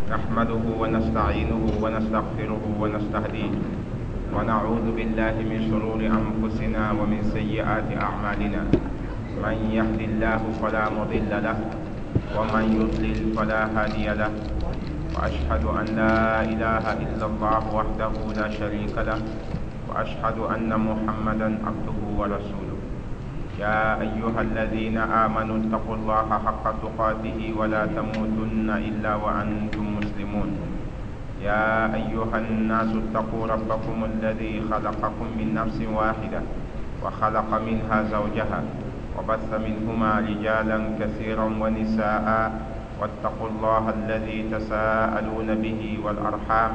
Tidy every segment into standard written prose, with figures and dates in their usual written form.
نحمده ونستعينه ونستغفره ونستهديه، ونعوذ بالله من شرور أنفسنا ومن سيئات أعمالنا. من يهد الله فلا مضل له، ومن يضلل فلا هادي له. وأشهد أن لا إله إلا الله وحده لا شريك له، وأشهد أن محمدا عبده ورسوله. يا أيها الذين آمنوا اتقوا الله حق تقاته ولا تموتن إلا وأنتم مسلمون. يا أيها الناس اتقوا ربكم الذي خلقكم من نفس واحدة وخلق منها زوجها وبث منهما رجالا كثيرا ونساء، واتقوا الله الذي تساءلون به والأرحام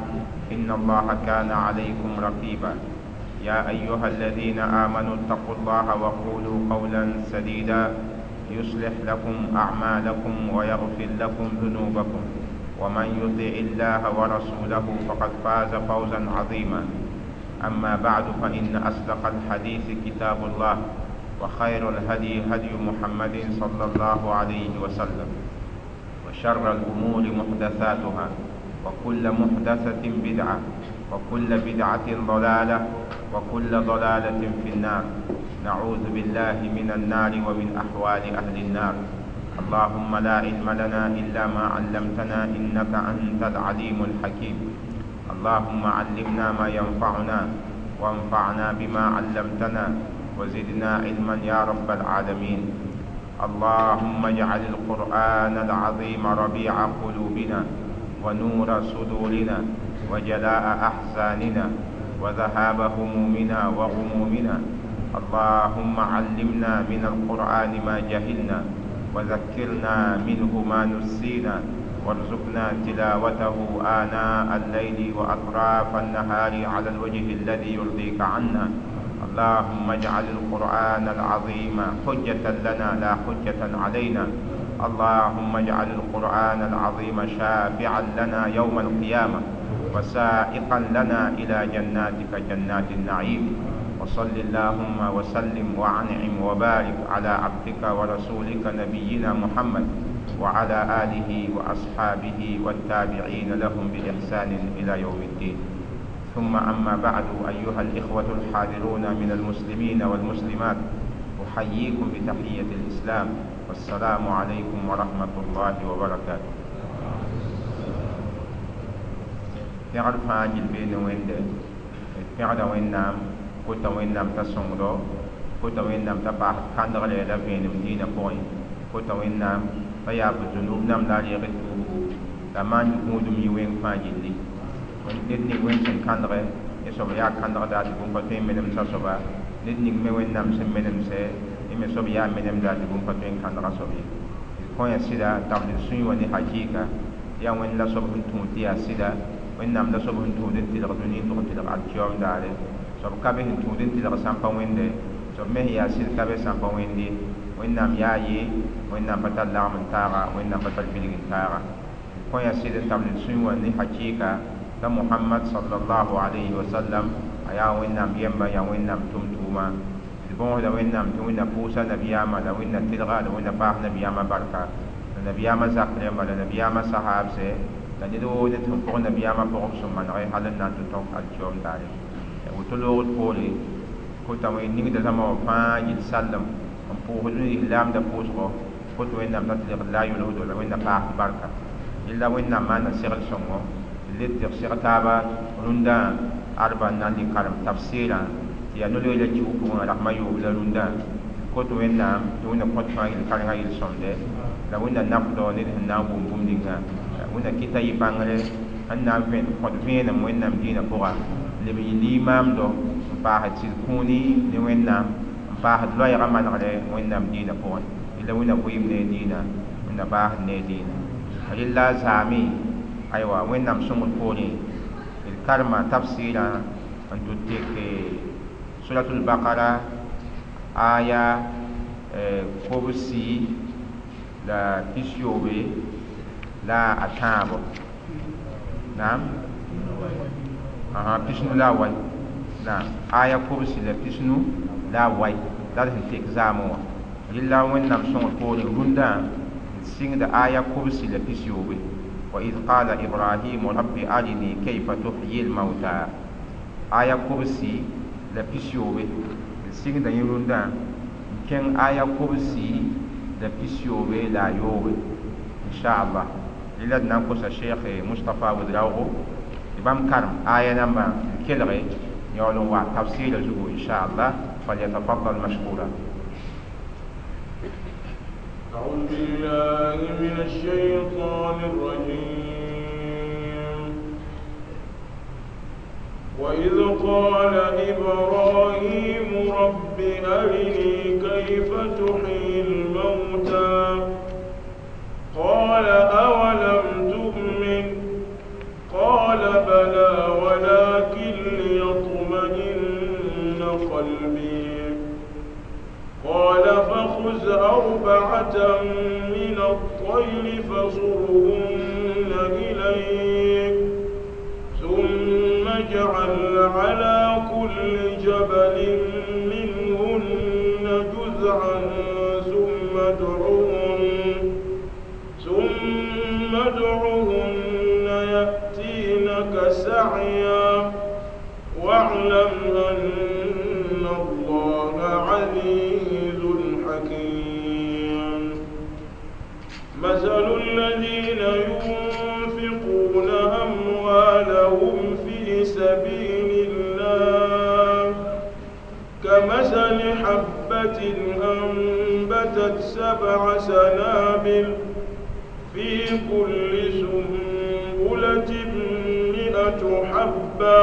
إن الله كان عليكم رقيبا. يا أيها الذين آمنوا اتقوا الله وقولوا قولا سديدا يصلح لكم أعمالكم ويغفر لكم ذنوبكم، ومن يطع الله ورسوله فقد فاز فوزا عظيما. أما بعد، فإن أصدق الحديث كتاب الله، وخير الهدي هدي محمد صلى الله عليه وسلم، وشر الأمور محدثاتها، وكل محدثة بدعة، وكل بدعة ضلالة، وكل ضلالة في النار. نعوذ بالله من النار ومن أحوال أهل النار. اللهم لا علم لنا إلا ما علمتنا إنك أنت العليم الحكيم. اللهم علمنا ما ينفعنا، وانفعنا بما علمتنا، وزدنا علما يا رب العالمين. اللهم اجعل القرآن العظيم ربيع قلوبنا، ونور صدورنا، وجلاء أحزاننا، وذهاب همومنا وغمومنا. اللهم علمنا من القرآن ما جهلنا، وذكرنا منه ما نسينا، وارزقنا تلاوته آناء الليل وأطراف النهار على الوجه الذي يرضيك عنا. اللهم اجعل القرآن العظيم حجة لنا لا حجة علينا. اللهم اجعل القرآن العظيم شافعا لنا يوم القيامة، وسائقا لنا إلى جناتك جنات النعيم. وصل اللهم وسلم وعنعم وبارك على عبدك ورسولك نبينا محمد وعلى آله وأصحابه والتابعين لهم بإحسان إلى يوم الدين. ثم أما بعد، أيها الإخوة الحاضرون من المسلمين والمسلمات، أحييكم بتحية الإسلام، والسلام عليكم ورحمة الله وبركاته. Pẽgd fãa gil beene wẽnde, d pẽgda Wẽnnaam, kota Wẽnnaam t'a sõngdo, kota Wẽnnaam t'a paas kãndgre la vẽenem dĩinã pʋgẽ, kota Wẽnnaam t'a yaab zunub nam la a reeg tuubgo, la maan gũudum yɩ wẽng fãa gilli. Ned ning wẽnd sẽn kãndge, yẽ soab yaa kãndgda tɩ bũmb pa tõe n menemsa soaba, ned ning me Wẽnnaam sẽn menemsɛ, yẽ me soab yaa menemda tɩ bũmb pa tõe n kãndga soab ye. D kõ ya sɩda tabl d sũyẽ wã ne hakɩɩka, yaa Wẽnd la soab sẽn tũud tɩ yaa sɩda, Wẽnnaam la soab sẽn tũud n tɩlg dũni n tʋg n tɩlg alkiyoom daare. Soab ka be sẽn tũud n tɩlg sãn pa wẽnde, soab me sẽn yaa sɩd ka be sãn pa wẽnd ye. Wẽnnaam yaa ye, Wẽnnaam pa tar lagem n taaga, Wẽnnaam pa tar bilg n taaga. D kõ ya sɩd n tabl d sũyẽ wã ne hakɩɩka t'a Mohamad sallallahu alayhi wa sallam a yaa Wẽnnaam yɛmba, yaa Wẽnnaam tʋm-tʋʋma. D bõosda Wẽnnaam tɩ Wẽnna pʋʋsa nabiyaamã, la Wẽnna tɩlga, la Wẽnna paas nabiyaamã barka, la nabiyaamã zak rẽmba, la nabiyaamã sahaabsɛ, la ned woo ned sẽn pʋg nabiyaamã pʋgb sũ-manege hal n na n tɩ tõk alkiyoom daare. Woto loogd poore, kota wẽn ningda zãma wã fãa yɩl sallem n pʋʋsd lislaamda pʋʋsgɔ, kot Wẽnnaam t'a tɩlgd la a yʋlsdo, la Wẽnna paasd barka. Yella Wẽnnaam maana segl sõngo, d le tɩg seg taaba rũndã arba n na n lɩ karem tafsɩɩrã tɩ yaa no-loeera kiug pʋgẽ rasem a yoob la rũndã. Kot Wẽnnaam tɩ Wẽnna kõt fãa yel karengã yel sõmde, la Wẽnna nafdɔ ned sẽn na n wʋm bũmb ninga. Wẽnna kɩta yɩ bãngre sẽn na n vẽn kõt vẽenem Wẽnnaam dĩinã pʋga, leb n yɩ limaamdo n paasd sɩd kũuni ne Wẽnnaam, n paasd loɛɛgã manegre Wẽnnaam dĩinã pʋgẽ. Yella Wẽnna vɩɩm ne dĩinã, Wẽnna baasd ne dĩinã. Rella a zaame, aywa, Wẽnnaam sõngd poorẽ, d karema tafsɩɩrã n tʋ tek suratul bakara aya kobsi la pisiyoobe la a tãabo. Naam, pisnu la a wai. Naam, aya kobsi la pisnu la a wai la d sẽn tek zaamẽ wã. Rella Wẽnnaam sõngr poorẽ rũndã d sɩngda aya kobsi la pisiyoobe. وإذ قال إبراهيم رب أرني كيف تحيي الموتى. Aya kobsi la pisiyoobe d sɩngda yẽ rũndã n kẽng aya kobsi la pisiyoobe la a yoobe, inchallah. Rɩla d na n kosa Sheikh Mustapha Ouedraogo tɩ bãmb karem aya nambã tɩ d kelge yaool n wa tafsɩɩrã zugu, inchallah. فليتفضل مشكورا. أعوذ بالله من الشيطان الرجيم. وإذ قال إبراهيم رب أرني كيف تحيي الموتى قال أولم تؤمن قال بلى ولكن ليطمئن قلبي قال فخذ 4 من الطير فصرهن إليك ثم اجعل على كل جبل منهن جزعا ثم ادعهن يأتينك سعيا واعلم أن الله عزيز حكيم. مثل الذين ينفقون أموالهم في سبيل الله كمثل حبة أنبتت 7 سنابل في كل سنبلة 100 حبة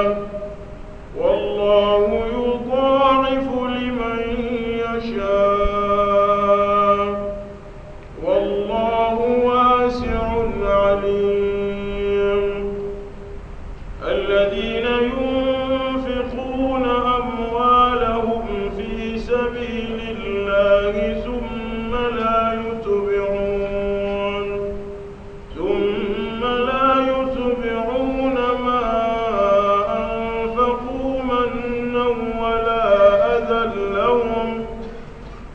والله يضاعف لمن يشاء والله واسع عليم. الذين ينفقون أموالهم في سبيل الله ثم لا يتبعون ما أنفقوا منا ولا أذى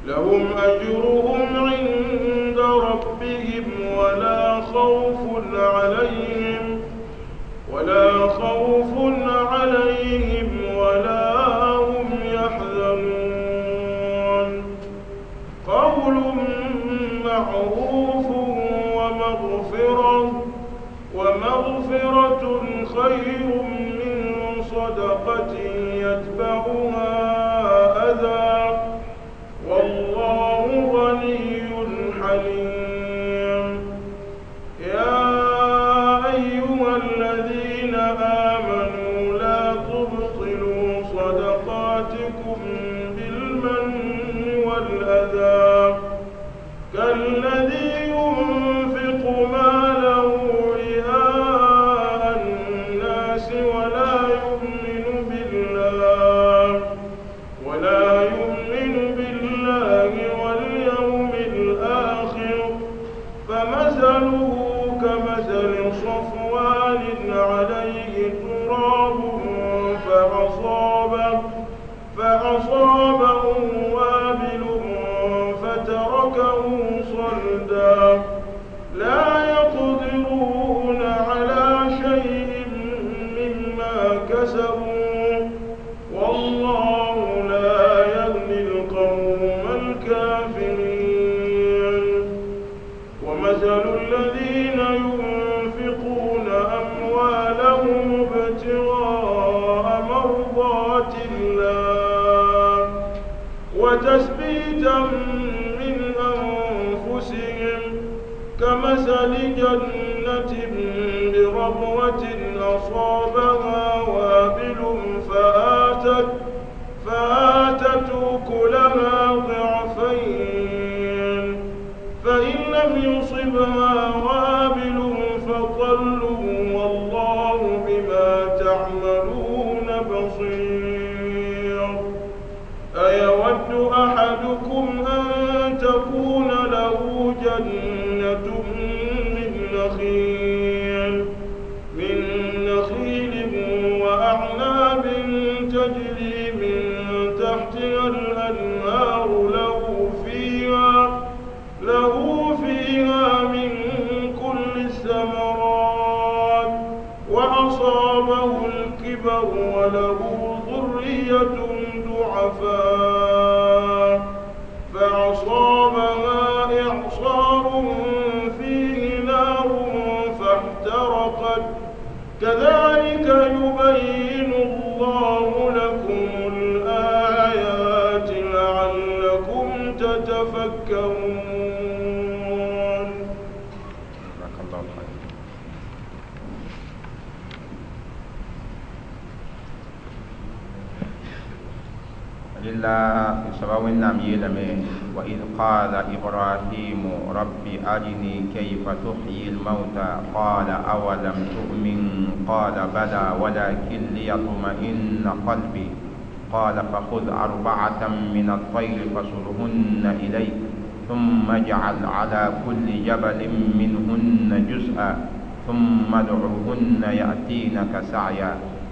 لهم أجرهم عند ربهم ولا خوف عليهم ولا هم يحزنون. قول معروف ومغفرة خير من صدقة يتبعها أذى والله غني حليم. يا أيها الذين آمنوا لا تبطلوا صدقاتكم بالمن والأذى كالذي ينفق ماله رئاء الناس ولا يؤمن بالله واليوم الآخر فمثله كمثل صفوان عليه تراب فأصابه وابل فتركه صلدا لا يقدرون على شيء مما كسبوا والله لا يهدي القوم الكافرين. ومثل الذين ينفقون أموالهم ابتغاء مرضات الله وتثبيتا من أنفسهم كمثل جنة بربوة أصابها وابل فآتت أكلها ضعفين فإن لم يصبها وابل فطل والله بما تعملون بصير. أيود أحدكم أن تكون له جنة من نخيل الكبر وله ذرية ضعفاء فأصابها إعصار فيه نار فاحترقت كذلك يبين الله لكم الآيات لعلكم تتفكرون. جزاك الله خير. إلا سبب نام يلمي وإذ قال إبراهيم رب أرني كيف تحيي الموتى قال أولم تؤمن قال بلى ولكن ليطمئن قلبي قال فخذ 4 من الطير فصرهن إليك ثم اجعل على كل جبل منهن جزءا ثم ادعهن يأتينك سعيا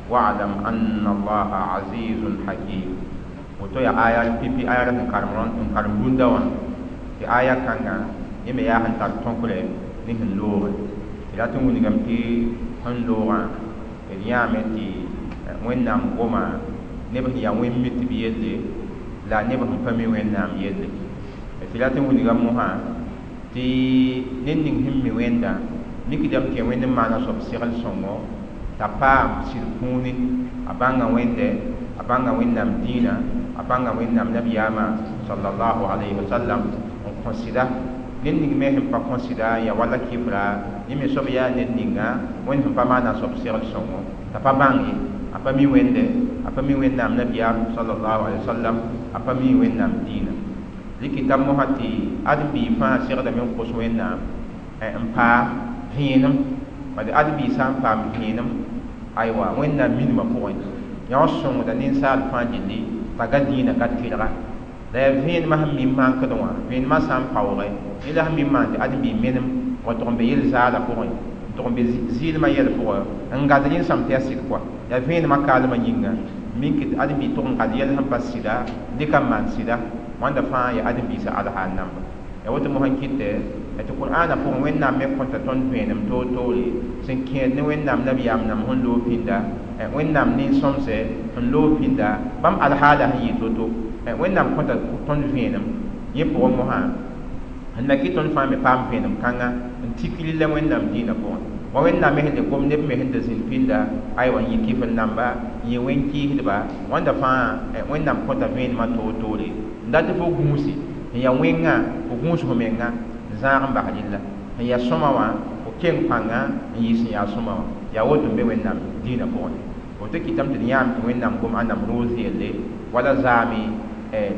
واعلم أن الله عزيز حكيم. Woto ya aya pipi aya sẽn karem rũndã wã tɩ aya kãngã yẽ me yaa sẽn tar tõkre ne sẽn looge tɩ rat n wilgame tɩ sẽn loogã d yãame tɩ Wẽnnaam goma neb sẽn yaa wẽn-mitb yelle la neb sẽn pa mi Wẽnnaam yelle tɩ rat n wilgame mosã tɩ ned ning sẽn mi Wẽnda mikdame tɩ yaa Wẽnd n maana soab segl sõngo t'a paam sɩd kũuni a bãnga Wẽnde a bãnga Wẽnnaam dĩinã a bãnga Wẽnnaam nabiyaamã sallallahu alayhi wa sallam n kõ sɩda ned ning me sẽn pa kõ sɩda n yaa wala kɩfra yẽ me soab yaa ned ninga Wẽnd sẽn pa maana soab segl sõngo t'a pa bãng ye a pa mi Wẽnde a pa mi Wẽnnaam nabiyaam sallallahu alayhi wa sallam a pa mi Wẽnnaam dĩinã rɩkɩta mosã tɩ ãdem-biig fãa segdame n kos Wẽnnaam n paam vẽenem bad ãdem-biig sã n paam vẽenem aywa Wẽnnaam minimã pʋgẽ yã sõngda ninsaal fãa gilli t'a ga dĩinã ka tɩrga la yaa vẽenemã sẽn mi n mankd wã vẽenemã sã n paooge yẽ la sẽn mi n maan tɩ ãdem-biig menem wa tʋg n be yel-zaala pʋgẽ n tʋg n be zɩɩlmã yɛl pʋgẽ n gad rẽnsam tɩ yaa sɩd kɔa yaa vẽenemã kaalmã yĩnga mink tɩ ãdem-biig tʋg n gad yɛl sẽn pa sɩda dɩka n maan sɩda wãnda fãa yaa ãdem-biisã alhaal namba ya woto mosã n kɩtɛ tɩ Qur'aana pʋgẽ Wẽnnaam me kõta tõnd vẽenem toor-toore sẽn kẽed ne Wẽnnaam nabiyaam nam sẽn loog pĩnda Wẽnnaam nin-sõmsɛ sẽn loog pĩnda bãmb alhaala sẽn yɩ to-to Wẽnnaam kõta tõnd vẽenem yẽ pʋgẽ mosã n na kɩ tõnd fãa me paam vẽenem kãnga n tik rɩlla Wẽnnaam dĩinã pʋgẽ wa Wẽnnaam me sẽn le gom neb me sẽn da zĩnd pĩnda aywa n yɩ kɩfr namba n yɩ wẽn-kɩɩsdba wãnda fãa Wẽnnaam kõta vẽenemã toor-toore n dat tɩ fo gũusi n yaa wẽngã fo gũus fo menga n zãag n bas rɩlla n yaa sõma wã fo keng pãnga n yɩ sẽn yaa sõma wã yaa woto n be Wẽnnaam dĩinã pʋgẽ woto kɩtame tɩ d yãam tɩ Wẽnnaam gom ãndame roos yelle wala zaame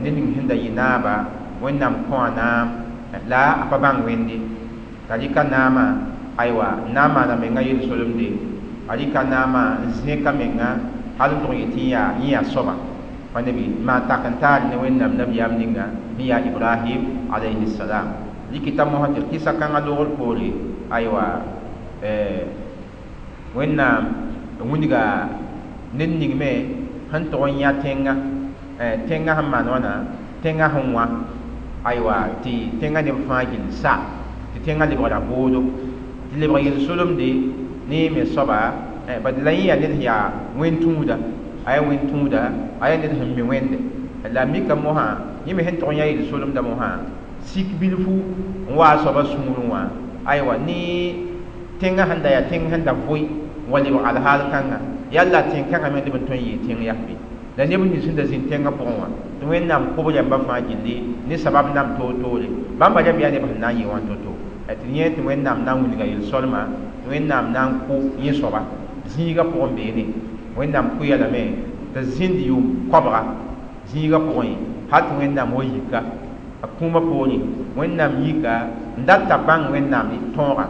ned ning sẽn da yɩ naaba Wẽnnaam kõa naam la a pa bãng Wẽnde t'a rɩka naamã aywa n na n maana menga yel-solemde a rɩka naamã n zẽka menga hal n tʋg n yetɩ yẽ yaa soaba pa nebi maan tak n taar ne Wẽnnaam nabiyaam ninga sẽn yaa Ibrahim alayhi salam rɩkɩta mosã tɩ kɩsa kãngã loogr poore aywa Wẽnnaam wilga ned ning me sẽn tʋg n yã tẽnga tẽngã sẽn maan wãna tẽngã sẽn wã aywa tɩ tẽngã neb fãa gill sa tɩ tẽngã lebgra boodo tɩ lebg yel-solemde ne me soaba bad la yẽ yaa ned sẽn yaa wẽn-tũuda a yaa wẽn-tũuda a yaa ned sẽn mi Wẽnde la mika mosã yẽ me sẽn tʋg n yã yel-solemda mosã sik bilfu n wa a soabã sũurẽ wã aywa ne tẽngã sẽn da yaa tẽng sẽn da vʋɩ n wa lebg alhaal kãnga yalla tẽn-kãngã me leb n tõe n yɩɩ tẽng yaa be la neb nins sẽn da zĩnd tẽngã pʋgẽ wã tɩ Wẽnnaam kob rãmbã fãa gilli ne sabab nam toor-toore bãmba rãmb yaa neb sẽn na n yɩ wã to-to tɩ yẽ tɩ Wẽnnaam na n wilga yel-solma tɩ Wẽnnaam na n kʋ yẽ soaba zĩigã pʋgẽ beene Wẽnnaam kʋ-ya lame t'a zĩnd yʋʋm koabga zĩigã pʋgẽ hal tɩ Wẽnnaam wa yika a kũumã poorẽ Wẽnnaam yika n dat t'a bãng Wẽnnaam tõoga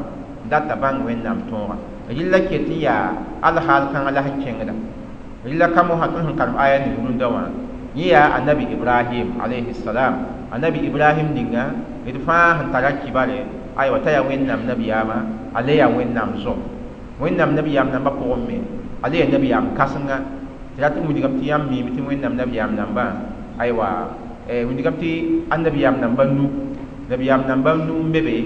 n dat t'a bãng Wẽnnaam tõoga rɩlla ket n yaa alhaal kãngã la sẽn kẽngda rɩlla ka mosã tõnd sẽn karem aya ning rũndã wã yẽ yaa annabi Ibrahim alayhi salam annabi Ibrahim ninga d fãa sẽn tara kibare aywa t'a yaa Wẽnnaam nabiyaamã a le yaa Wẽnnaam zo Wẽnnaam nabiyaam nambã pʋgẽ me a le yaa nabiyaam kãsenga tɩ rat n wilgame tɩ yãmb miime tɩ Wẽnnaam nabiyaam nambã aywa wilgame tɩ annabiyaam nambã nu nabiyaam nambã nu n be be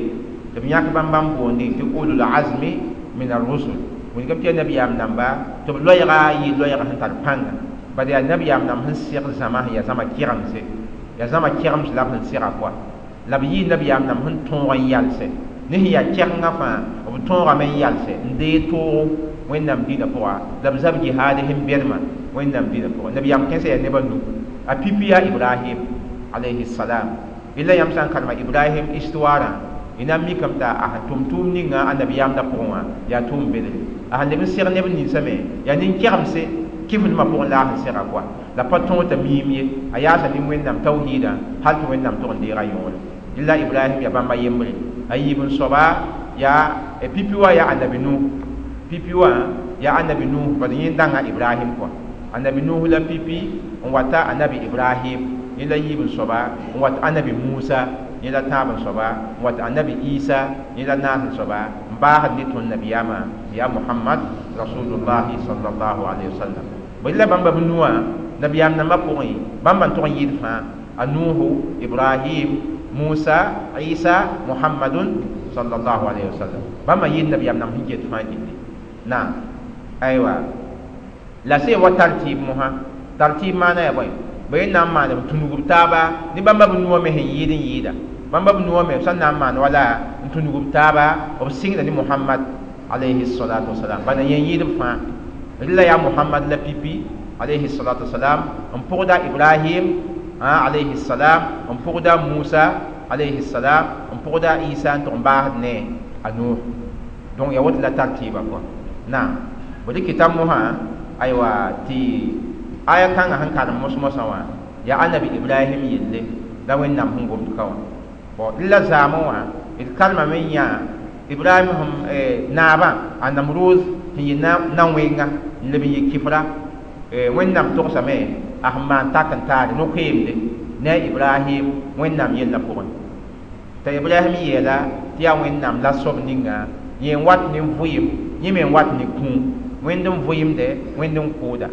tɩ b yãk bãmb bãmb boonde tɩ ulul azmi min ar-rusul Wilgame tɩ yaa nabiyaam namba tɩ b loɛɛga yɩ loɛɛg sẽn tar pãnga bad yaa nabiyaam namb sẽn seg zãma sẽn yaa zãma kɛgemse yaa zãma kɛgems la b sẽn sega koa la b yɩ nabiyaam namb sẽn tõog n yalsɛ ne sẽn yaa kɛgenga fãa b tõogame n yalsɛ n deeg toogo wẽnnaam dĩinã pʋga la b zab jihaad sẽn bɛdmã wẽnnaam dĩinã pʋga nabiyaam kẽnsã yaa neb a nu a pipi yaa ibrahim alayhi salam illa yãmb sã n karema ibrahim histoirã y na n mikame t'a a sẽn tʋm tʋʋm ninga a nabiyaamdã pʋgẽ wã yaa tʋʋm bedre a sẽn leb n seg neb ninsã me yaa nin-kɛgemse kifdmã pʋgẽ la a sẽn sega koa la pa tõog t'a miim ye a yaasa ne wẽnnaam tawhiidã hal tɩ wẽnnaam tʋg n deega yõore illa ibrahim yaa bãmba yembre a yiib n soaba yaa pipi wã yaa annabi nuh pipi wã yaa annabi nuh bad yẽ dãnga ibrahim kɔa annabi nuh la pipi n wata annabi ibrahim yẽ la yiib n soaba n wat annabi musa yẽ la tãab n soaba n wat annabi isa yẽ la naas n soaba n baasd ne tõnd nabiyaamã yaa muhammad rasulullahi sallallahu alaihi wasallam bõe la bãmba b nuwã nabiyaam nambã pʋgẽ bãmba n tʋg n yɩɩd fãa a nuuhu ibrahim musa isa muhammadun sallallahu alaihi wasallam bãmba yɩɩd nabiyaam namb sẽn ket fãa gilli naam aywa la sẽn wa tartib mosã tartib maana yaa bõe bõe n na n maan b tũnug b taaba ne bãmba b nuwã me sẽn yɩɩd n yɩɩda bãmba b nuwã me b sã n na n maan wala n tũnug b taaba b sɩngda ne muhammad alayhi salatu wasalam bala yẽ yɩɩd b fãa rɩla yaa muhammad la pipi alayhi salatu wasalam n pʋgda ibrahim alayhi salam n pʋgda musa alayhi salam n pʋgda isa n tʋg n baasd ne a nuh donc ya woto la tartiba kɔa naam bõe kɩta mosã aywa tɩ aya kãngã sẽn karem mos-mosã wã yaa annabi ibrahim yelle la wẽnnaam sẽn gomd ka wã bon la zaamẽ wã d karemame n yã ibrahim sẽn naabã a namruz sẽn yɩ na-wẽnga n leb n yɩ kifra wẽnnaam togsame a sẽn maan tak n taare no-koeemde ne a ibrahim wẽnnaam yellã pʋgẽ t'a ibrahim yeela tɩ yaa wẽnnaam la soab ninga yẽ n wat ne vʋɩɩm yẽ me n wat ne kũum wẽnd n vʋɩɩmde wẽnd n kʋʋda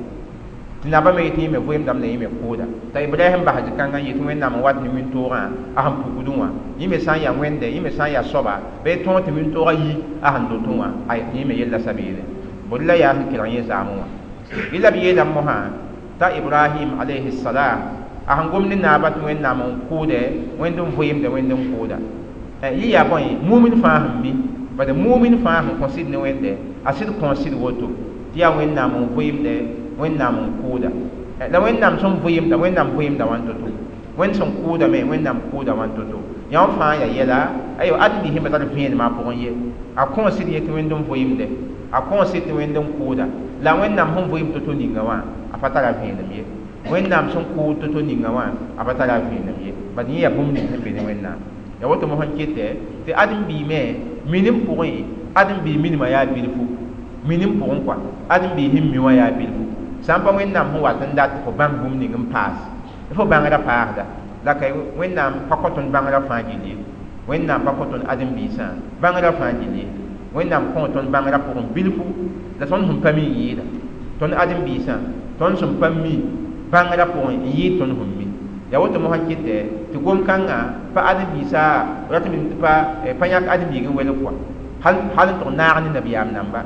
tɩ nabã me yetɩ yẽ me vʋɩɩmdame la yẽ me kʋʋda t'a ibrahim bas zĩ-kãngã n yetɩ wẽnnaam n wat ne wĩntoogã a sẽn pukdẽ wã yẽ me sã n yaa wẽnde yẽ me sã n yaa soaba bɩ tõog tɩ wĩntoogã yi a sẽn dotẽ wã ay tɩ yẽ me yella sabeene bõe la yaa sẽn kelg yẽ zaamẽ wã yɩ la b yeelame mosã t'a ibrahim alayhi salam a sẽn gom ne naabã tɩ wẽnnaam n kʋʋdɛ wẽnd n vʋɩɩmde wẽnd n kʋʋda yɩ yaa bõe mumin fãa sẽn mi bad mumin fãa sẽn kõ sɩd ne wẽnde a sɩd kõ sɩd woto tɩ yaa wẽnnaam n vʋɩɩmde wẽnnaam n kʋʋda la wẽnnaam sẽn vʋɩɩmda wẽnnaam vʋɩɩmda wãn to-to wẽnd sẽn kʋʋda me wẽnnaam kʋʋda wãn to-to yã fãa yaa yɛla aywa ãdem-biis sẽn pa tar vẽenemã pʋgẽ ye a kõ sɩd yetɩ wẽnd n vʋɩɩmde a kõ sɩd tɩ wẽnd n kʋʋda la wẽnnaam sẽn vʋɩɩm to-to ninga wã a pa tara vẽenem ye wẽnnaam sẽn kʋʋd to-to ninga wã a pa tara vẽenem ye bad yẽ yaa bũmb ning sẽn be ne wẽnnaam ya woto mosã kɩtɛ tɩ ãdem-biig me minim pʋgẽ ãdem-biig minimã yaa bilfu minim pʋgẽ kɔa ãdem-biig sẽn mi wã yaa bilfu sã n pa wẽnnaam sẽn wat n dat tɩ fo bãng bũmb ning n paas fo bãngrã paasda la ka wẽnnaam pa kõ tõnd bãngrã fãa gill ye wẽnnaam pa kõ tõnd ãdem-biisã bãngrã fãa gill ye wẽnnaam kõ tõnd bãngrã pʋgẽ bilfu la tõnd sẽn pa mi n yɩɩda tõnd ãdem-biisã tõnd sẽn pa mi bãngrã pʋgẽ n yɩɩd tõnd sẽn mi ya woto mosã kɩtɛ tɩ gom-kãngã pa ãdem-biisã rat n pa yãk ãdem-biig n welg kɔa hal n tʋg naag ne nabiyaam namba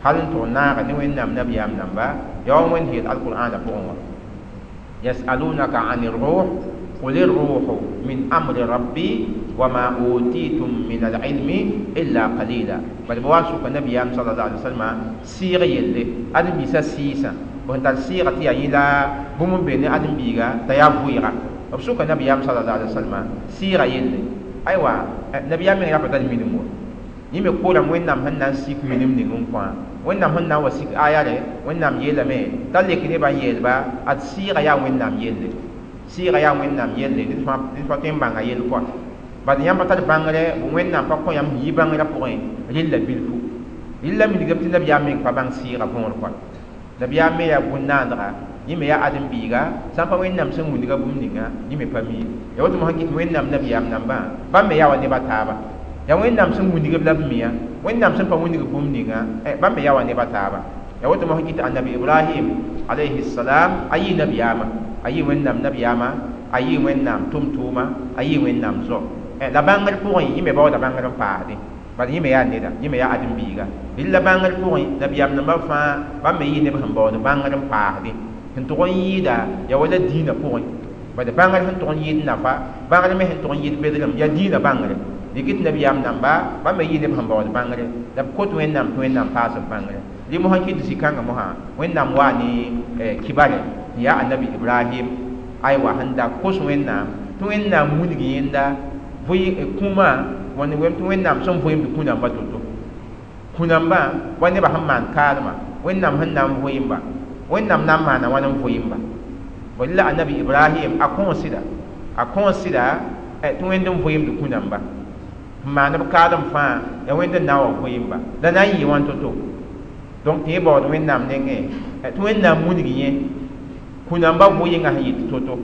hal n tʋg naaga ne wẽnnaam nabiyaam namba yaa wa wẽnd yeel alqur'aana pʋgẽ wã yasalunaka an الروح قل الروح من أمر ربي وما أوتيتم من العلم إلا قليلا بل بوان سوك النبي صلى الله عليه وسلم سيغ يلي أدم بيسا سيسا وانت سيغ تي يلا بوم بين أدم بيغا تيا فويغا بسوك النبي صلى الله عليه وسلم سيغ يلي أيوة النبي من رفض المينمو yẽ me koorame wẽnnaam sẽn na n sik minim ning n kõ wẽnnaam sẽn na n wa sik aya re wẽnnaam yeelame t'a lek nebã n yeelba ad sɩɩga yaa wẽnnaam yelle sɩɩga yaa wẽnnaam yelle ned fãa tõe n bãnga yell kɔa bad yãmb pa tar bãngrɛ wẽnnaam pa kõ yãmb sẽn yɩ bãngrã pʋgẽ rella bilfu rella milgame tɩ nabiyaam meng pa bãng sɩɩga võor kɔa nabiyaam me yaa bũn-naandga yẽ me yaa ãdem-biiga sã n pa wẽnnaam sẽn wilga bũmb ninga yẽ me pa mi ya woto mosã kɩt wẽnnaam nabiyaam nambã bãmb me yaa wa neba taaba ya wẽnnaam sẽn wilg la b miya wẽnnaam sẽn pa wilg bũmb ninga bãmb me yaa wa neba taaba ya woto mosã kɩt annabi ibrahim alayhi salam a yɩ nabiyaama a yɩ wẽnnaam nabiyaama a yɩ wẽnnaam tʋm-tʋʋma a yɩ wẽnnaam zo la bãngr pʋgẽ yẽ me baooda bãngr n paasdẽ Bad yẽ me yaa neda, yẽ me yaa ãdem-biiga. Rɩla bãngr pʋgẽ, nabiyaam nambã fãa bãmb me yɩ neb sẽn baood bãngr n paasdẽ sẽn tʋg n yɩɩda yaa wala dĩinã pʋgẽ. Bad bãngr sẽn tʋg n yɩɩd nafa, bãngr me sẽn tʋg n yɩɩd bedrem yaa dĩinã bãngre. Dɩk tɩ nabiyaam namba bãmb me yɩ neb sẽn baood bãngre la b kot Wẽnnaam tɩ Wẽnnaam paas b bãngre. Rɩ mosã kɩt zĩ-kãngã mosã Wẽnnaam waa ne kibare tɩ yaa annabi Ibrahim aywa sẽn da kos Wẽnnaam tɩ Wẽnnaam wilg yẽnda kũumã wẽnd tɩ Wẽnnaam sẽn vɩɩmd kũ-nambã to-to. Kũ-nambã wa nebã sẽn maan kaalmã Wẽnnaam sẽn na n vɩɩmba, Wẽnnaam na n maana wãn n vɩɩmba. Bõe la annabi Ibrahim a kõos sɩda tɩ Wẽnd n vɩɩmd kũ-nambã n maan b kaalem fãa yaa Wẽnd n na n wa vɩɩmba la na n yɩ wãn to-to. Donc tɩ yẽ baood Wẽnnaam nengẽ tɩ Wẽnnaam wilg yẽ kũ-nambã vɩɩngã sẽn yɩ to-to.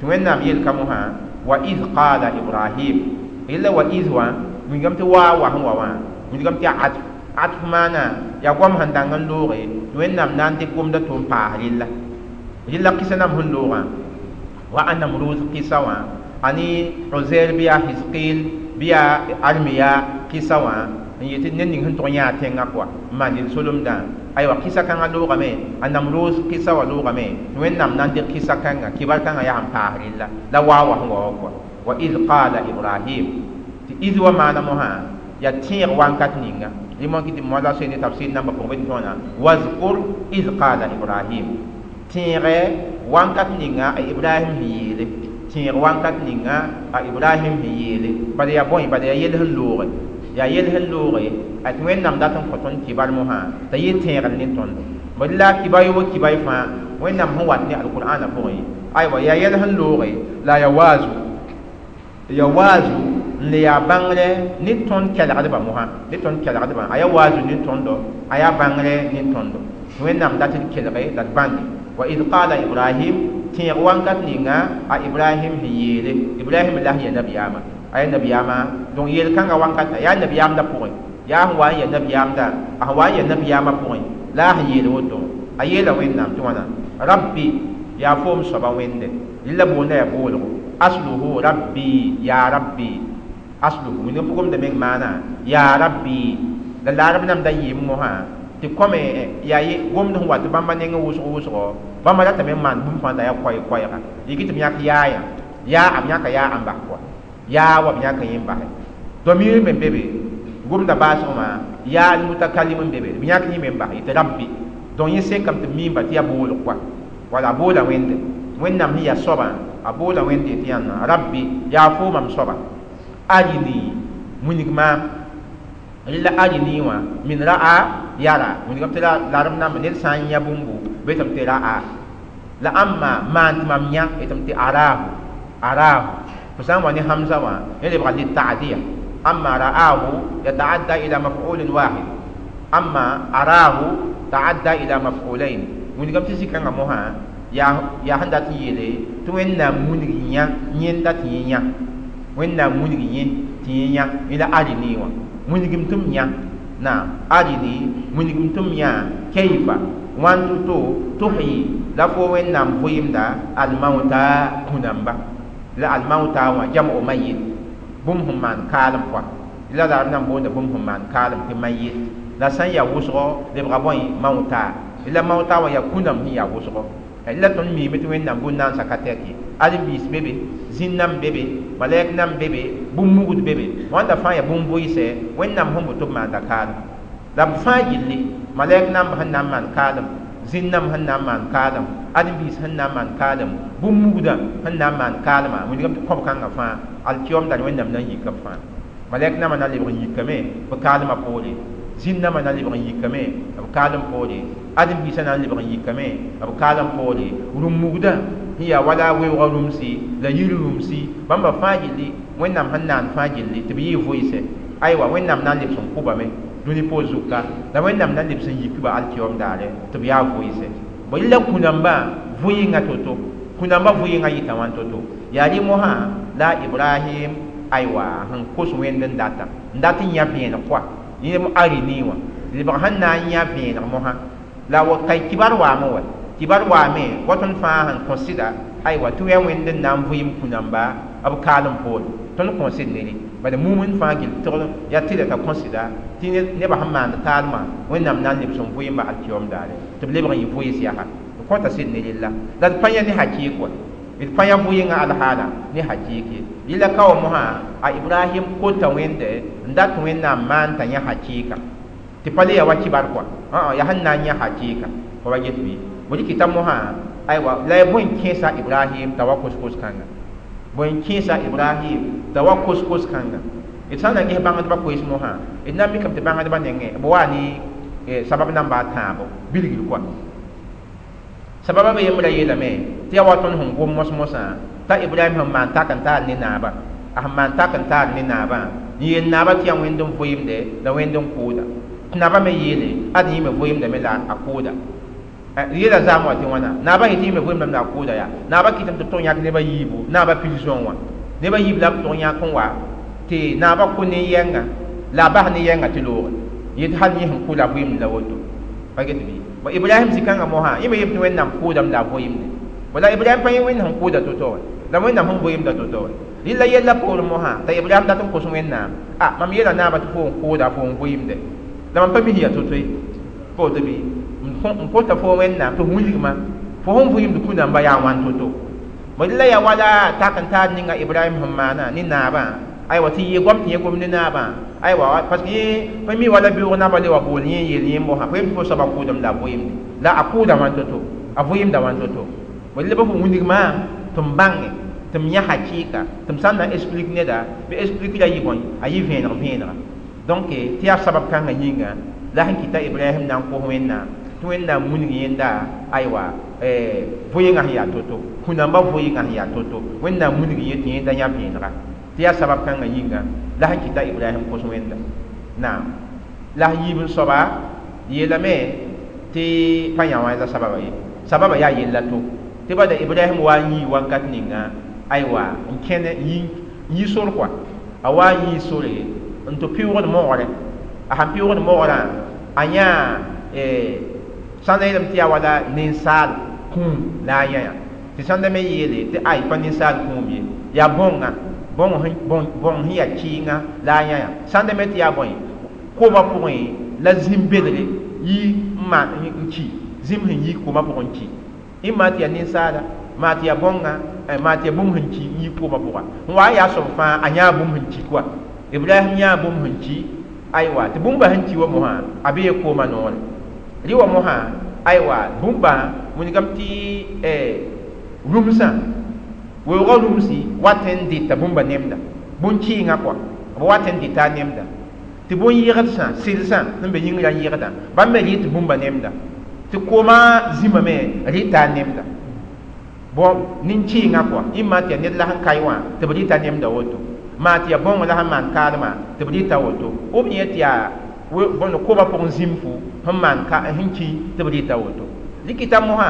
Tɩ Wẽnnaam yelka mosã wa id qala Ibrahim illa wa id wã wilgame tɩ waa wa sẽn wa wã wilgame tɩ yaa atf atf maana yaa goam sẽn dãng n looge tɩ Wẽnnaam na n dɩk gomda tɩ n paas rella. Rella kɩsa nam sẽn loogã wa a Namrud kɩsa wã ani Uzair bɩ yaa Hizqil bɩ yaa Armiya kɩsa wã n yetɩ ned ning sẽn tʋg n yãa tẽngã kɔa n maan yel-solemdã aywa kɩsa kãngã loogame a Namrud kɩsa wã loogame tɩ Wẽnnaam na n dɩk kɩsa kãnga kibar kãngã yaa sẽn paas rella la waa wa sẽn wa wã kɔa wa id qala Ibrahim tɩ id wa maana mosã yaa tẽeg wankat ninga rɩ moã kɩ tɩ moa la soe ne tafsir nambã pʋgẽ bɩ tɩ tõona wazkur id qala Ibrahim tẽegɛ wankat ninga a Ibrahim sẽn yeele tẽeg wankat ninga a Ibrahim sẽn yeele bala yaa bõe bala yaa yel sẽn looge yaa yel sẽn looge a tɩ Wẽnnaam dat n kõ tõnd kibar mosã t'a yɩ tẽegr ne tõndo. Bõe la kiba yobo kibay fãa Wẽnnaam sẽn wat ne alqur'ana pʋgẽ aywa yaa yel sẽn looge la yaa waazu ya waazu n le yaa bãngre ne tõnd kelgdbã mosã ne tõnd kelgdbã a yaa waazu ne tõndo a yaa bãngre ne tõndo. Wẽnnaam dat d kelge la d bãnge wa id qala Ibrahim tẽeg wankat ninga a Ibrahim sẽn yeele Ibrahim la sẽn ya nabiyaamã a yaa nabiyaamã donc yel-kãngã wankata yaa nabiyaamdã pʋgẽ yaa sẽn wa n ya nabiyaamdã a sẽn wa n ya nabiyaamã pʋgẽ la a sẽn yeel woto a yeela Wẽnnaam tɩ wãna rabbi yaa foom soaba Wẽnde rɩla boonda yaa boolgo asluhu rabbi ya rabbi asluhu wẽnd pʋgʋmda meng maana ya rabbi la laarb nambda yɩɩm mosã tɩ kome yaa gomd sẽn wa tɩ bãmba neng wʋsg wʋsgo bãmba ratame n maan bũmb fãa t'a yaa koɛɛ-koɛɛga yɩ tɩ b yãk yaayã yaa b yãka yaa ãn bas kɔa yaa wa b yãka yẽ n basɛ domir me be be gomda baasgmã yaa mutakalim n be be b yãk yẽ me n bas yetɩ rabbi donc yẽ sekame tɩ b miimba tɩ yaa boolg kɔa wala a boola Wẽnde Wẽnnaam sẽn yaa soabã a boola Wẽnde tɩ yãnna rabbi yaa fo mam soaba arini wilg maam rɩla arini wã min ra'a yara wilgame tɩ larem namba ned sã n yã bũmbu betame tɩ ra'a la ãmma maan tɩ mam yã yetame tɩ arahu arahu fo sã n wa ne hamza wã yẽ lebga litaadiya amma ra'ahu yataadda ila maf'ulin wahid amma arahu ta'adda ila maf'ulain wilgame tɩ zĩ-kãngã mosã yaa sẽn dat n yeele tɩ Wẽnnaam wilg yã yẽnda tɩ yẽ yã Wẽnnaam wilg yẽ tɩ yẽ yã yẽ la arini wã wilgem tɩ m yã naam arini wilgem tɩ m yã kayfa wãn to-to tuhyi la fo Wẽnnaam vɩɩmda almauta kũ-namba la almauta wã jam'u mayit bũmb sẽn maan kaalem pʋa la la b na n boonda bũmb sẽn maan kaalem tɩ mayit la sã n yaa wʋsgo lebga bõe mauta la mauta wã yaa kũ-nãmb sẽn yaa wʋsgo la tõnd miime tɩ Wẽnnaam bũn-naansa ka tɛk ye ãdem-biis be be zĩn-nãmb be be malɛk nãmb be be bũmb-mugd be be wãnda fãa yaa bũmb-vʋɩsɛ Wẽnnaam sẽn boto b maanda kaalem la b fãa gilli malɛk nãmb sẽn na n maan kaalem zĩn-nãmb sẽn na n maan kaalem ãdem-biis sẽn na n maan kaalem bũmb-mugdã sẽn na n maan kaalmã wilgame tɩ kõb-kãngã fãa alkiyom dar Wẽnnaam na n yika b fãa malɛk nãmbã na lebg n yikame b kaalmã poore zĩn-nãmbã na lebg n yikame b kaalem poore ãdem-biisã na n lebg n yikame b kaalem poore rũm-mugdã sẽn yaa wala weoogã rũmsi la yir rũmsi bãmba fãa gilli Wẽnnaam sẽn naan fãa gilli tɩ b yɩɩ vʋɩsɛ aywa Wẽnnaam na n lebs n kʋbame dũni poor zuka la Wẽnnaam na n lebs n yik-ba alkiyom daare tɩ b yaa vʋɩsɛ bõe la kũ-nambã vʋɩɩngã to-to kũ-nambã vʋɩɩngã yɩta wãn to-to yaa rɩ mosã la Ibrahim aywa sẽn kos Wẽnd n data n dat n yã vẽeneg kɔa yẽ arini wã lebg sẽn na n yã vẽeneg mosã la wa kay kibar waame wa kibar waame wa tõnd fãa sẽn kõ sɩda aywa tɩ wɛ Wẽnd n na n vɩɩm kũ-namba b kaalem poore tõnd kõ sɩd ne rẽ Bala mumin fãa gill tɩgd yaa tɩlɛ t'a kõsɩda tɩ nebã sẽn maand taalmã Wẽnnaam na n lebs n vʋɩɩmba alkiyoom daare tɩ b lebg n yɩ vʋɩɩs yaa d kõta sɩd ne rella la d pa yã ne hakɩɩk wa d pa yã vʋɩɩngã alhaala ne hakɩɩk ye yella ka wa mosã a Ibrahim kota Wẽnde n dat Wẽnnaam maan t'a yã hakɩɩka tɩ pa le ya wa kibar kɔa yaa sẽn na n yã hakɩɩka fa wa get bɩ bõe kɩta mosã aywa la ya bõe n kẽesa Ibrahim t'a wa kos-kos kãnga bõe n kẽesa Ibrahim t'a wa kos-kos kãnga d sã n na ges bãngdbã koees mosã d na n mikame tɩ bãngdbã nengẽ b waa ne sabab namba a tãabo bilgr kɔa sababa be yembra yeelame tɩ yaa wa tõnd sẽn gom mos-mosã t'a Ibrahim sẽn maan tak n taar ne naabã a sẽn maan tak n taar ne naabã n yeel naabã tɩ yaa Wẽnd n vʋɩɩmde la Wẽnd n kʋʋda tɩ naabã me yeele ad yẽ me vʋɩɩmdame la a kʋʋda yeela zaam wã tɩ wãna naabã yetɩ yẽ me vʋɩɩmdame la a kʋʋda yaa naabã kɩtame tɩ b tʋg yãk neb a yiibu naabã pil zõong wã neb a yiib la b tʋg yãk n wa tɩ naabã kʋ nin-yɛnga la a bas nin-yɛnga tɩ looge yetɩ hal yẽ sẽn kʋ la vʋɩɩmd la woto pa get bɩ bõ Ibrahim zĩ-kãngã mosã yẽ me yem tɩ Wẽnnaam kʋʋdame la a vʋɩɩmde wala Ibrahim pa yẽ Wẽnd sẽn kʋʋda to-to wa la Wẽnnaam sẽn vʋɩɩmda to-to wa rɩla yella poorẽ mosã t'a Ibrahim dat n kos Wẽnnaam a mam yeela naabã tɩ fo n kʋʋda fo n vʋɩɩmde la mam pa mis yaa to-to ye pa woto bɩ n kota fo Wẽnnaam tɩ f wilgma fo sẽn vʋɩɩmd kũ-dãmba yaa wãn to-to bõ la yaa wala tak n taar ninga Ibrahim sẽn maana ne naabã aywa tɩ yɩ goam tɩ yẽ gom ne naabã aywa parce que yẽ pa mi wala beoog naabã le wa bool yẽ yeel yẽ mosã pa yem tɩ fo soaba kʋʋdame la a vʋɩɩmde la a kʋʋda wãn to-to a vʋɩɩmda wãn to-to bõ la pa fo wilgmã tɩ m bãnge tɩ m yã hakɩɩka tɩ m sã n na n explique neda bɩ explique ra yɩ bõe a yɩ vẽeneg vẽenega donc tɩ yaa sabab kãngã yĩnga la sẽn kɩta Ibrahim na n kos Wẽnnaam tɩ Wẽnnaam wilg yẽnda aywa vʋɩɩngã sẽn yaa to-to kũ-dãmbã vʋɩɩngã sẽn yaa to-to Wẽnnaam wilg yẽ tɩ yẽnda yã vẽenega tɩ yaa sabab kãngã yĩnga la sẽn kɩta Ibrahim kos Wẽnda naam la sẽn yiib n soaba yeelame tɩ pa yã wã la sababa ye sababa yaa yella to tɩ bada Ibrahim wa n yii wakat ninga aywa n kẽne n yi sor kɔa a wa n yii sore n tɩ pɩʋgd mogre a sãn pɩʋgd mogrã a yã sãn da yeelame tɩ yaa wala ninsaal kũum la a yã yã tɩ sãn da me yeele tɩ ay pa ninsaal kũum ye yaa bõnga bõng sẽn yaa kɩɩnga la a yã yã sãn da me tɩ yaa bõe koomã pʋgẽ la zĩm bedre yi n maan n ki zĩm sẽn yi koomã pʋgẽ n ki ɩ maa tɩ yaa ninsaala maa tɩ yaa bõnga maa tɩ yaa bũmb sẽn ki n yi koomã pʋga n wa n yaa soab fãa a yãa bũmb sẽn ki koa Ibrahim yãa bũmb sẽn ki aywa tɩ bũmba sẽn ki wa mosã a bee koomã noore rɩ wa mosã aywa bũmba wilgame tɩ rũmsã weoogã rũmsi wat n dɩta bũmba nemda bũn-kɩɩngã kɔa b wat n dɩta a nemda tɩ bũn-yɩgdsã sɩlsã sẽn be yĩngrã yɩgda bãmb me rɩ tɩ bũmba nemda tɩ koomã zĩma me rɩta a nemda bõ nin-kɩɩngã kɔa ĩ maa tɩ yaa ned la sẽn kae wã tɩ b rɩta nemda woto maa tɩ yaa bõong la sẽn maan kaalmã tɩ b rɩta woto b yẽ tɩ yaa bõnd koomã pʋgẽ zĩm-fu sẽn maan sẽn ki tɩ b rɩta woto rɩkɩta mosã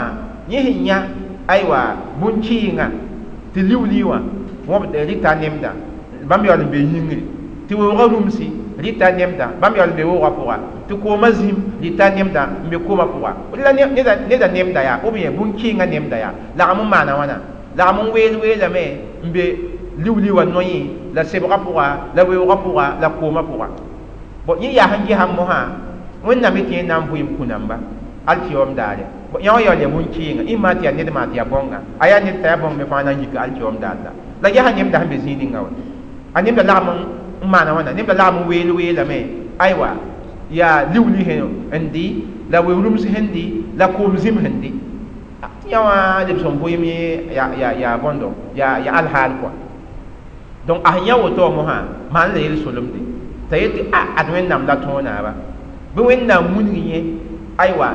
yẽ sẽn yã aywa bũn-kɩɩngã tɩ liu-liu wã wõb rɩta nemda bãmb yaool n be yĩngri tɩ weoogã rũmsi rɩta nemda bãmb yaool n be woogã pʋga tɩ koomã zĩm rɩta nemda n be koomã pʋga la neda nemda yaa ou bien bũn-kɩɩngã nemda yaa lagm n maana wãna lagm n weel weelame n be liu-liu wã noyẽ la sebgã pʋga la weoogã pʋga la koomã pʋga bõ yẽ yaa sẽn gesã mosã Wẽnnaam tɩ yẽ na n vʋɩɩm kũ-dãmba alkiyoom daare yã wã yaool yaa bũn-kɩɩnga ĩ maa tɩ yaa ned maa tɩ yaa bõnga a yaa ned t'a yaa bõng me fãa na n yik alkiyoom daar la la ges a nemda sẽn be zĩig ninga wa a nemda lagm n maana wãna nemda lagm n weel weelame aywa yaa liu-liu sẽn dɩ la weu-rũms sẽn dɩ la koom zĩm sẽn dɩ tɩ yã wã lebs n vʋɩɩm yaa bõndo yaa alhaal kɔa donc a sẽn yã woto wã mosã maan la yel-solemde t'a yetɩ a ad Wẽnnaam la tõog naaba bɩ Wẽnnaam wilg yẽ aywa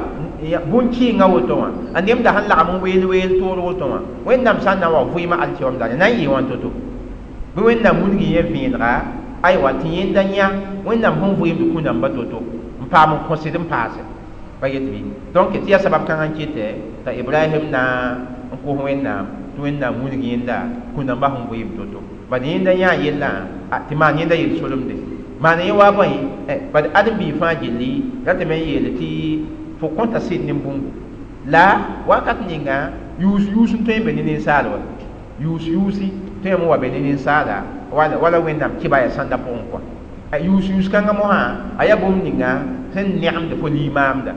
bũn-kɩɩngã woto wã a nemda sẽn lagm n weel weel toor woto wã Wẽnnaam sã n na n wa vʋɩɩmã alkiyoom daare na n yɩɩ wãn to-to bɩ Wẽnnaam wilg yẽ vẽenega aywa tɩ yẽnda yã Wẽnnaam sẽn vʋɩɩmd kũ-dãmba to-to n paam n kõsd n paase pa get bɩ donc tɩ yaa sabab kãngã n kɩtɛ t'a Ibrahim na n kos Wẽnnaam tɩ Wẽnnaam wilg yẽnda kũ-dãmbã sẽn vʋɩɩm to-to bad yẽnda yãa yellã tɩ maan yẽnda yel-solemde maan yẽ wa bõe bad ãdem-biig fãa gilli ratame n yeele tɩ fo kõta sɩd ne bũmbu la wakat ninga yuus yuus n tõe n be ne ninsaal wa yuus yuusi tõe n wa be ne ninsaala wala wẽnnaam kɩba yaa sãnda pʋgẽ kɔa yʋʋs-yʋʋs kãngã mosã a yaa bũmb ninga sẽn nẽgemd fo limaamda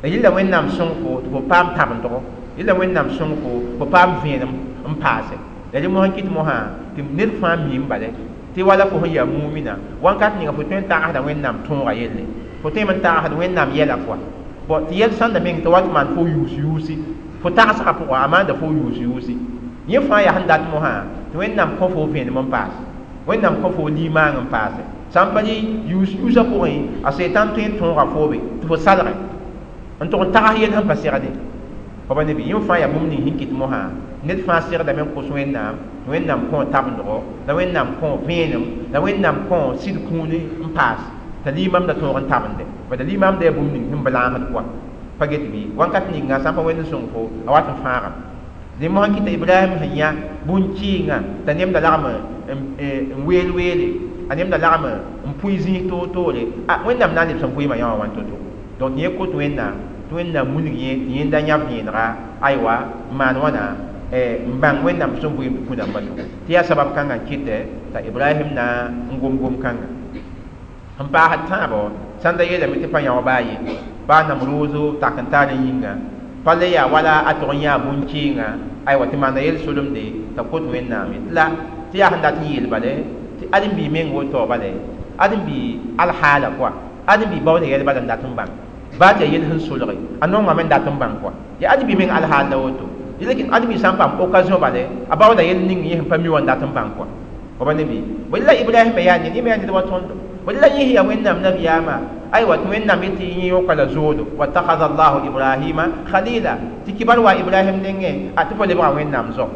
la yella wẽnnaam sõng fo tɩ fo paam tabendgo yella wẽnnaam sõng fo fo paam vẽenem n paase la rẽ mosã kɩt mosã tɩ ned fãa miim bale tɩ wala fo sẽn yaa mumina wãnkat ninga fo tõe n tagsda wẽnnaam tõoga yelle fo tõeme n tagsd wẽnnaam yɛla kɔa bɔn tɩ yɛl sãnda meng tɩ wat maan fo yʋʋs-yʋʋsi fo tagsgã pʋgã a maanda fo yʋʋs-yʋʋsi yẽ fãa yaa sẽn dat mosã tɩ wẽnnaam kõ fo vẽenem n paase wẽnnaam kõ fo limaang n paase sã n pa rɩ yʋʋs-yʋʋsã pʋgẽ a setan tõe n tõoga foobe tɩ fo salge n tʋg n tags yel sẽn pa segde fa ba ne bɩ yẽ fãa yaa bũmb ning sẽn kɩt mosã ned fãa segdame n kos wẽnnaam tɩ wẽnnaam kõ tabendgo la wẽnnaam kõ vẽenem la wẽnnaam kõ sɩd kũuni n paas t'a limaamda tõog n tabende bad limaamda yaa bũmb ning sẽn blaasd kɔa pa get bɩ wãnkat ninga sã n pa wẽnd n sõng fo a wat n fãagame dẽ mosã kɩta Ibrahim sẽn yã bũn-kɩɩngã t'a nemda lagm n weel weele a nemda lagm n pʋɩ zĩis toor-toore a wẽnnaam na n lebs n vɩɩmã yã wã wãn to-to donc yẽ kot wẽnnaam tɩ wẽnnaam wilg yẽ tɩ yẽnda yãb vẽenega aywa n maan wãna n bãng wẽnnaam sẽn vɩɩmd kũ-dãmbã to tɩ yaa sabab kãngã n kɩtɛ t'a Ibrahim na n gom-gom kãnga n paasd tãabo sãn da yeelame tɩ pa yão baa ye baa Namruuzu tak n taar n yĩnga pa le yaa wala a tʋg n yãa bũn-kɩɩngã aywa tɩ maana yel-solemde t'a kot wẽnnaam ye tɩ la tɩ yaa sẽn dat n yeel bale tɩ ãdem-biig meng woto bale ãdem-biig alhaala kɔa ãdem-biig baooda yɛl bala n dat n bãng baa tɩ yaa yel sẽn solge a nongame n dat n bãng kɔa yaa ãdem-biig meng alhaal la woto lakin ãdem-biig sã n paam occasion bale a baooda yel ning yẽ sẽn pa mi wã n dat n bãng kɔa fa ba ne bɩ bõe la Ibrahim yaa ned yẽ me yaa ned wa tõndo bõe la yẽ yaa wẽnnaam nabiyaamã aywa tɩ wẽnnaam yetɩ yẽ yõka la zoodo wattakhadha Allahu Ibrahima khalila tɩ kibar wa Ibrahim nengẽ a tɩ fo lebga wẽnnaam zao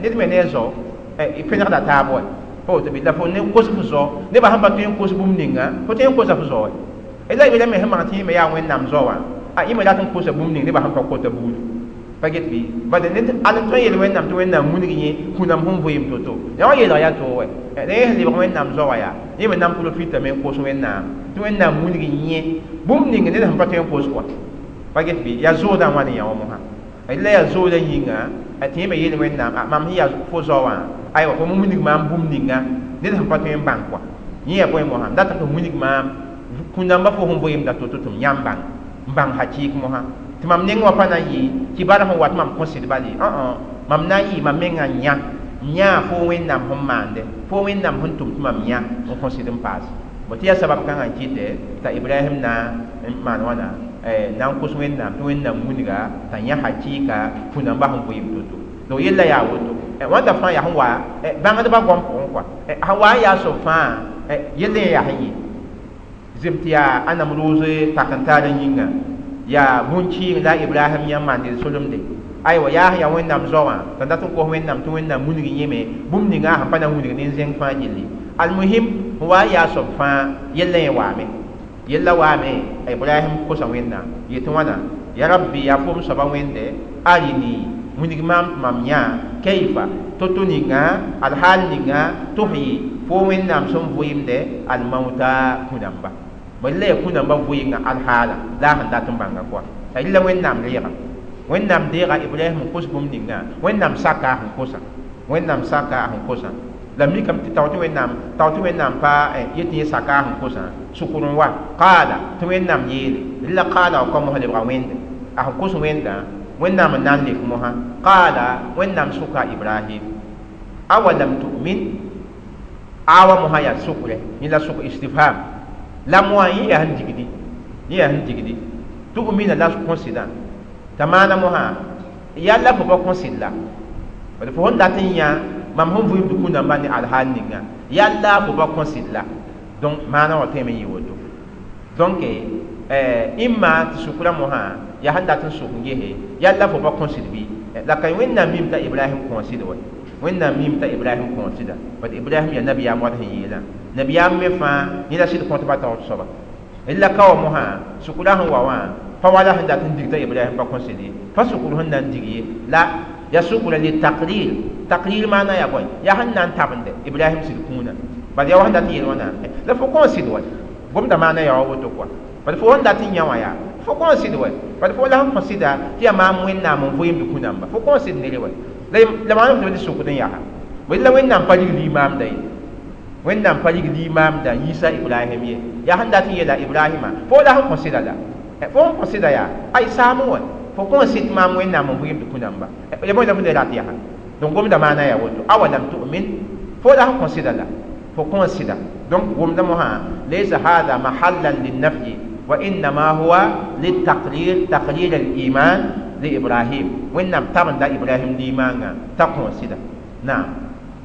ned me ne a zao pẽnegda taab wa pa woto bɩ la fo ne kos fo zao nebã sẽn pa tõe n kos bũmb ninga fo tõe n kosa fo zao wa la Ibrahim sẽn maan tɩ yẽ me yaa wẽnnaam zao wã a yẽ me rat n kosa bũmb ning nebã sẽn pa kota buudu pa get bɩ bad ned al n tõe n yeel wẽnnaam tɩ wẽnnaam wilg yẽ kũnam sẽn vɩɩm to-to yã wã yeelg yaa toog wa la yẽ sẽn lebg wẽnnaam zao wã yaa yẽ me na n profitame n kos wẽnnaam tɩ wẽnnaam wilg yẽ bũmb ning ned sẽn pa tõe n kos kɔa pa get bɩ yaa zoodã wãn n yã wã mosã la yaa zoodã yĩnga tɩ yẽ me yeel wẽnnaam mam sẽn yaa fo zao wã aywa fo wilg maam bũmb ninga ned sẽn pa tõe n bãng kɔa yẽ yaa bõe mosã n dat tɩ wilg maam kũndãmbã fo sẽn vɩɩmda to-to tɩ m yãmb bãng n bãng hakɩɩk mosã tɩ mam neng wã pa na n yɩ kibar sẽn wat mam kõ sɩd bale mam na n yɩ mam mengã n yã n yãa fo wẽnnaam sẽn maande fo wẽnnaam sẽn tʋm tɩ mam yã n kõ sɩd n paase bõ tɩ yaa sabab kãngã n kɩtɛ t'a Ibrahim na n maan wãna na n kos wẽnnaam tɩ wẽnnaam wilga t'a yã hakɩɩka kũ-dãmbã sẽn vɩɩm to-to donc yella yaa woto wãnda fãa yaa sẽn wa bãngdbã goam pʋgẽ kɔa sẽn wa n yaa soab fãa yell yẽ yaa sẽn yɩ zem tɩ yaa a Namruuz tak n taar n yĩnga yaa bũn-kɩɩng la Ibrahim yã n maan solemde aywa yaa sẽn yaa wẽnnaam zao wã t'a dat n kos wẽnnaam tɩ wẽnnaam wilg yẽme bũmb ninga sẽn pa na n wilg nin-zẽng fãa gilli almuhim sẽn wa n yaa soab fãa yella yẽ waame yella waame Ibrahim kosa wẽnnaam yetɩ wãna ya rabbi yaa fom soaba wẽnde arini wilg maam tɩ mam yã kayfa to-to ninga alhaal ninga tuhyi fo wẽnnaam sẽn vɩɩmde almauta kũ-dãmba bõe la yaa kũ-dãmbã vɩɩngã alhaala la a sẽn dat n bãnga kɔa la wẽnnaam reega wẽnnaam deega Ibrahim n kos bũmb ninga wẽnnaam saka a sẽn kosa wẽnnaam saka a sẽn kosa la mikame tɩ tao tɩ wẽnnaam pa yetɩ yẽ saka a sẽn kosã sʋkr n wa qaala tɩ wẽnnaam yeele la qaala wa kõ mosã lebga wẽnde a sẽn kos wẽndã wẽnnaam n na n lek mosã qaala wẽnnaam sʋka Ibrahim awalam tu'min awa mosã yaa sʋkrɛ yẽ la sʋk istifham la moa yẽ yaa sẽn digdi yẽ yaa sẽn digdi tu'mina la kõ sɩdã t'a maana mosã yalla fo pa kõ sɩd la bad fo sẽn dat n yã mam sẽn vɩɩmd kũndãmbã ne alhaal ninga yalla fo pa kõ sɩd la donc maana wã tõeme n yɩ woto donc imma tɩ sʋkrã mosã yaa sẽn dat n sʋk n gese yalla fo pa kõ sɩd bɩ la ka wẽnnaam mim t'a Ibrahim kõ sɩd wa wẽnnaam mim t'a Ibrahim kõ sɩda bad Ibrahim yaa nabiyaam wat sẽn yeelã nabiyaam me fãa yẽ la sɩd kõtba taoor soaba la ka wa mosã sʋkrã sẽn wa wã pa wala sẽn dat n dig t'a Ibrahim pa kõ sɩd ye pa sʋkr sẽn na n dig ye la ya sʋkra li taqrir taqrir maana yaa bõe yaa sẽn na n tabende Ibrahim sɩd kũunã bad yaa wa sẽn dat n yeel wãna la fo kõ sɩd wa gomda maana yaa wa woto kɔa bad fo sẽn dat n yã wã yaa fo kõ sɩd wa bad fo la sẽn kõ sɩda tɩ yaa maam wẽnnaam n vɩɩmd kũ-dãmba fo kõ sɩd nere wa la maana fo tɩ sʋkd n yaa bõe la wẽnnaam pa rig limaamda ye Wẽnnaam pa rig limaamda yiisa Ibrahim ye. Yaa sẽn dat n yeela Ibrahima fo la sẽn kõ sɩda la fo sẽn kõ sɩda yaa ay saam wã fo kõ sɩd maam Wẽnnaam n vɩɩmd kũ-namba ya bõe la fo ne rat yaa donc gomda maana yaa woto awalam tu'min fo la sẽn kõ sɩda la fo kõ sɩda donc gomda mosã laysa hada mahallan linnafyi wa innama huwa litaqrir taqrir al-iman li Ibrahim Wẽnnaam tabenda Ibrahim limaangã t'a kõ sɩda naam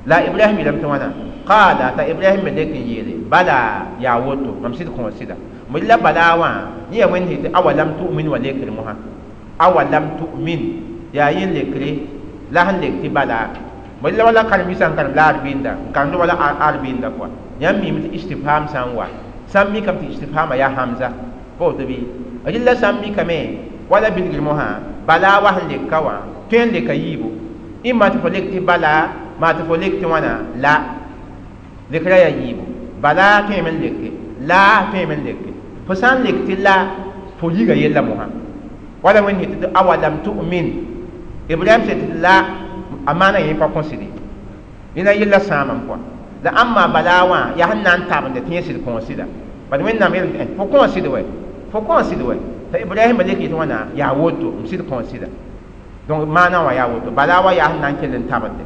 la Ibrahim yeelame tɩ wãna qaala t'a Ibrahim me lek n yeele bala yaa woto mam sɩd kõ sɩda la bala wã yẽ yaa Wẽnd tɩ awalam tu'min wa lekr mosã awalam tu'min yaa yẽ lekre la sẽn lek tɩ bala la wala karen-biisã n karem la arbɩnda n karemd wala arbɩnda kɔa yãmb miime tɩ istifham sã n wa sã n mikame tɩ istifhama yaa hamza pa woto bɩ rɩlla sã n mikame wala bilgr mosã bala wa sẽn lek ka wã tõe n leka yiibu ĩmma tɩ fo lek tɩ bala maa tɩ fo lek tɩ wãna la lekra yaa yiibu bala tõeme n leke la tõeme n leke fo sã n lek tɩ la fo yiga yella mosã wala Wẽnd sẽn tɩ awalam tu'min Ibrahim sẽn tɩ la a maana yẽ pa kõsde rẽna yella sãamame kɔa la ãmba bala wã yaa sẽn na n tabende tɩ yẽ sɩd kõ sɩda bad Wẽnnaam yeelame tɩ fo kõ sɩd wɛ fo kõ sɩd wɛ t'a Ibrahima lek yetɩ wãna yaa woto m sɩd kõ sɩda donc maana wã yaa woto bala wã yaa sẽn na n kell n tabende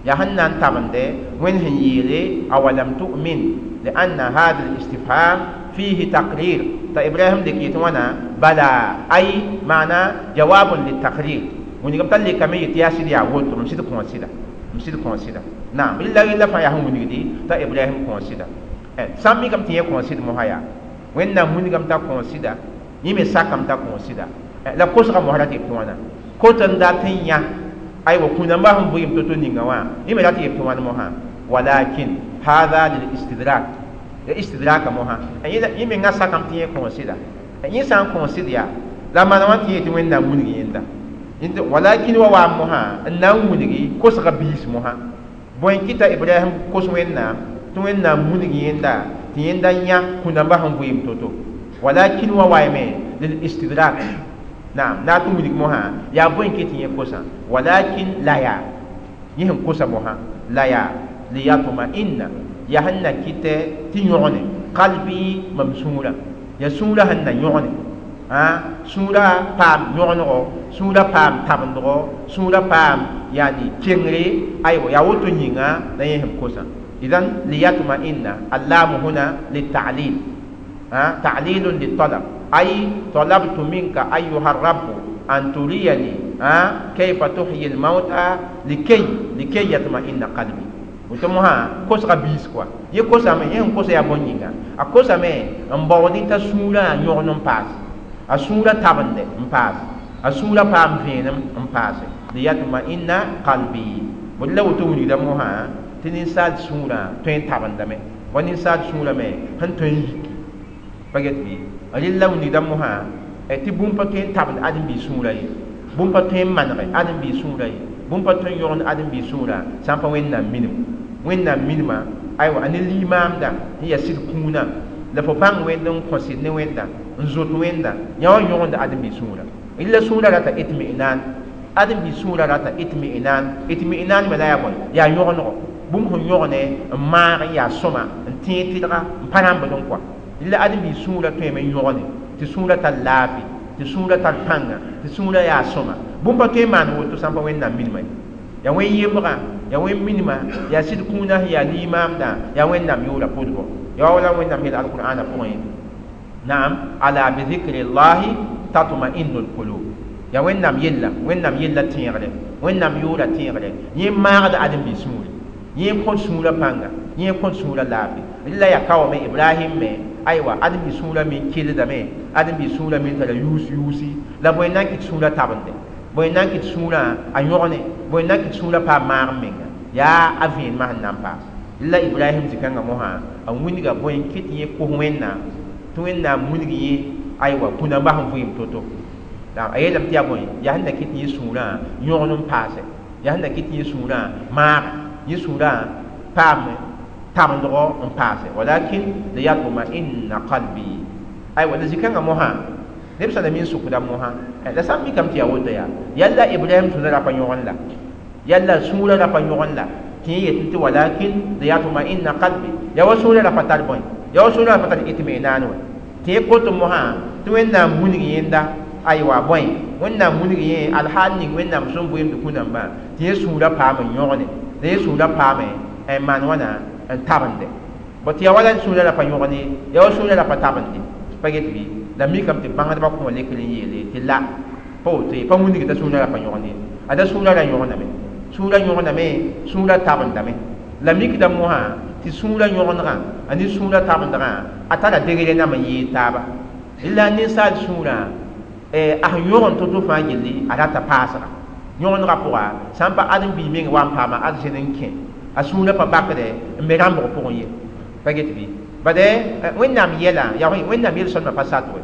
yaa sẽn na n tabende Wẽnd sẽn yeele awalam tu'min لأن هذا الاستفهام فيه تقرير تا إبراهيم لك يتوانا بلى أي معنى جواب للتقرير ونقوم تلي كمية يتياسي يا ووتو مشيت كونسيدا مشيت كونسيدا نعم إلا إلا فيا هم ونقدي تا إبراهيم كونسيدا سامي كم تيه كونسيد مهايا وين نام ونقوم تا كونسيدا يمي ساكم تا كونسيدا لا كوسا مهرات يتوانا كوتن داتين أي وكنا ما هم بيم تطوني نوا يمي داتي يتوانا مها ولكن هذا للاستدراك الاستدراك مها يمي نغا كم تيه كونسيدا ينسان كونسيدا لا ما نوان تيه توين نام ونقي يندا ولكن wa moha na wunigi kosga biis moha bõe kɩta Ibrahim kos Wẽnnaam tɩ Wẽnnaam wunug yẽnda tɩ yẽnda yã kũnambã sẽn vɩɩm to-to walakin wa waame lil istidrak naam na tɩ wunug mosã yaa bõe kɩ tɩ yẽ kosã walakin la yaa yẽ sẽn kosa mosã la yaa liyatma'inna yaa sẽn na kɩtɛ tɩ yõgene qalbi mam sũurã yaa sũurã sẽn na yõgene sũurã paam yõgenego sũurã paam tabendgo sũurã paam yani kengre aywa yaa woto yĩnga la yẽ sẽn kosã idan liyatma'inna allamu huna litalil ta'lilun litalab ay talabtu minka ayuha rabbu an turiyani kayfa tuhyi almauta likay yatma'inna qalbi woto mosã kosga biis kɔa yẽ kosame yẽ sẽn kosa yaa bõn yĩnga a kosame n baood t'a sũurã yõgen n paas a sũurã tabende n paas a sũurã paam vẽenem n paase liyatma'inna qalbi bõe la woto wilgda mosã tɩ ninsaal sũurã tõe n tabendame wa ninsaal sũurã me sẽn tõe n yiki pa get bɩ rɩlla wilgda mosã tɩ bũmb pa tõe n tabend ãdem-biis sũurã ye bũmb pa tõe n manege ãdem-biis sũurã ye bũmb pa tõe n yõgend ãdem-biis sũurã sã n pa Wẽnnaam minim Wẽnnaam minima aywa a ne limaamda tɩ yaa sɩd kũunã la fo bãng Wẽnd n kõ sɩd ne Wẽnda n zot Wẽnda yã wã yõgend ãdem-biis sũurã rɩlla sũurã rata itmi'nan ãdem-biis sũurã rata itmi'nan itmi'nan me la yaa bõe yaa yõgenego bũmb sẽn yõgene n maag n yaa sõma n tẽeg tɩdga n pa rãmbd n kɔa rɩlla ãdem-biis sũurã tõeme n yõgene tɩ sũurã tar laafɩ tɩ sũurã tar pãnga tɩ sũurã yaa sõma bũmb pa tõe n maan woto sã n pa Wẽnnaam minima ye yaa wẽn yembgã yaa wẽn minima yaa sɩd kũunã sẽn yaa limaamdã yaa Wẽnnaam yʋʋra pʋsgo yaa wala Wẽnnaam yeel alqur'ana pʋgẽ naam ala bi dhikri llahi tatma'innu lqulub yaa Wẽnnaam yella Wẽnnaam yella tẽegre Wẽnnaam yʋʋra tẽegre yẽ maagda ãdem-biis sũuri yẽ kõt sũurã pãnga yẽ kõt sũurã laafɩ rɩla yaa ka wame Ibrahim me aywa ãdem-biis sũurã me keldame ãdem-biis sũurã me tara yuus yuusi la bõe n na n kɩt sũurã tabende bõe n na n kɩt sũurã a yõgene bõe n na n kɩt sũurã paam maag n menga yaa a vẽenemã sẽn na n paas la Ibrahim zĩ-kãngã mosã a wilga bõe n kɩt yẽ kos Wẽnnaam tɩ Wẽnnaam wilg yẽ aywa kũnambã sẽn vɩɩm to-to a yeelame tɩ yaa bõe yaa sẽn na kɩt yẽ sũurã yõgen n paase yaa sẽn na kɩt yẽ sũurã maaga yẽ sũurã paam tabendgo n paase walakin liyatma'inna qalbi aywa la zĩ-kãngã mosã neb sã na mi n sʋkda mosã la sã n mikame tɩ yaa woto yaa yalla Ibrahim sũurã ra pa yõgen la yalla sũurã ra pa yõgen la tɩ yẽ yetẽ tɩ walakin liyatma'inna qalbi ya wa sũurã ra pa tar bõe ya wa sũurã ra pa tar itminaan wã tɩ yẽ kot mosã tɩ Wẽnnaam wilg yẽnda aywa bõe Wẽnnaam wilg yẽ alhaal ning Wẽnnaam sẽn vɩɩmd kũ-nambã tɩ yẽ sũurã paam n yõgne la yẽ sũurã paame n maan wãna n tabende bõ tɩ ya wala sũurã ra pa yõgne ya wa sũurã ra pa tabende pa get bɩ la mikame tɩ bãngdbã kõ lekr n yeele tɩ la pa woto ye pa wilg t'a sũurã ra pa yõgne ada sũurã ra yõgename sũurã yõgename sũurã tabendame la mikda mosã tɩ sũurã yõgendgã a ne sũurã tabendgã a tara degre nam n yɩɩd taaba la ninsaal sũurã a sẽn yõgen to-to fãa gilli a rata paasga yõgendgã pʋga sã n pa ãdem-biig meng wa n paama arzẽn n kẽ a sũurã pa bakdɛ n be rãmbg pʋgẽ ye pa get bɩ bade Wẽnnaam yɛla yaa Wẽnnaam yel-sõlmã pa sat we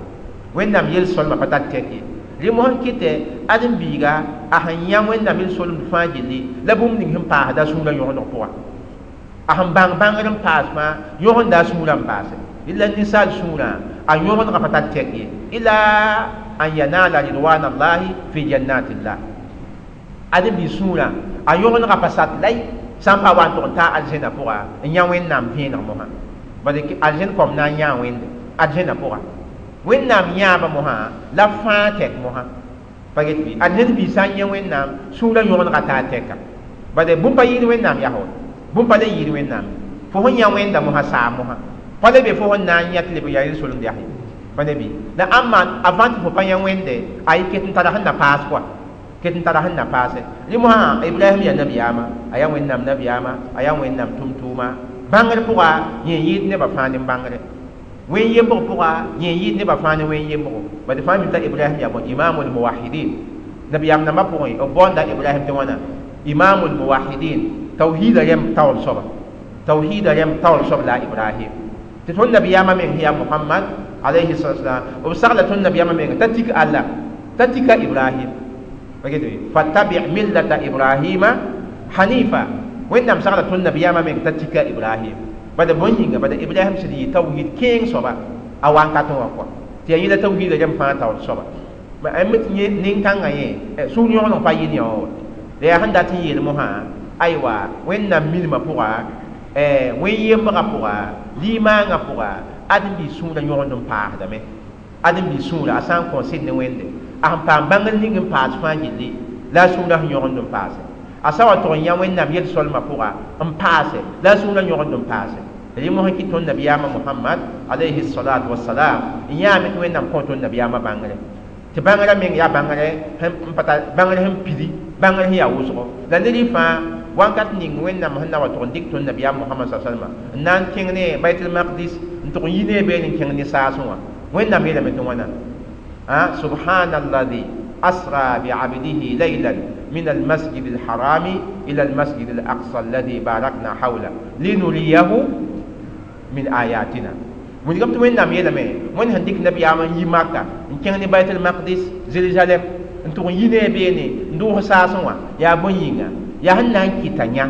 Wẽnnaam yel-sõlmã pa tar tɛk ye rẽ mosã n kɩtɛ ãdem-biiga a sẽn yã Wẽnnaam yel-solemd fãa gilli la bũmb ning sẽn paasda a sũurã yõgendg pʋga a sẽn bãng bãngr n paas fãa yõgenda a sũurã n paase illa ninsaal sũurã a yõgendgã pa tar tɛk ye ila an yanala ridwan allahi fi jannatillah ãdem-biig sũurã a yõgendgã pa sat lay sã n pa wa n tʋg n taa arzẽnã pʋga n yã Wẽnnaam vẽeneg mosã bad arzẽn kõm na n yãa Wẽnde arzẽnã pʋga Wẽnnaam yãaba mosã la fãa tɛk mosã pa get bɩ arzẽn biig sã n yã Wẽnnaam sũurã yõgendgã taa tɛka bad bũmb pa yɩɩd Wẽnnaam yaa bũmb pa le yɩɩd Wẽnnaam fo sẽn yã Wẽnda mosã saam mosã pa le be fo sẽn na n yã tɩ leb n yaa yel-solemd yaa pa ne bɩ la ãmba avant tɩ fo pa yã Wẽnde a yɩ ket n tara sẽn na paas kɔa ket n tara sẽn na paase rẽ mosã Ibrahim yaa nabiyaama a yaa Wẽnnaam nabiyaama a yaa Wẽnnaam tʋm-tʋʋma bãngr pʋga yẽ yɩɩd nebã fãa ne bãngre wẽn yembg pʋga yẽ yɩɩd nebã fãa ne wẽn yembgo bad fãa mi t'a Ibrahim yaa bõe imamul muwahidin nabiyaam nambã pʋgẽ b baoonda Ibrahim tɩ wãna imamul muwahidin tawhiida rẽmb taoor soaba tawhiida rẽmb taoor soab la Ibrahim tɩ tõnd nabiyaamã meng sẽn yaa Muhammad alayhi salatu wasalam b sagla tõnd nabiyaamã menga t'a tik Allah t'a tika Ibrahim fattabi millata Ibrahima hanifa Wẽnnaam sagla tõnd nabiyaamã meng t'a tika Ibrahim bada bõn yĩnga bada Ibrahim sẽd yɩ tawhid kẽeng soaba a wankatẽ wã kɔa tɩ yaa yẽla tawhiida rẽmb fãa taoor soaba m tɩ yẽ nin-kãngã yẽ sũur yõgeneg pa yɩ ne wã wa la yaa sẽn dat n yeel mosã aywa Wẽnnaam milmã pʋga wẽn-yembgã pʋga limaangã pʋga ãdem-biig sũurã yõgend n paasdame ãdem-biig sũurã a sã n kõ sɩd ne Wẽnde a sẽn paam bãngr ning n paas fãa gilli la a sũurã sẽn yõgend n paase a sã wa tʋg n yã Wẽnnaam yel-solmã pʋga n paase la a sũurã yõgend n paase rẽ mosã kɩ tõnd nabiyaamã Muhammad alayhi salatu wasalam n yãame tɩ Wẽnnaam kõ tõnd nabiyaamã bãngre tɩ bãngrã meng yaa bãngre n pa tar bãngr sẽn pidi bãngr sẽn yaa wʋsgo la ned fãa wakat ning Wẽnnaam sẽn na wa tʋg n dɩk tõnd nabiyaam Muhammad sa salma n na n kẽng ne Baitul Maqdis n tʋg n yi ne beene n kẽng ne saasẽ wã Wẽnnaam yeelame tɩ wãna subhanalladhi asra bi'abdihi laylan min al-masjid al-harami ila al-masjid al-aqsa alladhi barakna hawla linuriyahu min ayatina wilgame tɩ Wẽnnaam yeelame Wẽnd sẽn dɩk nabiyaam n yi Maka n kẽng ne Baitul Maqdis Jerusalem n tʋg n yi ne beene n dʋʋs saasẽ wã yaa bõn yĩnga yaa sẽn na n kɩta yã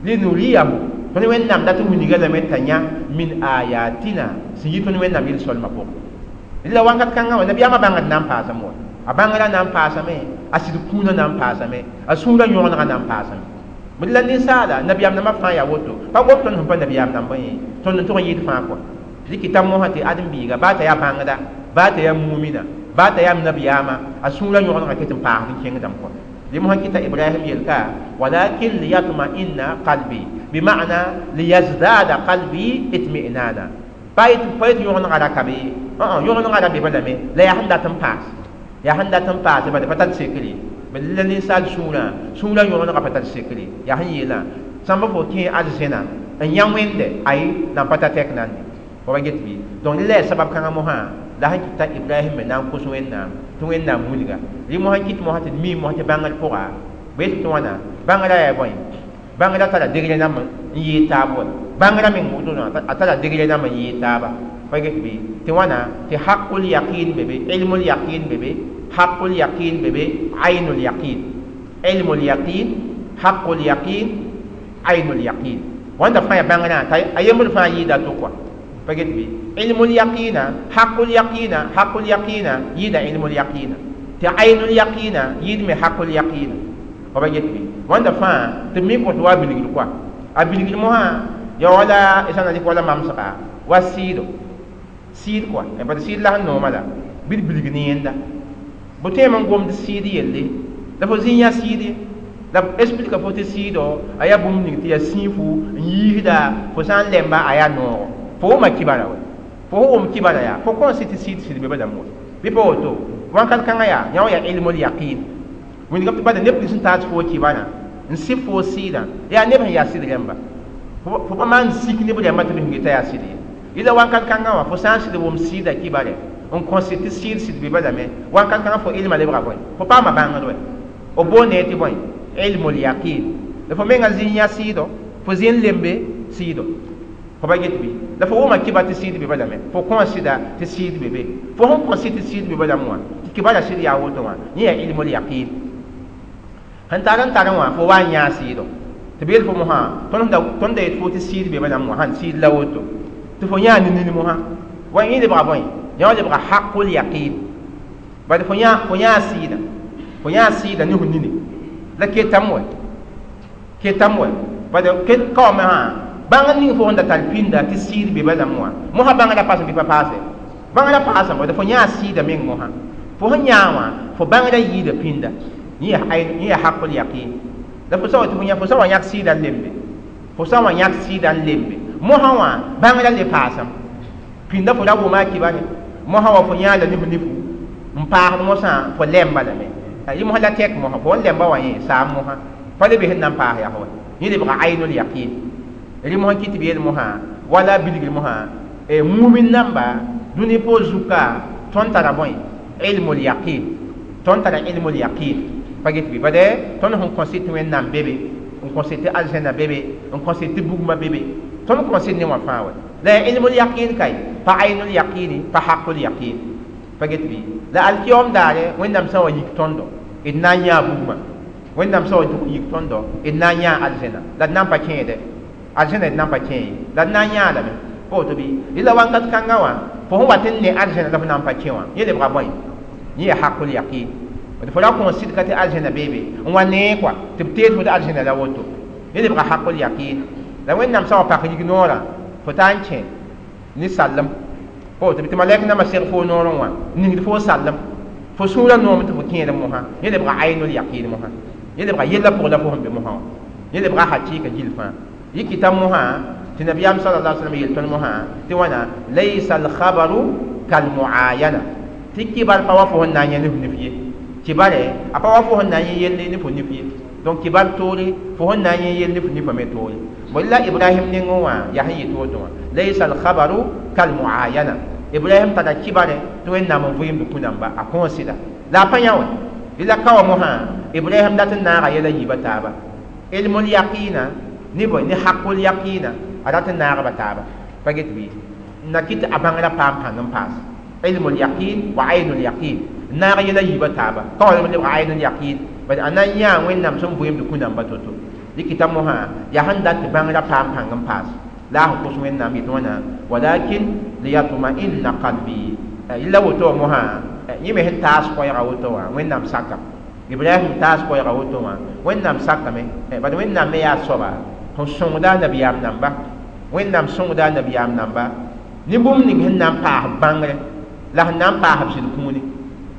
linuriyahu tõnd Wẽnnaam dat n wilga lame t'a yã min ayatina sẽn yi tõnd Wẽnnaam yel-solmã pʋgẽ la wakat kãngã wã nabiyaamã bãngd na n paasame wa a bãngrã na n paasame a sɩd kũunã na n paasame a sũurã yõgenegã na n paasame bd la ninsaala nabiyaam nambã fãa yaa woto pa gom tõnd sẽn pa nabiyaam nambã ye tõnd n tʋg n yɩɩd fãa kɔa dɩk t'a mosã tɩ ãdem-biiga baa t'a yaa bãngda baa t'a yaa mumina baa t'a yaa nabiyaamã a sũurã yõgenegã ket n paasd n kẽngdame kɔa rẽ mosã kɩta Ibrahim yelka walakin liyatma'inna qalbi bima'na liyazdada qalbi itmi'nana pa yetɩ yõgenegã ra ka be ye yõgenegã ra be balame la yaa sẽn dat n paas yaa sẽn dat n paase bala pa tar sekre bad la ninsaal sũurã sũurã yõgenegã pa tar sekre yaa sẽn yeelã sãmba fo kẽ arzẽna n yã Wẽnde ay nan pa ta tɛk nande fo pa get bɩ donc la yaa sabab kãngã mosã la sẽn kɩt t'a Ibrahim me na n kos Wẽnnaam tɩ Wẽnnaam wilga rẽ mosã kɩt mosã tɩ d mi mosã tɩ bãngr pʋga b yetɩ tɩ wãna bãngrã yaa bõe bãngrã tara degre nam n yɩɩd taab wa bãngrã meng wotona a tara degre nam n yɩɩd taaba pa get bɩ tɩ wãna tɩ haqul yaqin be be ilmul yaqin be be haqul yaqin be be aynul yaqin ilmul yaqin haqul yaqin aynul yaqin wãnda fãa yaa bãngrã t'a a yembr fãa yɩɩda to kɔa pa get bɩ ilmul yaqina haqul yaqina haqul yaqina yɩɩda ilmul yaqina tɩ aynul yaqina yɩɩd me haqul yaqina fa pa get bɩ wãnda fãa tɩ mi kõt wa bilgr kɔa A bilgr mosã ya wala sã na dɩk wala mamsga wa sɩɩdo sɩɩd kɔa bad sɩɩd la sẽn nooma la bɩ d bilg ne yẽnda bõ tõeme n gomd sɩɩd yelle la fo zĩ yã sɩɩd ye la b explica fo tɩ sɩɩdo a yaa bũmb ning tɩ yaa sĩifu n yiisda fo sã n lemba a yaa noogo fo wʋma kibara wɛ fo sẽn wʋm kibara yaa fo kõn sɩ tɩ sɩɩd sɩd be balame wɛ bɩ pa woto wãnkat kãngã yaa yã wã yaa ilmul yaqin wĩndgame tɩ bada neb nins sẽn taas fo kibara n sɩ fo sɩɩdã yaa neb sẽn yaa sɩd rẽmba fo pa maan sik neb rẽmba tɩ b sẽn geta yaa sɩd ye yɩla wãnkat kãngã wã fo sã n sɩd wʋm sɩɩda kibare n kõ sɩd tɩ sɩɩd sɩd be balame wãnkat kãngã fo ilma lebga bõe fo paama bãngd wɛ b boond tɩ bõe ilmul yaqin la fo menga zĩ yã sɩɩdo fo zĩ n lembe sɩɩdo fo pa get bɩ la fo wʋma kiba tɩ sɩɩd be balame fo kõ sɩda tɩ sɩɩd be be fo sẽn kõ sɩd tɩ sɩɩd be balame wã tɩ kibara sɩd yaa woto wã yẽ yaa ilmul yaqin sẽn tar n tar wã fo wa n yãa sɩɩdo tɩ b yel fo mosã tõnd da yet fo tɩ sɩɩd be balame wã sãn sɩɩd la woto tɩ fo yãa ne nin mosã wa yẽ lebga bõe yã wã lebga haqul yaqin bad fo yãa sɩɩda fo yãa sɩɩda ne fo nini la ketam wɛ bad kaoame sã bãng ning fo sẽn da tar pĩnda tɩ sɩɩd be balame wã mosã bãngrã paasem bɩ pa paase bãngrã paasame bad fo yãa sɩɩda meng mosã fo sẽn yãa wã fo bãngrã yiida pĩnda yẽ yaa haqul yaqin la fo sã wa tɩ fo yã fo sã wa yãk sɩɩda n lembe fo sã wa yãk sɩɩda n lembe mosã wã bãngrã le paasem pĩnda fo ra wʋma a kibare mosã wa fo yãa la ne fo nifu n paasd mosã fo lemba lame yɩ mosã la tɛk mosã fo n lemba wã yẽ saam mosã pa le be sẽn na n paas yaa wa yẽ lebga aynul yaqin rɩ mosã kɩ tɩ b yeel mosã wala bilgr mosã mumin namba dũni pʋʋs zuka tõnd tara bõe ilmul yaqin tõnd tara ilmul yaqin pa get bɩ bade tõnd sẽn kõ sɩd tɩ Wẽnnaam be be n kõ sɩd tɩ aljana be be n kõ sɩd tɩ bugmã be be tõnd kõ sɩd ne wã fãa wɛ la yaa ilmul yaqin kay pa aynul yaqini pa haqul yaqin pa get bɩ la alkiyom daare Wẽnnaam sã wa yik tõndo d na n yãa bugmã Wẽnnaam sã wa yik tõndo d na n yãa aljana la d na n pa kẽede aljana d na n pa kẽ ye la d na n yãa lame pa woto bɩ yẽla wãnkat kãngã wã fo sẽn wat n ne aljana la fo na n pa kẽ wã yẽ lebga bõe yẽ yaa haqul yaqin fo ra kõ sɩdka tɩ aljana beebe n wa nee kɔa tɩ b teed fo tɩ aljana la woto yẽ lebga haqul yaqin la Wẽnnaam sã wa pak yik noorã fo taa n kẽ ne sallem pa woto tɩ malɛk nambã seg fo noorẽ wã ningd fo sallem fo sũurã noom tɩ fo kẽed mosã yẽ lebga aynul yaqin mosã yẽ lebga yellã pʋgã la fo sẽn be mosã wã yẽ lebga hakɩɩka gill fãa yɩ kɩta mosã tɩ nabiyaam sala alaihi wasallam yel tõnd mosã tɩ wãna laysa alkhabaru kalmuayana tɩ kibar pa wa fo sẽn na n yã ne fo nif ye kibare a pa wa fo sẽn na n yẽ yelle ne fo nif ye donc kibar toore fo sẽn na n yẽ yelle ne fo nifã me toore bõe la Ibrahim nengẽ wã yaa sẽn yet woto wã laysa alkhabaru kalmuayana Ibrahim tara kibare tɩ Wẽnnaam n vɩɩmd kũ-namba a kõo sɩda la a pa yã wɛ la ka wa mosã Ibrahim dat n naaga yɛla yiibã taaba ilmul yaqina ne bõe ne haqul yaqina a rat n naagba taaba pa get bɩ na kɩ tɩ a bãngrã paam pãng n paas ilmul yaqin wa aynul yaqin naag yɛla yiibã taaba ka wa lebga aynul yaqin bad a na n yãa Wẽnnaam sẽn vɩɩmd kũ-namba to-to dɩkɩta mosã yaa sẽn dat tɩ bãngrã paam pãng n paas la a sẽn kos Wẽnnaam yetɩ wãna walakin liyatma'inna qalbi yella woto wã mosã yẽ me sẽn taas koɛɛga woto wã Wẽnnaam sakame Ibrahim taas koɛɛga woto wã Wẽnnaam sakame bad Wẽnnaam me yaa soaba sẽn sõngda a nabiyaam namba Wẽnnaam sõngda a nabiyaam namba ne bũmb ning sẽn na n paas bãngre la sẽn na n paas b sɩd kũuni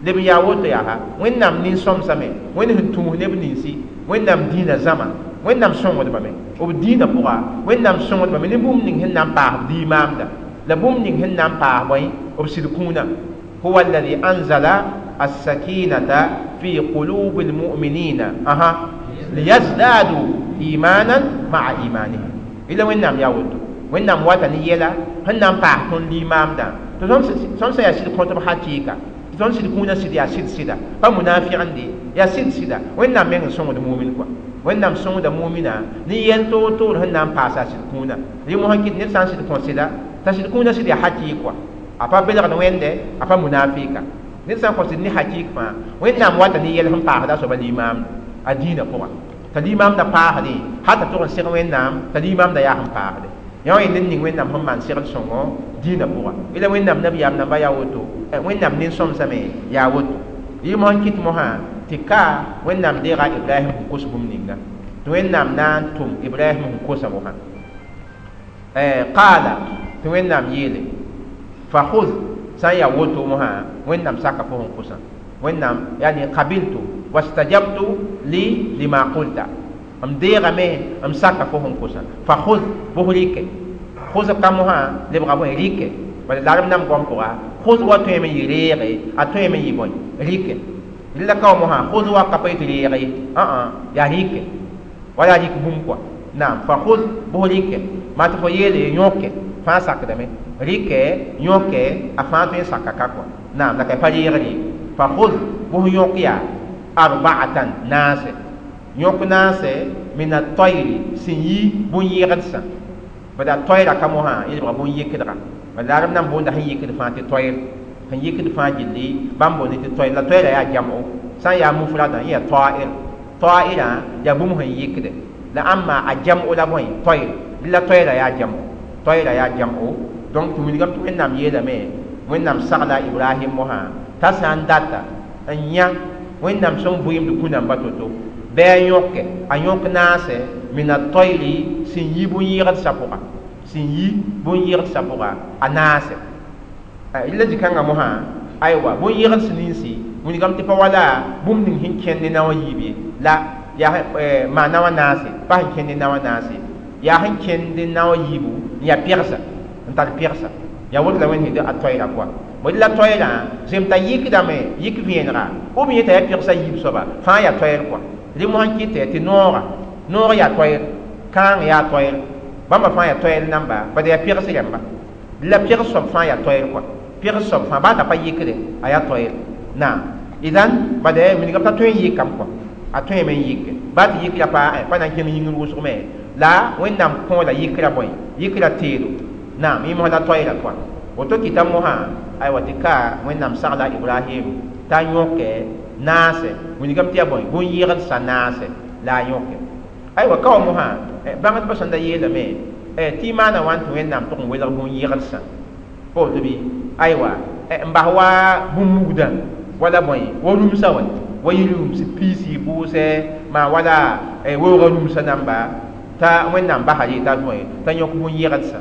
leb n yaa woto yaa Wẽnnaam nin-sõmsame Wẽnd sẽn tũus neb ninsi Wẽnnaam dĩinã zãma Wẽnnaam sõngdbame b dĩinã pʋga Wẽnnaam sõngdbame ne bũmb ning sẽn na n paas b diimaamda la bũmb ning sẽn na n paas bõe b sɩd kũunã huwa alladhi anzala as-sakinata fi qulubi al-mu'minina aha liyazdadu imanan ma'a imanihim ila Wẽnnaam yaa woto Wẽnnaam wata ne yɛla sẽn na n paas tõnd limaamdã tɩ tõnd sã yaa sɩd kõtb hakɩɩka tɩ tõnd sɩd kũunã sɩd yaa sɩd sɩda pa munafɩgende yaa sɩd sɩda Wẽnnaam meng n sõngd mumin kɔa Wẽnnaam sõngda mumina ne yɛl toor-toor sẽn na n paasa a sɩd kũunã rɩ mosã kɩt ned sã n sɩd kõ sɩda t'a sɩd kũunã sɩd yaa hakɩɩk kɔa a pa belgd Wẽnde a pa munafɩka ned sã n kõ sɩd ne hakɩɩk fãa Wẽnnaam wata ne yɛl sẽn paasda a soaba limaamda a dĩinã pʋga t'a limaamda paasdẽ hal t'a tʋg n seg Wẽnnaam t'a limaamda yaa sẽn paasde yã wã yẽ ned ning Wẽnnaam sẽn maan segl sõngo dĩinã pʋga yẽla Wẽnnaam nabiyaam namba yaa woto Wẽnnaam nin-sõmsame yaa woto yɩ mosã n kɩt mosã tɩ ka Wẽnnaam deega Ibrahim sẽn kos bũmb ninga Tɩ Wẽnnaam na n tʋm Ibrahim sẽn kosa mosã. Qaala, tɩ Wẽnnaam yeele: "Fakhudh", sã n yaa woto mosã, Wẽnnaam saka fo sẽn kosã. Wẽnnaam, yani qabiltu wastajabtu li lima qulta, m deegame, m saka fo sẽn kosã. Fakhudh, bʋs rɩke. Khʋsb ka mosã lebga bõe? Rɩke. Bala la rb nam goam pʋga, khʋs wa tõeme n yɩ reege, a tõeme n yɩ bõe? Rɩke. La ka wa mosã, khʋs wa ka pa yetɩ reege ye, ã yaa rɩke, wala rɩk bũmb kɔa. Naam, fa khʋs, bʋs rɩke maa tɩ fo yeele yõke fãa sakdame, rɩkɛ, yõke, a fãa tõe n saka ka kɔa. Naam, la ka pa reegr ye. Fa khʋs, bʋs yõk yaa arba'atan, naase, yõk naase, min at-tayri, sẽn yi bũn-yɩgdsã. Bala toyra ka mosã yelbga bũn-yɩkdga. Bala la rb nan boonda sẽn yɩkd fãa tɩ toyr, sẽn yɩkd fãa gilli bãmb boonde tɩ toyr. La toyra yaa jam'o, sã n yaa mufradã yẽ yaa ta'ir. Ta'irã yaa bũmb sẽn yɩkde la ãmba a jam'o la bõe? Toyr. La toyra yaa jam'o, toyra yaa jam'o. Donc tɩ wilgame tɩ Wẽnnaam yeelame, Wẽnnaam sagla Ibrahim mosã t'a sã n data n yã Wẽnnaam sẽn vɩɩmd kũ-namba to-to, bɩ a yõke, a yõk naase, min at-tayri, sẽn yi bũn-yɩgdsã pʋga, sẽn yi bũn-yɩgdsã pʋga, a naase. La zĩ-kãngã mosã, aywa, bũn-yɩgds ninsi wilgame tɩ pa wala bũmb ning sẽn kẽnd ne nao a yiib ye, la yaa maan nao a naase, pa sẽn kẽnd ne nao a naase, yaa sẽn kẽnd ne nao a yiibu n yaa pegsa, n tar pegsa. Yaa woto la Wẽnd sẽn a toɛɛra kɔa. Bõe la toɛɛrã zem t'a yɩkdame, yɩk vẽenega b yẽ t'a yaa pegsa yiib soaba fãa yaa toɛɛr kɔa. Rẽ mosã n kɩtɛ tɩ noogã, noog yaa toɛɛr, kãang yaa toɛɛr, bãmba fãa yaa toɛɛr namba, bad yaa pegs rẽmba. La pegs soab fãa yaa toɛɛr kɔa, pegs soab fãa baa t'a pa yɩkde, a yaa toɛɛr. Naam, idan bad wilgame t'a tõe n yɩkame kɔa, a tõeme n yɩke, baa tɩ yɩkra pa pa na n kẽng yĩngr wʋsg me la Wẽnnaam kõ la yɩkra bõe? Yɩkra teedo. Naam, yẽ mosã la toɛɛra kɔa. Woto kɩta mosã, aywa, tɩ ka Wẽnnaam sagla Ibrahim t'a yõke naase, wilgame tɩ yaa bõe? Bũn-yɩgdsã naase la a yõke. Aywa, ka wa mosã, bãngdbã sẽn da yeelame tɩ y maana wãn tɩ Wẽnnaam tʋg n welg bũn-yɩgdsã pa woto bɩ? Aywa, n bas wa bũn-mugdã wala bõe, wa rũmsã wɛ, wa yɩ rũms piisi pʋʋsɛ maa wala weoogã rũmsã namba, t'a Wẽnnaam basa rɩ t'a bõe, t'a yõk bũn-yɩgdsã.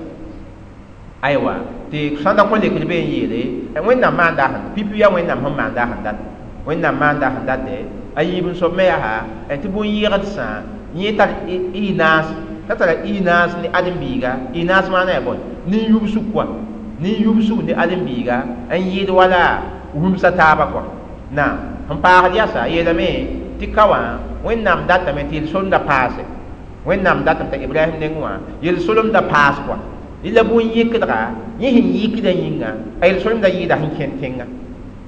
Aywa, tɩ sãn da kõ lekr be n yeele Wẽnnaam maanda sẽn pipi, yaa Wẽnnaam sẽn maanda sẽn dat, Wẽnnaam maanda sẽn date a yiib n soab me yaa tɩ bũn-yɩgdsã yẽ tar y naas, t'a tara y naas ne ãdem-biiga. Y naas maana yaa bõe? Nin-yubsg kɔa, nin-yubsg ne ãdem-biiga n yɩɩd wala rũmsã taaba kɔa. Naam, sẽn paasd yasa yeelame tɩ ka wã Wẽnnaam datame tɩ yel-solemda paase. Wẽnnaam datame t'a Ibrahim nengẽ wã yel-solemda paas kɔa. La bũn-yɩkdga yẽ sẽn yɩkda yĩnga, a yel-solemda yɩɩda sẽn kẽnd tẽnga.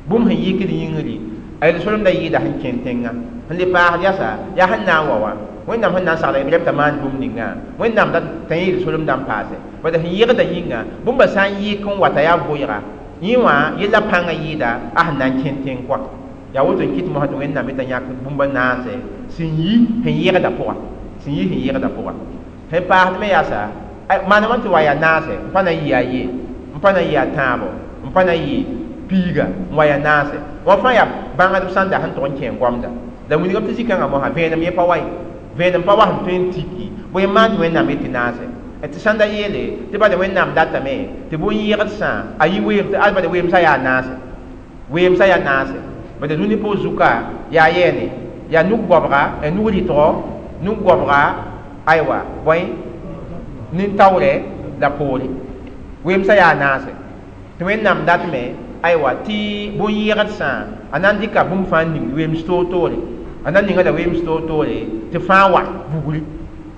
Bũmb sẽn yɩkd yĩngri, a yel-solemda yɩɩda sẽn kẽnd tẽnga. Sẽn le paasd yasa, yaa sẽn na n wa wã, Wẽnnaam sẽn na n sagla Ibrahim t'a maan bũmb ninga, Wẽnnaam dat t'a yẽ yel-solemda n paase. Bala sẽn yɩgda yĩnga, bũmba sã n yɩk n wa t'a yaa vʋɩga, yẽ wã yella pãngã yɩɩda a sẽn na n kẽnd tẽng kɔa. Yaa woto n kɩt mosã tɩ Wẽnnaam yetã yãk bũmba naase sẽn yi sẽn yɩgda pʋga, sẽn yi sẽn yɩgda pʋga. Sẽn paasd me yaasa, maana wãn tɩ wa yaa naase, n pa na n yɩ a ye, n pa na n yɩ a tãabo, n pa na n yɩ piiga, n wa yaa naase wã fãa yaa bãngdb sãn da sẽn tʋg n kẽ goamda. La wilgame tɩ zĩ-kãngã mosã vẽenem yẽ pa wa ye, vẽenem pa wa sẽn tõe n tiki bõe n maan tɩ Wẽnnaam yetɩ naase. Tɩ sãn da yeele tɩ bala Wẽnnaam datame tɩ bũn-yɩgdsã a yi weem, tɩ ad bala weemsã yaa naase, weemsã yaa naase. Bala dũni pʋg zuka yaa yɛɛne, yaa nug-goabga, nug-rɩtgo, nug-goabga, aywa, bõe, nin-taoorɛ la poore, weemsã yaa naase. Tɩ Wẽnnaam datme, aywa, tɩ bũn-yɩgdsã a na n dɩka bũmb fãa n ning weems toor-toore, a na n ninga la weems toor-toore tɩ fãa wa vugri.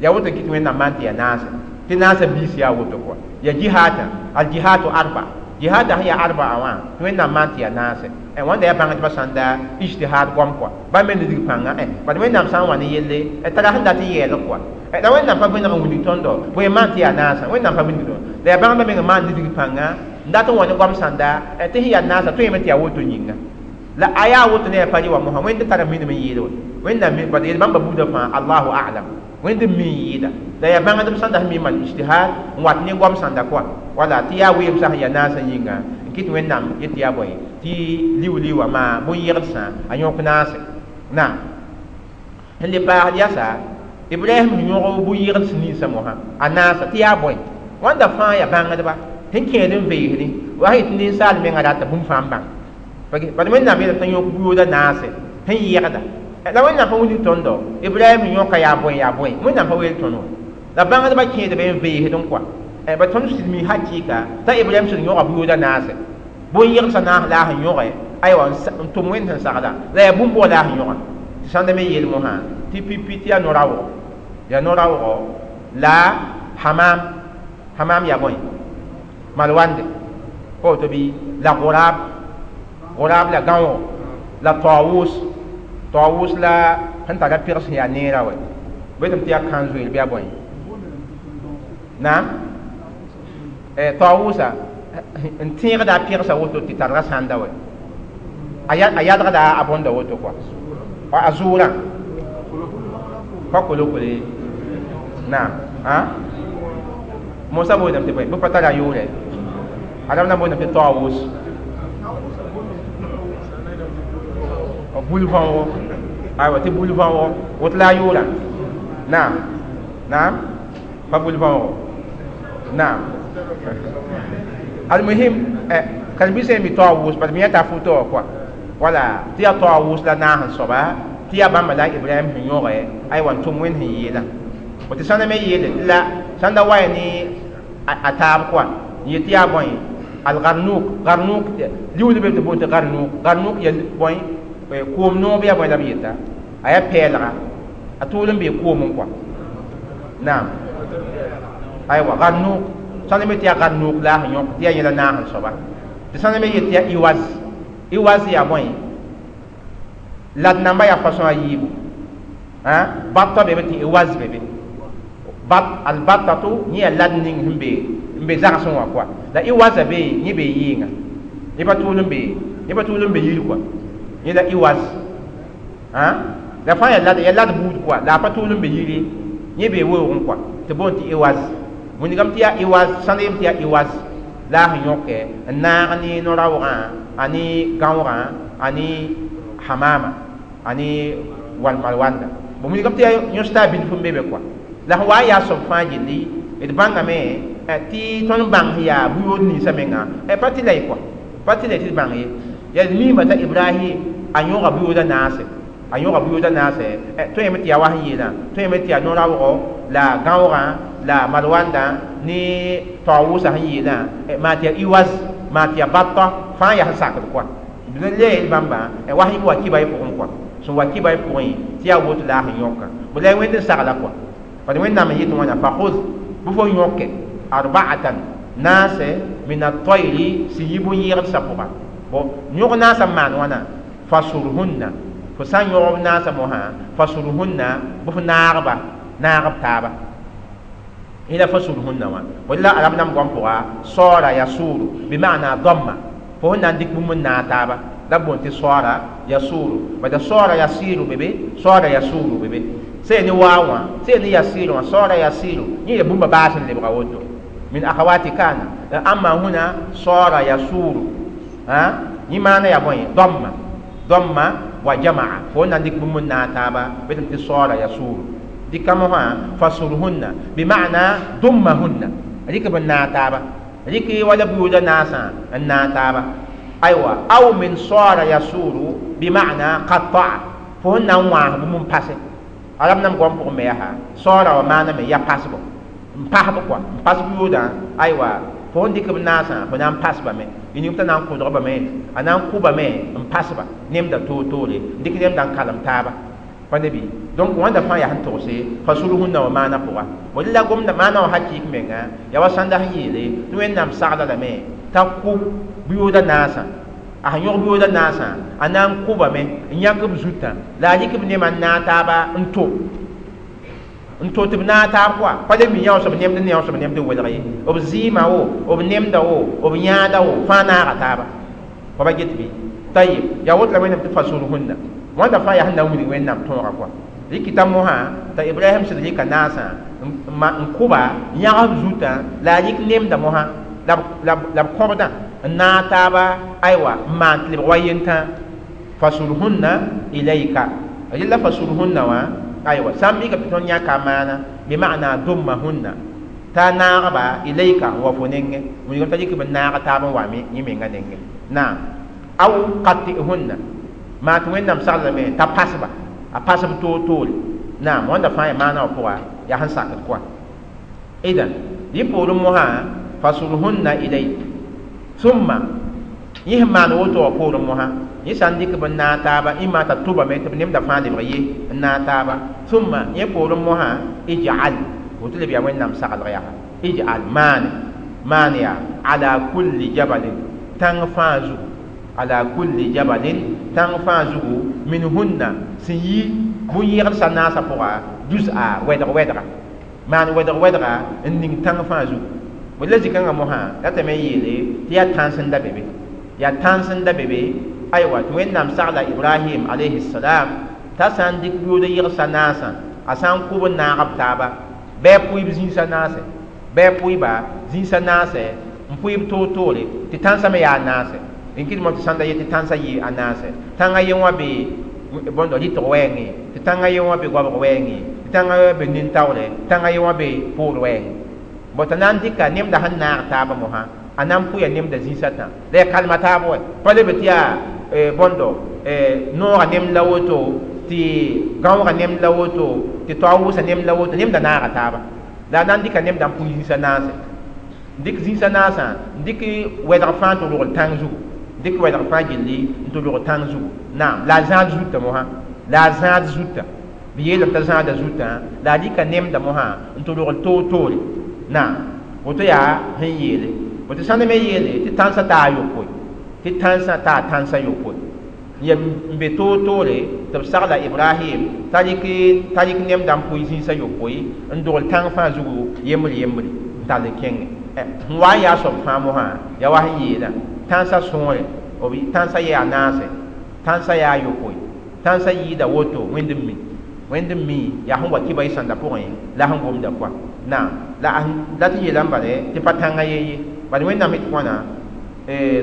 Yaa woto n kɩt Wẽnnaam maan tɩ yaa naase, tɩ naasã biis yaa woto kɔa. Yaa jihaadã, aljihadu arba, jihaadã sẽn yaa arba'a wã, tɩ Wẽnnaam maan tɩ yaa naase. Wãnda yaa bãngdbã sãn da ijtihad goam kɔa, bãmb me nidg pãnga. Bad Wẽnnaam sã n wa ne yelle tara sẽn dat n yɛɛlg kɔa, la Wẽnnaam pa vẽneg n wilg tõndo bõe n maan tɩ yaa naasã. Wẽnnaam pa wilg tõndo, la yaa bãngdbã meng n maan nidg pãnga n dat n wa ne goam sãnda tɩ sẽn yaa naasã tõeme tɩ yaa woto yĩnga. La a yaa woto ne yaa pa rɩ wa mosã, Wẽnd tara minim n yɩɩd wa. Wẽnnaam bad yel bãmba buudã fãa, Allahu a'lam, Wẽnd n mi n yɩɩda. La yaa bãngdb sãn da sẽn mi n maan ijtihad n wat ne goam sãnda kɔa, wala tɩ yaa weemsã sẽn yaa naasã yĩnga n kɩt Wẽnnaam yet tɩ yaa bõe, tɩ liu-liuwã maa bũn-yɩgdsã a yõk naase. Naam, sẽn le paasd yasa, Ibrahim yõg bu-yɩgds ninsã mosã a naasa tɩ yaa bõe wãnda fãa yaa bãngdba sẽn kẽed n veesdẽ wa sẽn yetɩ ninsaal menga rata bũmb fãa n bãng bad Wẽnnaam yeelame t'a yõk bu-yooda naase sẽn yɛgda la Wẽnnaam pa wilg tõndo Ibrahim yõka yaa bõe yaa bõe Wẽnnaam pa weel tõnd wã la bãngdbã kẽedbe n veesdẽ kɔa ba tõnd sɩd mi hakɩɩka t'a Ibrahim sɩd yõga bu-yooda naase bõn-yɩgdsã naas la a sẽn yõge aywa n tʋm Wẽnd sẽn sagla la yaa bũmb bʋga la a sẽn yõga tɩ sãnda me yeel mosã tɩ pipi tɩ yaa no-raoogɔ la hamam hamam yaa bõe malwande pa woto bɩ la gʋraab gʋraab la gãoogo la taawus taawus la sẽn tara pɩgs sẽn yaa neerã wɛ betame tɩ yaa kãn-zoeer bɩ yaa bõe naam taawusa n tẽegda a pɩgsa woto tɩ targa sãnda wɛ a yadgda a bõnda woto kɔa a zʋʋrã pa kolokole naam mosa booname tɩ bõe bɩ pa tara a yʋʋrɛ a rab na booname tɩ taawus bul-võogo aywa tɩ bul-võogo woto la a yʋʋrã naam naam pa bul-võogo naam almuhim karen-biisã mi taawus bad mi yãta foto wã kɔa wala tɩ yaa taawus la naas n soaba tɩ yaa bãmba la Ibrahim sẽn yõge aywa n tʋm Wẽnd sẽn yeelã tɩ sãnda me yeele tɩ la sãnda wa ya ne a taab kɔa n yet tɩ yaa bõe algarnuk garnuk liuud be tɩ boon tɩ garnuk garnuk ya bõe koom noob yaa bõe la b yeta a yaa pɛɛlga a tʋʋl n bee koomẽ kɔa naam aywa garnuk sãnda me tɩ yaa garnuk la a sẽn yõk tɩ yaa yẽla naas n soaba tɩ sãnda me yet tɩ yaa iwaz iwaz yaa bõe lad namba yaa façon a yiibu batta bebe tɩ iwaz bebe bat albattatu yẽ yaa lad ning sẽn be n be zagsẽ wã kɔa la iwaza be yẽ bee yɩɩnga yẽ pa tʋʋl n be yir kɔa yẽ la iwaz la fãa yaa lad buud kɔa la a pa tʋʋl n be yire yẽ bee weoogẽ kɔa tɩ boond tɩ iwaz wilgame tɩ yaa iwaz sãnd yem tɩ yaa iwaz la a sẽn yõke n naag ne no-raoogã a ne gãoogã a ne hamama a ne malwanda bon wilgame tɩ yaa yõsda bilf n be be kɔa la sẽn wa n yaa soab fãa gilli d bãngame tɩ tõnd bãng sẽn yaa bu-yood ninsã menga pa tɩ la y kɔa pa tɩ la y tɩ d bãng ye yaa d miime t'a Ibrahim a yõga bu-yooda naase a yõga bu-yooda naase tõe yame tɩ yaa wa sẽn yeelã tõe yame tɩ yaa no-raoogɔ la gãoogã la malwandã ne taawʋsã sẽn yeelã maa tɩ yaa iwaz maa tɩ yaa batta fãa yaa sẽn sakd kɔa d le yel bãmba wa sẽn wa kiba y pʋgẽ kɔa sẽn wa kiba y pʋgẽ tɩ yaa woto la a sẽn yõka bõ la Wẽnd n sagla kɔa bad Wẽnnaam n yet wãna fakhud bɩ fo yõke arba'atan naase min at-tayri sẽn yi bõn-yɩgdsã pʋga bon yõg naasã n maan wãna fasurhunna fo sã n yõg b naasã mosã fasurhunna bɩ fo naagba naagb taaba ila fasurhunna wã wala arab nam goam pʋga saara yasuru bima'na damma fo sẽn na n dɩk bũmb n naag taaba la b boond tɩ saara yasuru bada saara yasiru bebe saara yasuru bebe sẽn ne waa wã sẽn ne yasiru wã saara yasiru yẽ yaa bũmba baas n lebga woto min akhawati kana amma huna saara yasuru yẽ maana yaa bõe damma damma wa jamaa fo na n dɩk bũmb n naag taaba betame tɩ saara yasuru dɩka mosã fasurhunna bima'na dummahunna rɩk b n naag taaba rɩk wala buooda naasã n naag taaba aywa aw min saara yasuru bima'na qatta'a fo sẽn na n wãas bũmb n pase arab nam goam pʋgẽ me yaa saara wã maana me yaa pasbo n pasb kɔa n pas buoodã aywa fo sẽn dɩk b naasã fo na n pasbame y ning t'a na n kʋdgbame a na n kʋbame n pasba nemda toor-toore n dɩk nemda n kalem taaba pa ne bɩ donc wãnda fãa yaa sẽn togse fasurhunna wã maana pʋga wala la gomda maana wã hakɩɩk menga yaa wa sãnda sẽn yeele tɩ Wẽnnaam sagla lame t'a kʋ bu-yooda naasã a sẽn yõg bu-yooda naasã a na n kʋbame n yãk b zutã la a rɩk b nemã n naag taaba n to tɩ b naag taab kɔa pa le mi yãoos b nemd n yãoos b nemd n welg ye b zɩɩmã wo b nemda wo b yãada wo fãa naaga taaba pa ba get bɩ tayib yaa woto la Wẽnnaam tɩ fasurhunna wãnda fãa yaa sẽn na n wilg Wẽnnaam tõoga kɔa rɩkɩta mosã t'a Ibrahim sẽd rɩka naasã n kʋba yãgs b zutã la a rɩk nemda mosã la b kõbdã n naag taaba aywa n maan tɩ lebg wa yentã fasurhunna ilayka rella fasurhunna wã Aywa sã n mikame tɩ tõnd yãka a maana bɩ maana dummahunna t'a naagba ilayka n wa fo nengẽ wilgame t'a dɩk b n naag taab n wa yẽ menga nengẽ naam aw qatihunna maa tɩ wẽnnaam saglame t'a pasba a pasb toor-toore naam wãnda fãa yaa maana wã pʋga yaa sẽn sakd kɔa idan yẽ poorẽ mosã fasurhunna ilayk thumma yẽ sẽn maan woto wã poorẽ mosã yẽ sã n dɩk b n naag taaba ĩmma t'a tʋbame tɩ b nemda fãa lebg ye n naag taaba thumma yẽ poorẽ mosã ij'al woto leb yaa wẽnnaam saglg yaa ij'al maane maan yaa ala kulli jabalin tãng fãa zugu ala kulli jabalin tãng fãa zugu minhunna sẽn yi bũn-yẽgdsã naasã pʋga juz'a wɛdg wɛdga maan wɛdg wɛdga n ning tãng fãa zugu la zĩ-kãngã mosã ratame n yeele tɩ yaa tãns n da be be yaa tãns n da be be aywa tɩ wẽnnaam sagla ibrahim alayhi salam t'a sã n dɩk yood yegsa naasã a sã n kʋb n naag b taaba bɩ a pʋɩ b zĩisã naase bɩ a pʋɩba zĩisã naase n pʋɩ b toor-toore tɩ tãnsã me yaa naase n kɩdmã tɩ sãn da yet tɩ tãnsã yɩ a naase tãngã ye wã be bõndo rɩtg wɛɛngẽ tɩ tãngã ye wã be goabg wɛɛngẽ tɩ tãngã ye wã be nin-taoore tãngã ye wã be poor wɛɛngẽ bõ t'a na n dɩka nemda sẽn naag taabã mosã a na n pʋya nemda zĩisã tã la yaa kalma taab wɛ pa leb tɩ yaa bõndo noogã nemd la woto tɩ gãoogã nemd la woto tɩ taoog wʋsã nemd la woto nemda naaga taaba la a na n dɩka nemda n pʋɩ zĩisã naase n dɩk zĩisã naasã n dɩk wɛdg fãa n tɩ rogl tãng zugu dɩk wɛdg fãa gilli n tɩ rog tãng zugu naam la a zãad zutã mosã la a zãad zutã b yeelame t'a zãada zutã la a dɩka nemda mosã n tɩ rogl toor-toore naam woto yaa sẽn yeele woto sãnd me yeele tɩ tãnsã taa yopoe tɩ tãnsã taa tãnsã yopoe n be toor-toore tɩ b sagla ibrahim t'a rɩk nemda n pʋɩ zĩisã yopoe n dogl tãng fãa zugu yembr yembre n tall n kẽngẽ sẽn wa n yaa soab fãa mosã yaa wa sẽn yeelã tãnsã sõore tãnsã yaa naase tãnsã yaa yopoe tãnsã yɩɩda woto wẽnd n mi wẽnd n mi yaa sẽn wa kɩba y sãnda pʋgẽ la sẽn gomda koa naam la la tɩ yeelame bale tɩ pa tãngã ye ye bad wẽnnaam tɩ wãna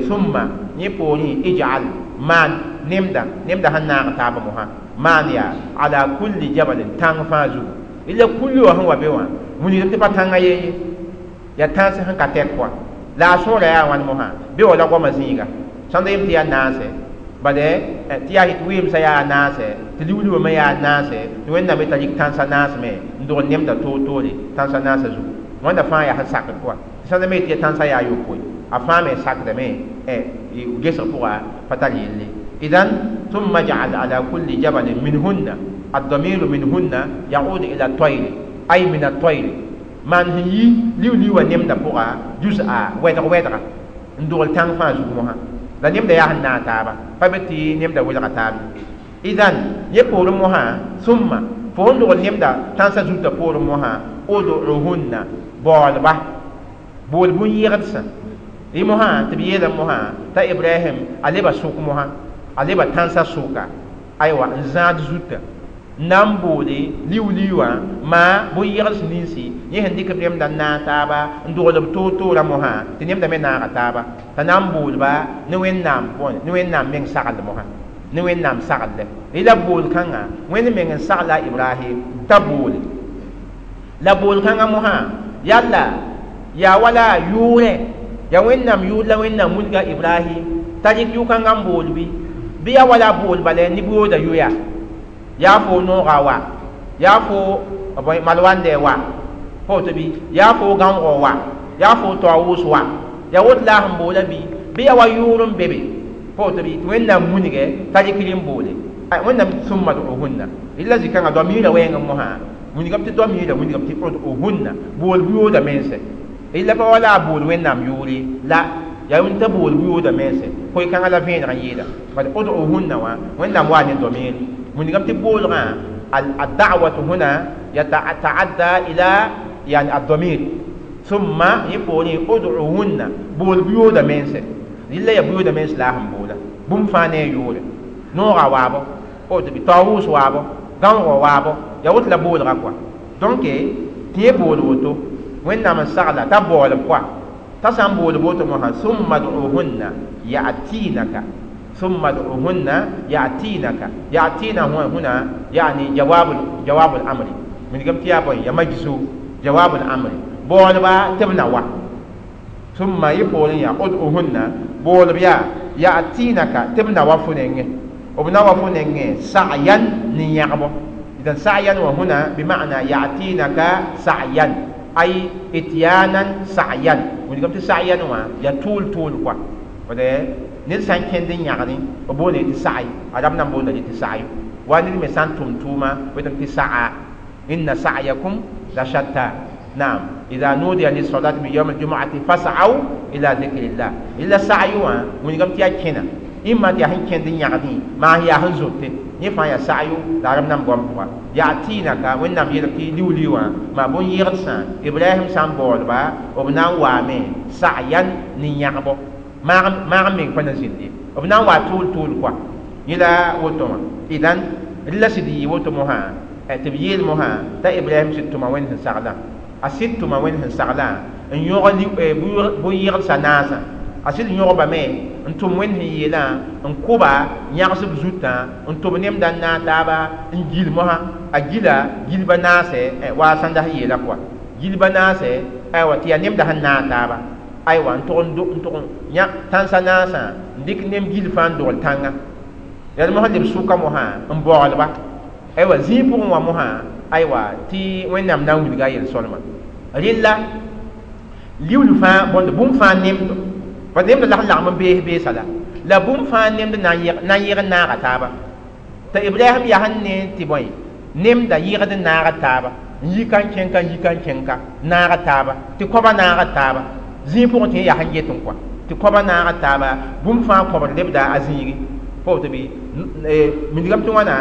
summa yẽ poorẽ ij'al maan nemda nemda sẽn naag taaba mosã maan yaa ala kulli jabalin tãng fãa zugu ila kulli wã sẽn wa be wã wilgdame tɩ pa tãngã ye ye yaa tãns sẽn ka tɛk koa la a sõora yaa wãn mosã be wa la goamã zĩiga sãn da yem tɩ yaa naase bale tɩ yaa tɩ wɩɩmsã yaa naase tɩ liuliwã me yaa naase tɩ wẽnnaam t'a rɩk tãnsã naas me n dogl nemda toor-toore tãnsã naasã zugu wãnda fãa yaa sẽn sakd pʋga tɩ sãn da me tɩ yaa tãnsã yaa yopoe a fãa me sakdame gesg pʋga pa tar yelle idan ثم اجعل على كل جبل منهن الضمير منهن يعود إلى الطير أي من الطير من هي liu-liuwã nemda pʋga juz'a wɛdg wɛdga n dogl tãng fãa zug mosã la nemda yaa sẽn naag taaba pa be tɩ nemda welga taab idan yẽ poorẽ mosã summa fo sẽn dogl nemda tãnsã zutã poorẽ mosã ud'uhunna baoolba bool bũn-yẽgdsã yẽ mosã tɩ b yeelame mosã t'a ibrahim a leba sʋk mosã a leba tãnsã sʋka aywa n zãad zutã n na n boole liu-liuwã maa bũn-yẽgds ninsi yẽ sẽn dɩk b nemda n naag taaba n dogl b toor-toorã mosã tɩ nemda me naaga taaba t'a na n boolba ne wẽnnaam bõe ne wẽnnaam meng sagl mosã ne wẽnnaam saglɛ la bool kãngã wẽnd meng n sagla ibrahim t'a boole la bool kãngã mosã yalla yaa wala yʋʋrẽ yaa wẽnnaam yʋʋr la wẽnnaam wilga ibrahim t'a rɩk yʋ-kãngã n bool bɩ bɩ yaa wala bool bala ne booda yoya yaa fo nooga wa yaa fo malwandɛ wa pa woto bɩ yaa fo gãoogɔ wa yaa fo taoowʋs wa yaa woto la a sẽn boola bɩ bɩ yaa wa yʋʋr n be be pa woto bɩ tɩ wẽnnaam munigɛ t'a rɩk n boole wẽnnaam summa du'uhunna illa zĩ-kãngã doa-miirã wɛɛngẽ mosã wilgame tɩ doa-miirã wilgame tɩ ud'uhunna bool buyooda mense illa pa wala a bool wẽnnaam yʋʋre la yaa wẽnd t'a bool buyooda mense koe-kãngã la vẽeneg n yeela bad ud'uhunna wã wẽnnaam waa ne domiir wilgame tɩ boolgã الدعوة هنا يتعدى إلى يعني الضمير ثم يقول ادعوهن بول بيودا منسى إلا يا بيودا منس لا هم بولا بوم فاني يوري نورا وابو او تبي طاووس وابو غانغو وابو يا وت لا بول غاكوا donc تي بول وتو وين من سغلا تا بول كوا تا سام بول بوتو مها ثم ادعوهن يأتينك ثم ادعوهن يأتينك يأتينا هنا يعني جواب الأمر من قمت يا بوي يا مجزو جواب الأمر بولبا تبنوا ثم يقولون يا ادعوهن بولبا يأتينك تبنوا فنين وبنوا فنين سعيا نيعبو إذا سعيا وهنا بمعنى يأتينك سعيا أي إتيانا سعيا من قمت سعيا يا طول طول كوا وده ned sã n kẽnd n yãgdẽ b boonde tɩ sa'i arab nan boonda tɩ sa'yo wa ned me sã n tʋm tʋʋma wetame tɩ sa'a inna sa'yakum la shatta naam idha nudiya lis-salati min yawm al-jum'ati fas'aw ila dhikrillah illa sa'yu wã wilgame tɩ yaa kẽna imma tɩ yaa sẽn kẽnd n yãgdẽ maa yaa sẽn zote yẽ fãa yaa sa'yu la arab nan goam pʋga ya'tinaka wẽnnaam yeelame tɩ liu-liu wã maa bõn-yɩgdsã Ibrahim sã n baoolba b na n waame sa'yan ne yãgbo maag meng pa na zĩnd ye b na n wa tʋʋl tʋʋl koa yẽ la woto wã idan rɩla sɩd yɩ woto mosã tɩ b yeel mosã t'a Ibrahim sɩd tʋma wẽnd sẽn saglã a sɩd tʋma wẽnd sẽn saglã n yõg bõn-yɩgdsã naasã a sɩd yõgbame n tʋm wẽnd sẽn yeelã n kʋba yãgsb zutã n tʋb nemda n naag taaba n gil mosã a gila gilba naasɛ waa sãnda sẽn yeela koa gilba naasɛ aywa tɩ yaa nemda sẽn naag taaba aywa n tʋg n yã tãnsa naasã n dɩk nem gil fãa n dogl tãnga yaa mosã leb sʋka mosã n baoolba aywa zĩig pʋgẽ wã mosã aywa tɩ wẽnnaam na n wilga a yel-sõlma rɩlla liuul fãa bõnd bũmb fãa nemdo pa nemda la sẽn lagm n bees beesa la bũmb fãa nemd na n yɩg n naaga taaba t'a Ibrahim yaa sẽn ne tɩ bõe nemda yɩgd n naaga taaba n yi ka n kẽng ka n yi ka n kẽng ka naaga taaba tɩ kõba naaga taaba zĩig pʋgẽ tɩ yẽ yaa sẽn get n kɔa tɩ kõba naaga taaba bũmb fãa kõbd lebda a zĩigi pa woto bɩ mindigame tɩ wãna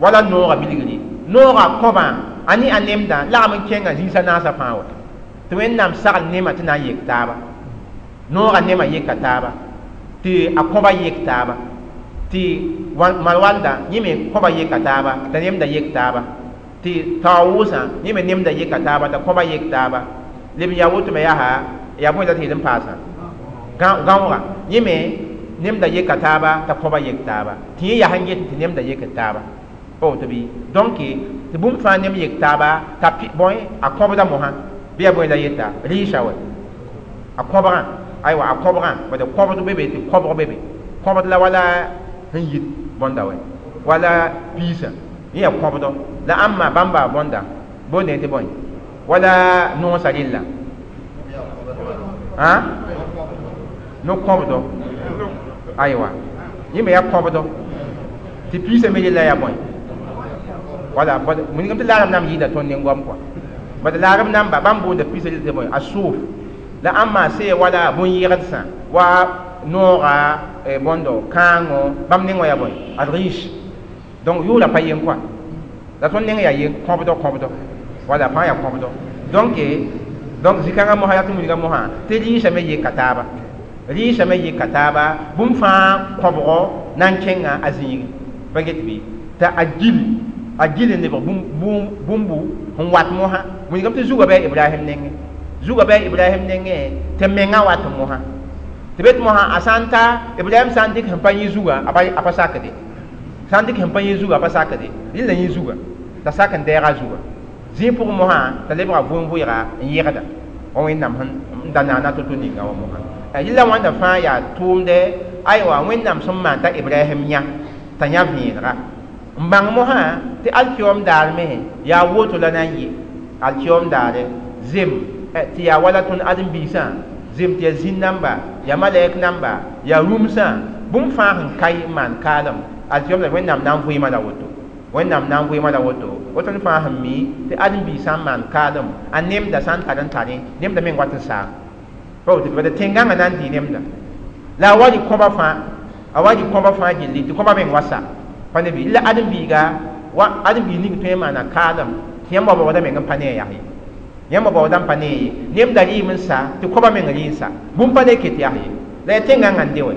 wala noogã bilgri noogã kõbã a ne a nemdã lagm n kẽngã zĩisã naasã fãa wa tɩ wẽnnaam sagl nemã tɩ na n yek taaba noogã nemã yeka taaba tɩ a kõba yek taaba tɩ malwalda yẽ me kõba yeka taaba t'a nemda yek taaba tɩ taoosã yẽ me nemda yeka taaba t'a kõba yek taaba leb n yaa woto me yaa yaa bõe la tɩ yel n paasã gãooga yẽ me nemda yeka taaba t'a kõba yek taaba tɩ yẽ yaa sẽn get tɩ nemda yek taaba pa woto bɩ donc tɩ bũmb fãa nem yek taaba t'a bõe a kõbda mosã bɩ yaa bõe la yeta rɩɩsa wɛ a kõbgã aywa a kõbgã bad kõbd be be tɩ kõbg be be kõbd la wala sẽn yit bõnda wɛ wala piisã yẽ yaa kõbdɔ la ãmba bãmba bõnda boonde tɩ bõe wala noosã rɩlla no kõbdɔ aywa yẽ me yaa kõbdɔ tɩ piisã me rɩlla yaa bõe wala wilgame tɩ laarem nam yɩɩda tõnd nen-goam kɔa bad laarem namba bãmb boonda piisã rɩlla tɩ bõe a sʋʋf la ãmba see wala bõn-yɩgdsã wa noogã bõndo kãango bãmb neng wã yaa bõe ad riche donc yʋʋra pa yen kɔa la tõnd neng yaa yen kõbdɔ kõbdɔ wala fãa yaa kõbdɔ donc zĩ-kãngã mosã yaa tɩ wilga mosã tɩ rɩɩsã me yeka taaba rɩɩsã me yeka taaba bũmb fãa kõbgɔ na n kẽnga a zĩigi pa get bɩ t'a a gil n lebg bũmbu sẽn wat mosã wilgame tɩ zugã bɩ Ibrahim nengẽ zugã bɩ Ibrahim nengẽ tɩ mengã wat mosã tɩ bet mosã a sã n ta Ibrahim sã n dɩk sẽn pa yẽ zugã a pa sakde sã n dɩk sẽn pa yẽ zugã a pa sakde rɩla yẽ zugã t'a sak n dɛɛga zugã zĩig pʋgẽ mosã t'a lebga vʋʋn-vʋɩga n yẽgda wa wẽnnaam sẽn da naana to-to ninga wã mosã rɩla wãnda fãa yaa tʋʋmdɛ aywa wẽnnaam sẽn maan t'a Ibrahim yã t'a yã vẽenega n bãng mosã tɩ alkiom daar me yaa woto la na n yɩ alkiom daare zem tɩ yaa wala tõnd ãdem-biisã zem tɩ yaa zĩn namba yaa malɛk namba yaa rũmsã bũmb fãa sẽn ka n maan kaalem alkiom la wẽnnaam na n vɩɩmã la woto wẽnnaam na n vɩɩmã la woto woto fãa sẽn mi tɩ ãdem-biisã n maan kaalem a nemda sã n tar n tare nemda meng wat n saam pa woto bad tẽn-gãngã na n dɩ nemda la a wa rɩ kõba fãa a wa rɩ kõba fãa gilli tɩ kõba meng wa sa pa ne bɩ la ãdem-biiga wa ãdem-biig ning tõe n maana kaalem tɩ yãmb wa baooda meng n pa ne a yaa ye yãmb baooda n pa ne ye nemda rɩɩm n sa tɩ kõba meng rɩ n sa bũmb pa le ket yaa ye la yaa tẽn-gãngã n de wɛ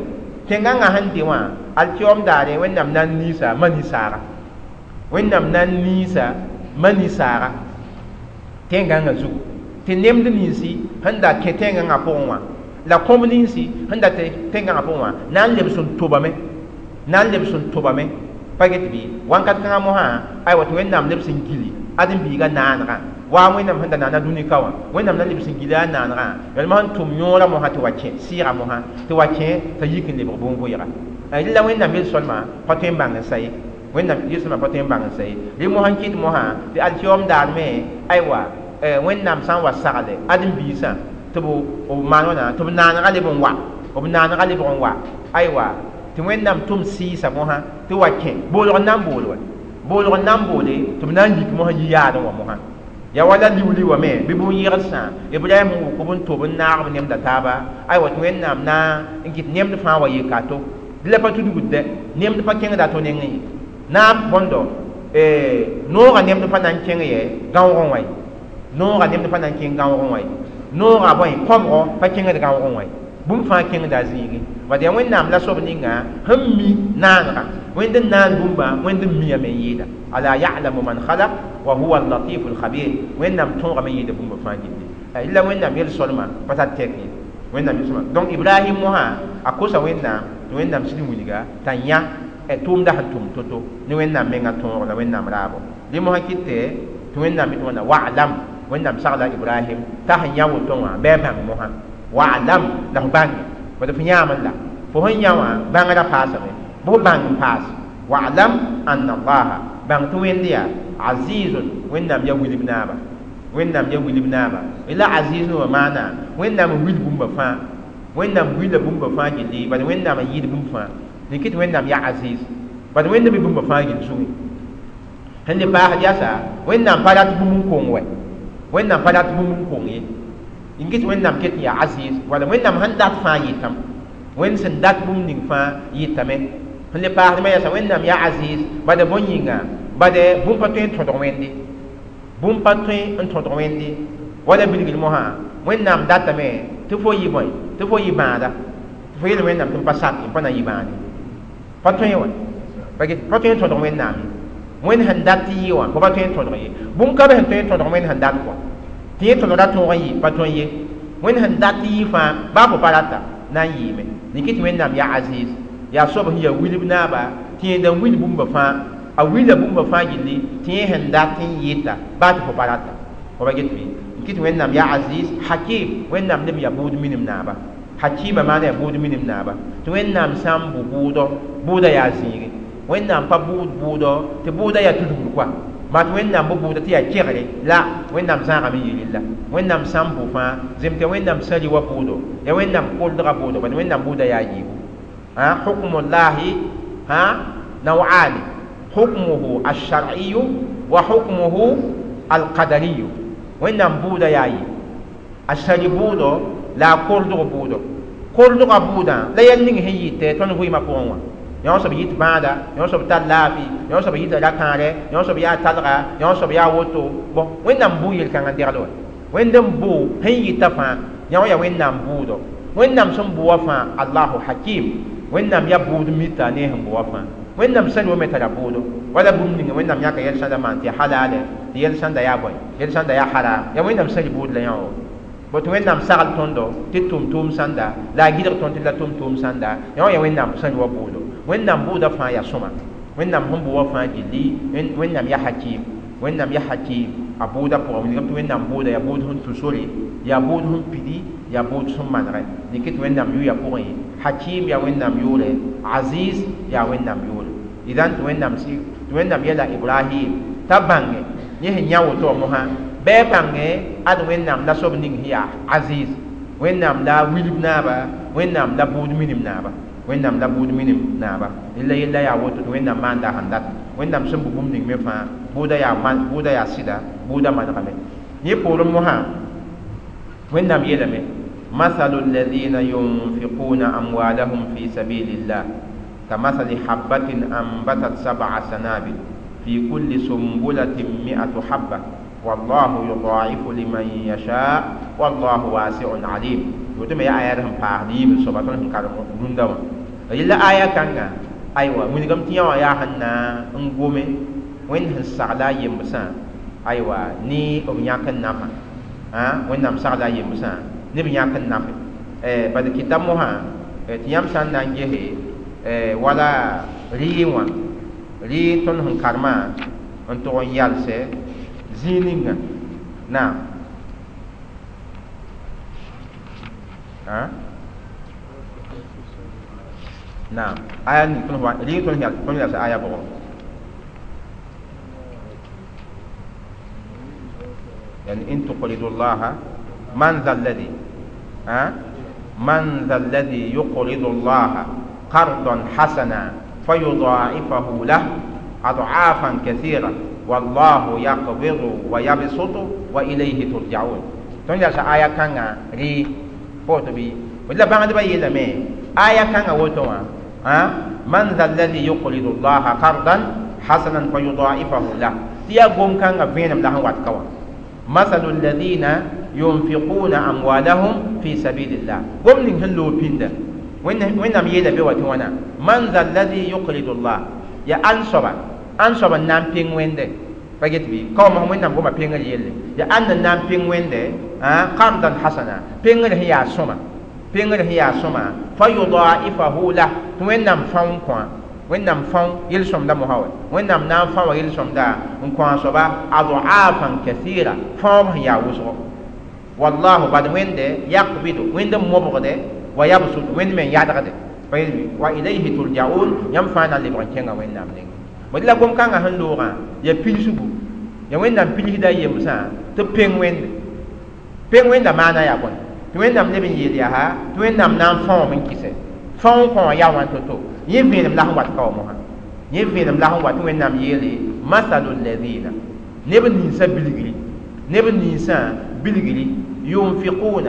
tẽn-gãngã sẽn de wã alkiom daare wẽnnaam na n niisa mani-saaga wẽnnaam na n niisa mani-saaga tẽn-gãngã zugu tɩ nemd ninsi sẽn da kẽ tẽn-gãngã pʋgẽ wã la kõb ninsi sẽn da tẽn-gãngã pʋgẽ wã na n lebs n tobame Na n lebs n tobame pa get bɩ wãnkat kãngã mosã aywa tɩ Wẽnnaam lebs n gili ãdem-biigã naanegã wa Wẽnnaam sẽn da naana dũni ka wã Wẽnnaam na lebs n gila a naanegã yalma sẽn tʋm yõorã mosã tɩ wa kẽ sɩɩga mosã tɩ wa kẽ t'a yik n lebg bõn-vʋɩga la Wẽnnaam yel-soalmã pa tõe n bãng n sa ye Wẽnnaam yel-soalmã pa tõe n bãng n sa ye rẽ mosã n kɩt mosã tɩ alkiyoom daar me aywa Wẽnnaam sã n wa sagle ãdem-biisã tɩ b maan wãna tɩ b naanegã leb n wa b naanegã lebg n wa aywa tɩ Wẽnnaam tʋm sɩɩsa mosã tɩ wa kẽ boolg n na n bool wa boolg n na n boole tɩ b na n yik mosã yi-yaadẽ wã mosã ya wala liuli wã me bɩ bũn-yɩgdsã Ibrahim wʋk b n tob n naag b nemda taaba aywa tɩ Wẽnnaam na n kɩt nemd fãa wa yeka to dɩ la pa tudgd dɛ nemd pa kẽngda to nengẽ ye na bõndo noogã nemd pa na n kẽng yɛ gãoogẽ wã ye noogã nemd pa na n kẽng gãoogẽ wã ye noogã bõe kõbgo pa kẽngd gãoogẽ wã ye bũmb fãa kẽngda a zĩigẽ bad yaa Wẽnnaam la soab ninga sẽn mi naanegã Wẽnd n naan bũmba Wẽnd n miame n yɩɩda ala ya'lamu man khalaq wa huwa al-latifu al-khabir Wẽnnaam tõogame n yɩɩda bũmba fãa gilli la Wẽnnaam yel-soalmã pa tar tɛk ye Wẽnnaam yel-soalmã donc Ibrahim mosã a kosa Wẽnnaam tɩ Wẽnnaam sɩd wilga t'a yã tʋʋmda sẽn tʋm to-to ne Wẽnnaam mengã tõog la Wẽnnaam raabo rẽ mosã kɩtɛ tɩ Wẽnnaam yetɩ wãna wa'lam Wẽnnaam sagla Ibrahim t'a sẽn yã woto wã bɩ a bãng mosã wa'lam la f bãnge bad f yãame la fo sẽn yã wã bãngrã paasame bɩ f bãng n paas wa'lam anna allaha bãng tɩ Wẽnd yaa azizun Wẽnnaam yaa wilb naaba Wẽnnaam yaa wilb naaba la aziz wã maana Wẽnnaam n wil bũmba fãa Wẽnnaam wila bũmba fãa gilli bad Wẽnnaam n yɩɩd bũmb fãa n kɩt Wẽnnaam yaa aziz bad Wẽnd mi bũmba fãa gill zugẽ sẽn le paasd yasa Wẽnnaam pa rat bũmb n kong wɛ Wẽnnaam pa rat bũmb n kong ye n kɩt Wẽnnaam ket n yaa aziz wala Wẽnnaam sẽn dat fãa yɩtame Wẽnd sẽn dat bũmb ning fãa yɩtame sẽn le paasdmã yasa Wẽnnaam yaa aziz bad bõn yĩnga bad bũmb pa tõe n tõdg Wẽnde bũmb pa tõe n tõdg Wẽnde wala bilgl mosã Wẽnnaam datame tɩ fo yɩ bõe tɩ fo yɩ bãada tɩ fo yel Wẽnnaam tɩ m pa sak n pa na yɩ bãade pa tõe wã pa tõe n tõdg Wẽnnaam ye Wẽnd sẽn dat tɩ yɩ wã fo pa tõe n tõdg ye bũmb ka be sẽn tõe n tõdg Wẽnd sẽn dat kɔ tɩ yẽ tõdgra tõog n yɩ pa tõe ye Wẽnd sẽn dat tɩ yɩ fãa baa fo pa rata na n yɩɩme n kɩt Wẽnnaam yaa aziz yaa soab sẽn yaa wilb naaba tɩ yẽnda n wil bũmba fãa a wila bũmba fãa gilli tɩ yẽ sẽn dat n yɩta baa tɩ fo pa rata fo pa get bɩ n kɩt Wẽnnaam yaa aziz hakim Wẽnnaam leb yaa buud minim naaba hakima maana yaa buud minim naaba tɩ Wẽnnaam sã n bʋ bʋʋdɔ bʋʋda yaa zĩige Wẽnnaam pa bʋʋd bʋʋdɔ tɩ bʋʋda yaa tudgr koa maa tɩ Wẽnnaam bʋ bʋʋda tɩ yaa kegre la Wẽnnaam zãagame n yel la Wẽnnaam sã n bʋ fãa zemtɩ Wẽnnaam sã rɩ wa bʋʋdo ya Wẽnnaam koldga bʋʋdo bad Wẽnnaam bʋʋda yaa yiibu hukmullahi naw'ani hukmuhu alshar'iyu wa hukmuhu alqadariyu Wẽnnaam bʋʋda yaa yi a sari bʋʋdo la a koldg bʋʋdo koldga bʋʋdã la yɛl ning sẽn yɩtɛ tõnd vɩɩmã pʋgẽ wã yõ soab yit bãada yõ soab tar laafɩ yõ soab yita ra-kãare yõ soab yaa talga yõ soab yaa woto bõn Wẽnnaam bʋ yel-kãngã degl wa Wẽnd n bʋ sẽn yɩta fãa yõ yaa Wẽnnaam bʋʋdo Wẽnnaam sẽn bʋ wã fãa allahu hakim Wẽnnaam yaa bʋʋd mita ne sẽn bʋ wã fãa Wẽnnaam sã wame tara bʋʋdo wala bũmb ninga Wẽnnaam yãka yɛl sãnda maan tɩ halale tɩ yɛl sãnda yaa bõe yɛl sãnda yaa haram yaa Wẽnnaam sã bʋʋd la yõ bõ tɩ Wẽnnaam sagl tõndo tɩ tʋm tʋʋm sãnda la a gɩdg tõnd tɩ la tʋm tʋʋm sãnda yõ yaa Wẽnnaam sã wa bʋʋdo Wẽnnaam bʋʋda fãa yaa sõma Wẽnnaam sẽn bʋ wã fãa gilli Wẽnnaam yaa hakim Wẽnnaam yaa hakim a bʋʋda pʋgẽ wilgame tɩ Wẽnnaam bʋʋda yaa bʋʋd sẽn tũ sore yaa bʋʋd sẽn pidi yaa bʋʋd sẽn manegɛ dɩk tɩ Wẽnnaam yʋya pʋgẽ hakim yaa Wẽnnaam yʋʋre aziz yaa Wẽnnaam yʋʋre idan tɩ Wẽnnaam yɛla Ibrahim t'a bãnge yẽ sẽn yã woto wã mosã bɩ a bãnge ad Wẽnnaam la soab ning sẽn yaa aziz Wẽnnaam la wilb naaba Wẽnnaam la bʋʋd minim naaba Wẽnnaam la bʋʋd minim naaba la yella yaa woto tɩ Wẽnnaam maanda sẽn dat Wẽnnaam sẽn bʋ bũmb ning me fãa bʋʋda yaa sɩda bʋʋda manegame yẽ poorẽ mosã Wẽnnaam yeelame mathalu alladhina yunfiquna amwalahum fi sabilillah kamathali habatin anbatat sab'a sanabil fi kulli sumbulatin mi'atu habba wallahu yudaifu liman yasha wallahu wasi'un alim woto me ya aya sẽn paasd yiib soaba tõnd sẽn karem rũndã wã yella aya kãnga aywa wilgame tɩ yã wã yaa sẽn na n gome Wẽnd sẽn sagla a yembsã aywa ne b yãk n nafã Wẽnnaam sagla a yembsã ne b yãk n nafe bad kɩta mosã tɩ yãmb sã n na n gese Wala rɩɩ wã rɩ tõnd sẽn karemã n tʋg n yalsɛ zĩig ninga naam naam aya ning tõnd rɩ tõnd yalsɛ aya bʋgɔ يعني إن تقرضوا الله من ذا الذي من ذا الذي يقرض الله قرضا حسنا فيضاعفه له أضعافا كثيرة والله يقبض ويبسط وإليه ترجعون. تنجا آية كان ري بوتبي ولا بعد بقى يلمي آية كان وتوا من ذا الذي يقرض الله قرضا حسنا فيضاعفه له تيا قوم كان فينم له واتكوا مثل الذين ينفقون أموالهم في سبيل الله قوم نهلو بيندا وين نم يلا بيوتوانا من ذا الذي يقرض الله يا أنصب نام بين وينده فجت بي كم هم وين نم قوم بين يلا يا أن نام بين وينده قرضا حسنا بين هي سما بين هي سما فيضاعفه له وين نم فون كوا وين نم فون يلسم ده مهاوي وين نم نام فون يلسم ده نكوا صبا أضعافا كثيرة فون هي وصل والله بعد وين ده يقبض وين ده مبغده ويبسط وين من يدغده وإليه ترجعون ينفعنا اللي بركينا وين نم نين ولا قوم كان هندورا يا بيلسبو يا وين نم بيلي دا يمسا تبين وين بين وين ده مانا يا بون وين نم نبي يديها وين نم نام فون من كيسه فون كون يا وان توتو يفين لا هو كومها يفين لا هو وين نم يلي مثل الذين نبي نيسا بيلغري نبي نيسا بيلغري ينفقون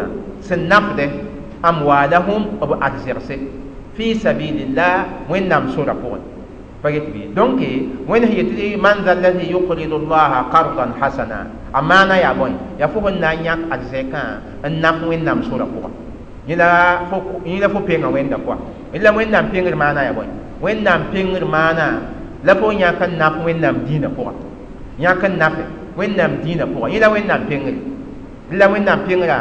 سنفده أموالهم أبو أرزرسه في سبيل الله وين نم سورة بون فقلت بي دونك وين هي تدي من ذا الذي يقرض الله قرضا حسنا أمانة يا بوي يا فوق النانيك أرزكا النف وين نم سورة بون يلا فوق بينا وين دكوا إلا وين نم بينغر مانا يا بوي وين نم بينغر مانا لا فوق يا كان نف وين نم دينا بون يا كان نف وين نم دينا بون يلا وين نم بينغر إلا وين نم بينغر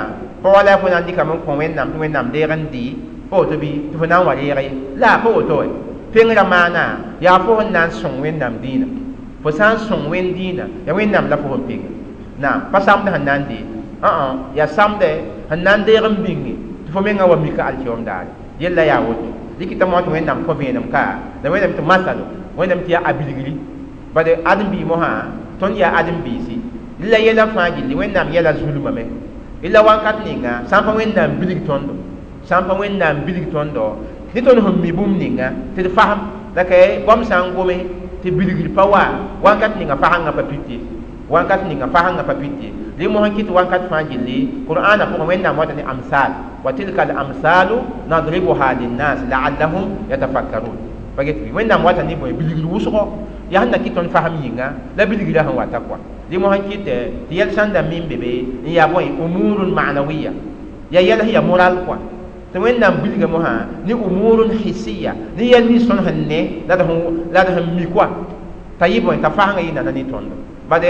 فولا فونا دي كمان كون وين نم ديرن دي فوتو بي تفنا وريري لا فوتو بينغر مانا يا فوق نان سون وين نم دينا فسان سون وين دينا يا وين نم لا فوق بينغ نعم فسام ده نان دي يا سام ده نان ديرن بينغ تفمين أو ميكا اليوم دار يلا يا ود لكي تموت وين نم كوفين نم كا ده وين نم تمثلو وين نم تيا أبيلغلي بعد أدم بي مها تون يا أدم بي سي إلا يلا فاجل وين نم يلا ظلم مه إلا وان كاتنينا سامبا وين نم بيلغ توندو سامبا وين نم بيلغ توندو نتون هم ميبوم نينا تفهم لكن بام سانغومي تبيلغلي پاوا وان كاتنينا فهانغا بابيتي وان كاتنينا فهانغا بابيتي لي مهان كيت وان كات فاجل قرآن فوق وين نم وطني أمثال وتلك الأمثال نضربها للناس لعلهم يتفكرون فقلت وين نم وطني بوي بيلغلي وسقو يهنا كيتون فهم ينغا لا بيلغلي هن واتقوا دي مهان كيت تيال ساندا مين بيبي يا بوي أمور معنوية يا يلا هي مورال كوا توين نم بيلغ مها ني أمور حسية ني يلني سون هن لا ده لا ده ميكوا طيب وين تفهم ينا نني توندو بعد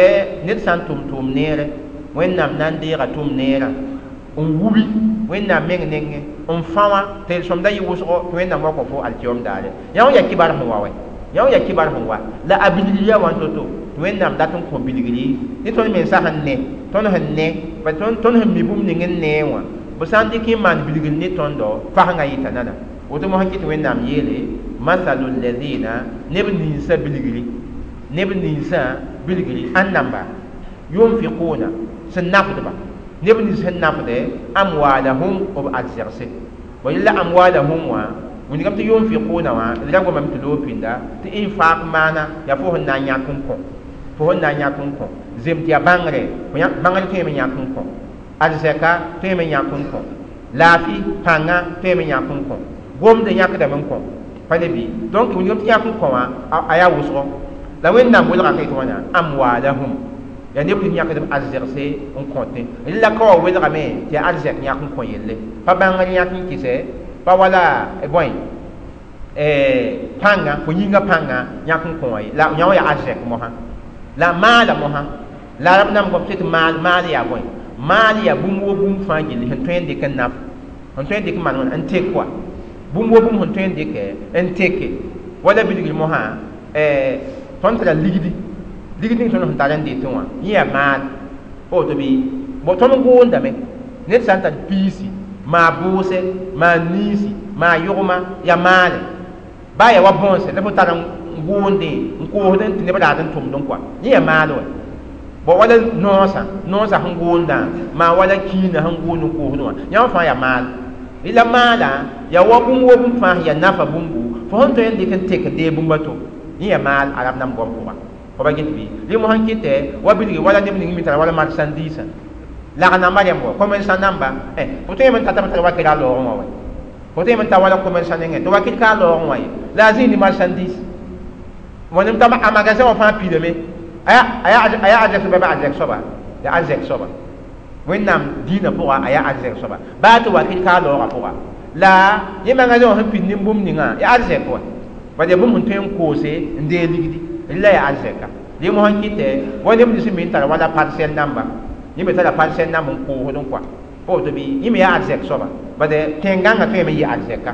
نت سان توم توم نير وين نم نان ديغا توم نيرا ووبي وين نم مين نين on fawa tel som da yiwusgo وين نم وكو فو اليوم دار يا يا كبار هو وي يا يا كبار هو لا ابيليا وان توتو وين نم داتون كو بيلغلي ني تون من سا هن ني تون هن ني با تون تون هن ميبوم نين ني وا بسان دي كي مان بيلغلي ني تون دو فاهنغا يتنانا woto mo hankiti wẽnnaam yeele masalu ladina neb ninsã bilgri neb ninsã bilgri ãn namba yunfiquna sẽn nafdba neb nins sẽn nafde amwalahum b arzɛgse wa yella amwalahum wã wĩnigame tɩ yunfiquna wã d ra gomame tɩ loog pĩnda tɩ infaq maana yaa fo sẽn na n yãk n kõ fo sẽn na n yãk n kõ zem tɩ yaa bãngre bãngr tõeme yãk n kõ arzɛka tõeme yãk n kõ laafɩ pãnga tõeme yãk n kõ gomd yãkdame n kõ pa ne bɩ donc wĩnigame tɩ yãk n kõ wã a yaa wʋsgo la wẽnnaam welga ka yetɩ wãna amwalahum ya neb tɩ yãkdb arzɛgse n kõtẽ la ka wa welgame tɩ yaa arzɛk yãk n kõ yelle pa bãngr yãk n kɩsɛ pa wala bõe pãnga fo yĩngã pãnga yãk n kõ wã ye la yã wã yaa arzɛk mosã la maala mosã la rab nam gom tɩ maal maal yaa bõe maal yaa bũmb wo bũmb fãa gilli sẽn tõe n dɩk n naf sẽn tõe n dɩk n maan wãna n tek koa Bũmb wa bũmb sẽn tõe n dɩkɛ n teke wala bilgr mosã tõnd tara ligdi ligd ning tõnd sẽn tar n dɩtẽ wã yẽ yaa maal pa woto bɩ tõnd goondame ned sã n tar piisi maa bʋʋse maa niisi maa yʋgma yaa maale baa yaa wa bõonse la fo tar n goondẽ n koosdẽ tɩ neb raad n tʋmdẽ kɔa yẽ yaa maal wa bõ wala noosã noosã sẽn goondã maa wala kiinã sẽn goond n koosdẽ wã yãmb fãa yaa maal la maala yaa wa bũmb wa bũmb fãa sẽn yaa nafa bũmbu fo sẽn tõe n dɩk n tek n dee bũmb a to yẽ yaa maal arab nam goam pʋga fo ba get bɩ rẽ mosã n kɩtɛ wa bilgi wala neb ning me tara wala marchandise lag namba rẽmb wa commerçant namba fo tõe n tata b tara wakɩr a loogẽ wã wa fo tõe n ta wala commerçant nengẽ tɩ wakɩr ka a loogẽ wã ye la a zĩig ne marchandise wãnem t'a a magasin wã fãa pidame a yaa arzɛk soaba bɩ arzɛk soaba yaa arzɛk soaba wẽnnaam dĩinã pʋga a yaa arzɛk soaba baa tɩ wakɩr ka a loogã pʋga la yẽ magasin wã sẽn pid nin-bũmb ninga yaa arzɛk wa bad yaa bũmb sẽn tõe n koose n dee ligdi rẽ la yaa arzɛka rẽ mosã n kɩtɛ wa neb nins me n tara wala parcelle namba yẽ me tara parcelle namb n koosd n kɔa pa woto bɩ yẽ me yaa arzɛk soaba bad tẽn-gãngã tõeme n yɩ arzɛka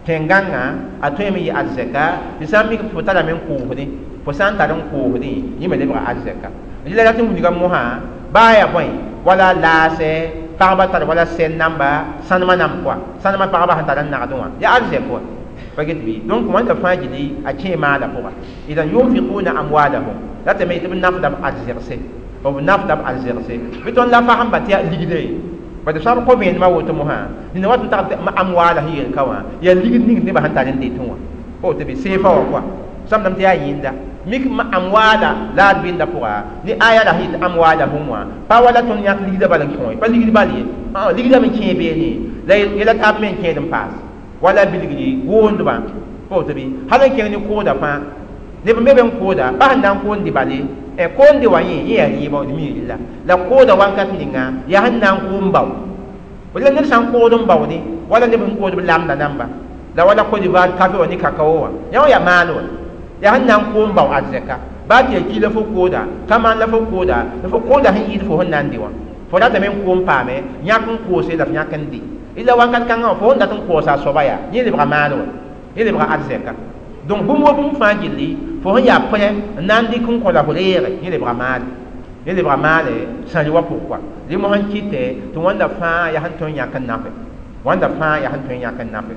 tẽn-gãngã a tõeme n yɩ arzɛka tɩ sã n mik fo tarame n koosdẽ fo sã n tar n koosdẽ yẽ me lebga arzɛka rẽ la rat n wilga mosã baa yaa bõe wala laasɛ pagba tar wala sɛn namba sãnemã namb kɔa sãnemã pagba sẽn tar n nagdẽ wã yaa arzɛk wa pa get bɩ donc wãnda fãa gilli a kẽe maala pʋga idan yunfiquna amwalahum ratame tɩ b nafda b arzɛgse b nafda b arzɛgse bɩ tõnd la fasẽmba tɩ yaa ligde bad sã b kõ vẽenemã woto mosã nina wat n tag amwaala sẽn yel ka wã yaa ligd ning nebã sẽn tar n detẽ wã pa woto bɩ seefa wã kɔa samdame tɩ yaa yẽnda mik amwaala la d bɩnda pʋga ne aya la sẽn yet amwalahum wã pa wala tõnd yãk ligdã bal n kõ pa ligd bal ye ligdã me kẽe beene la yɛla taab me n kẽed n paas wala bilgri goondbã pa woto bɩ hal n kẽng ne kooda fãa neb n be be n kooda pa sẽn na n koond bale koonde wã yẽ yẽ yaa rɩɩbã d mi rɩla la kooda wakat ninga yaa sẽn na n koom bao la ned sã n kood n baoode wala neb sẽn kood b lamda namba la wala Côte d'Ivoire kafe wã ne kakao wã yã wã yaa maal wa yaa sẽn na n koom bao arzɛka baa tɩ yaa ki la fo kooda kamaan la fo kooda la fo kooda sẽn yɩɩd fo sẽn na n dɩ wã fo ratame n koom paame yãk n koose la f yãk n dɩ ila wakat kãngã wã fo sẽn dat n koosa a soaba yaa yẽ lebga maal wa yẽ lebga arzɛka donc bũmb wa bũmb fãa gilli fo sẽn yaa pʋrɛ n na n dɩk n kõ la fo reege yẽ lebga maale yẽ lebga maale sãri wa pʋg kɔa rẽ mosã n kɩtɛ tɩ wãnda fãa yaa sẽn tõe n yãk n nafe wãnda fãa yaa sẽn tõe n yãk n nafe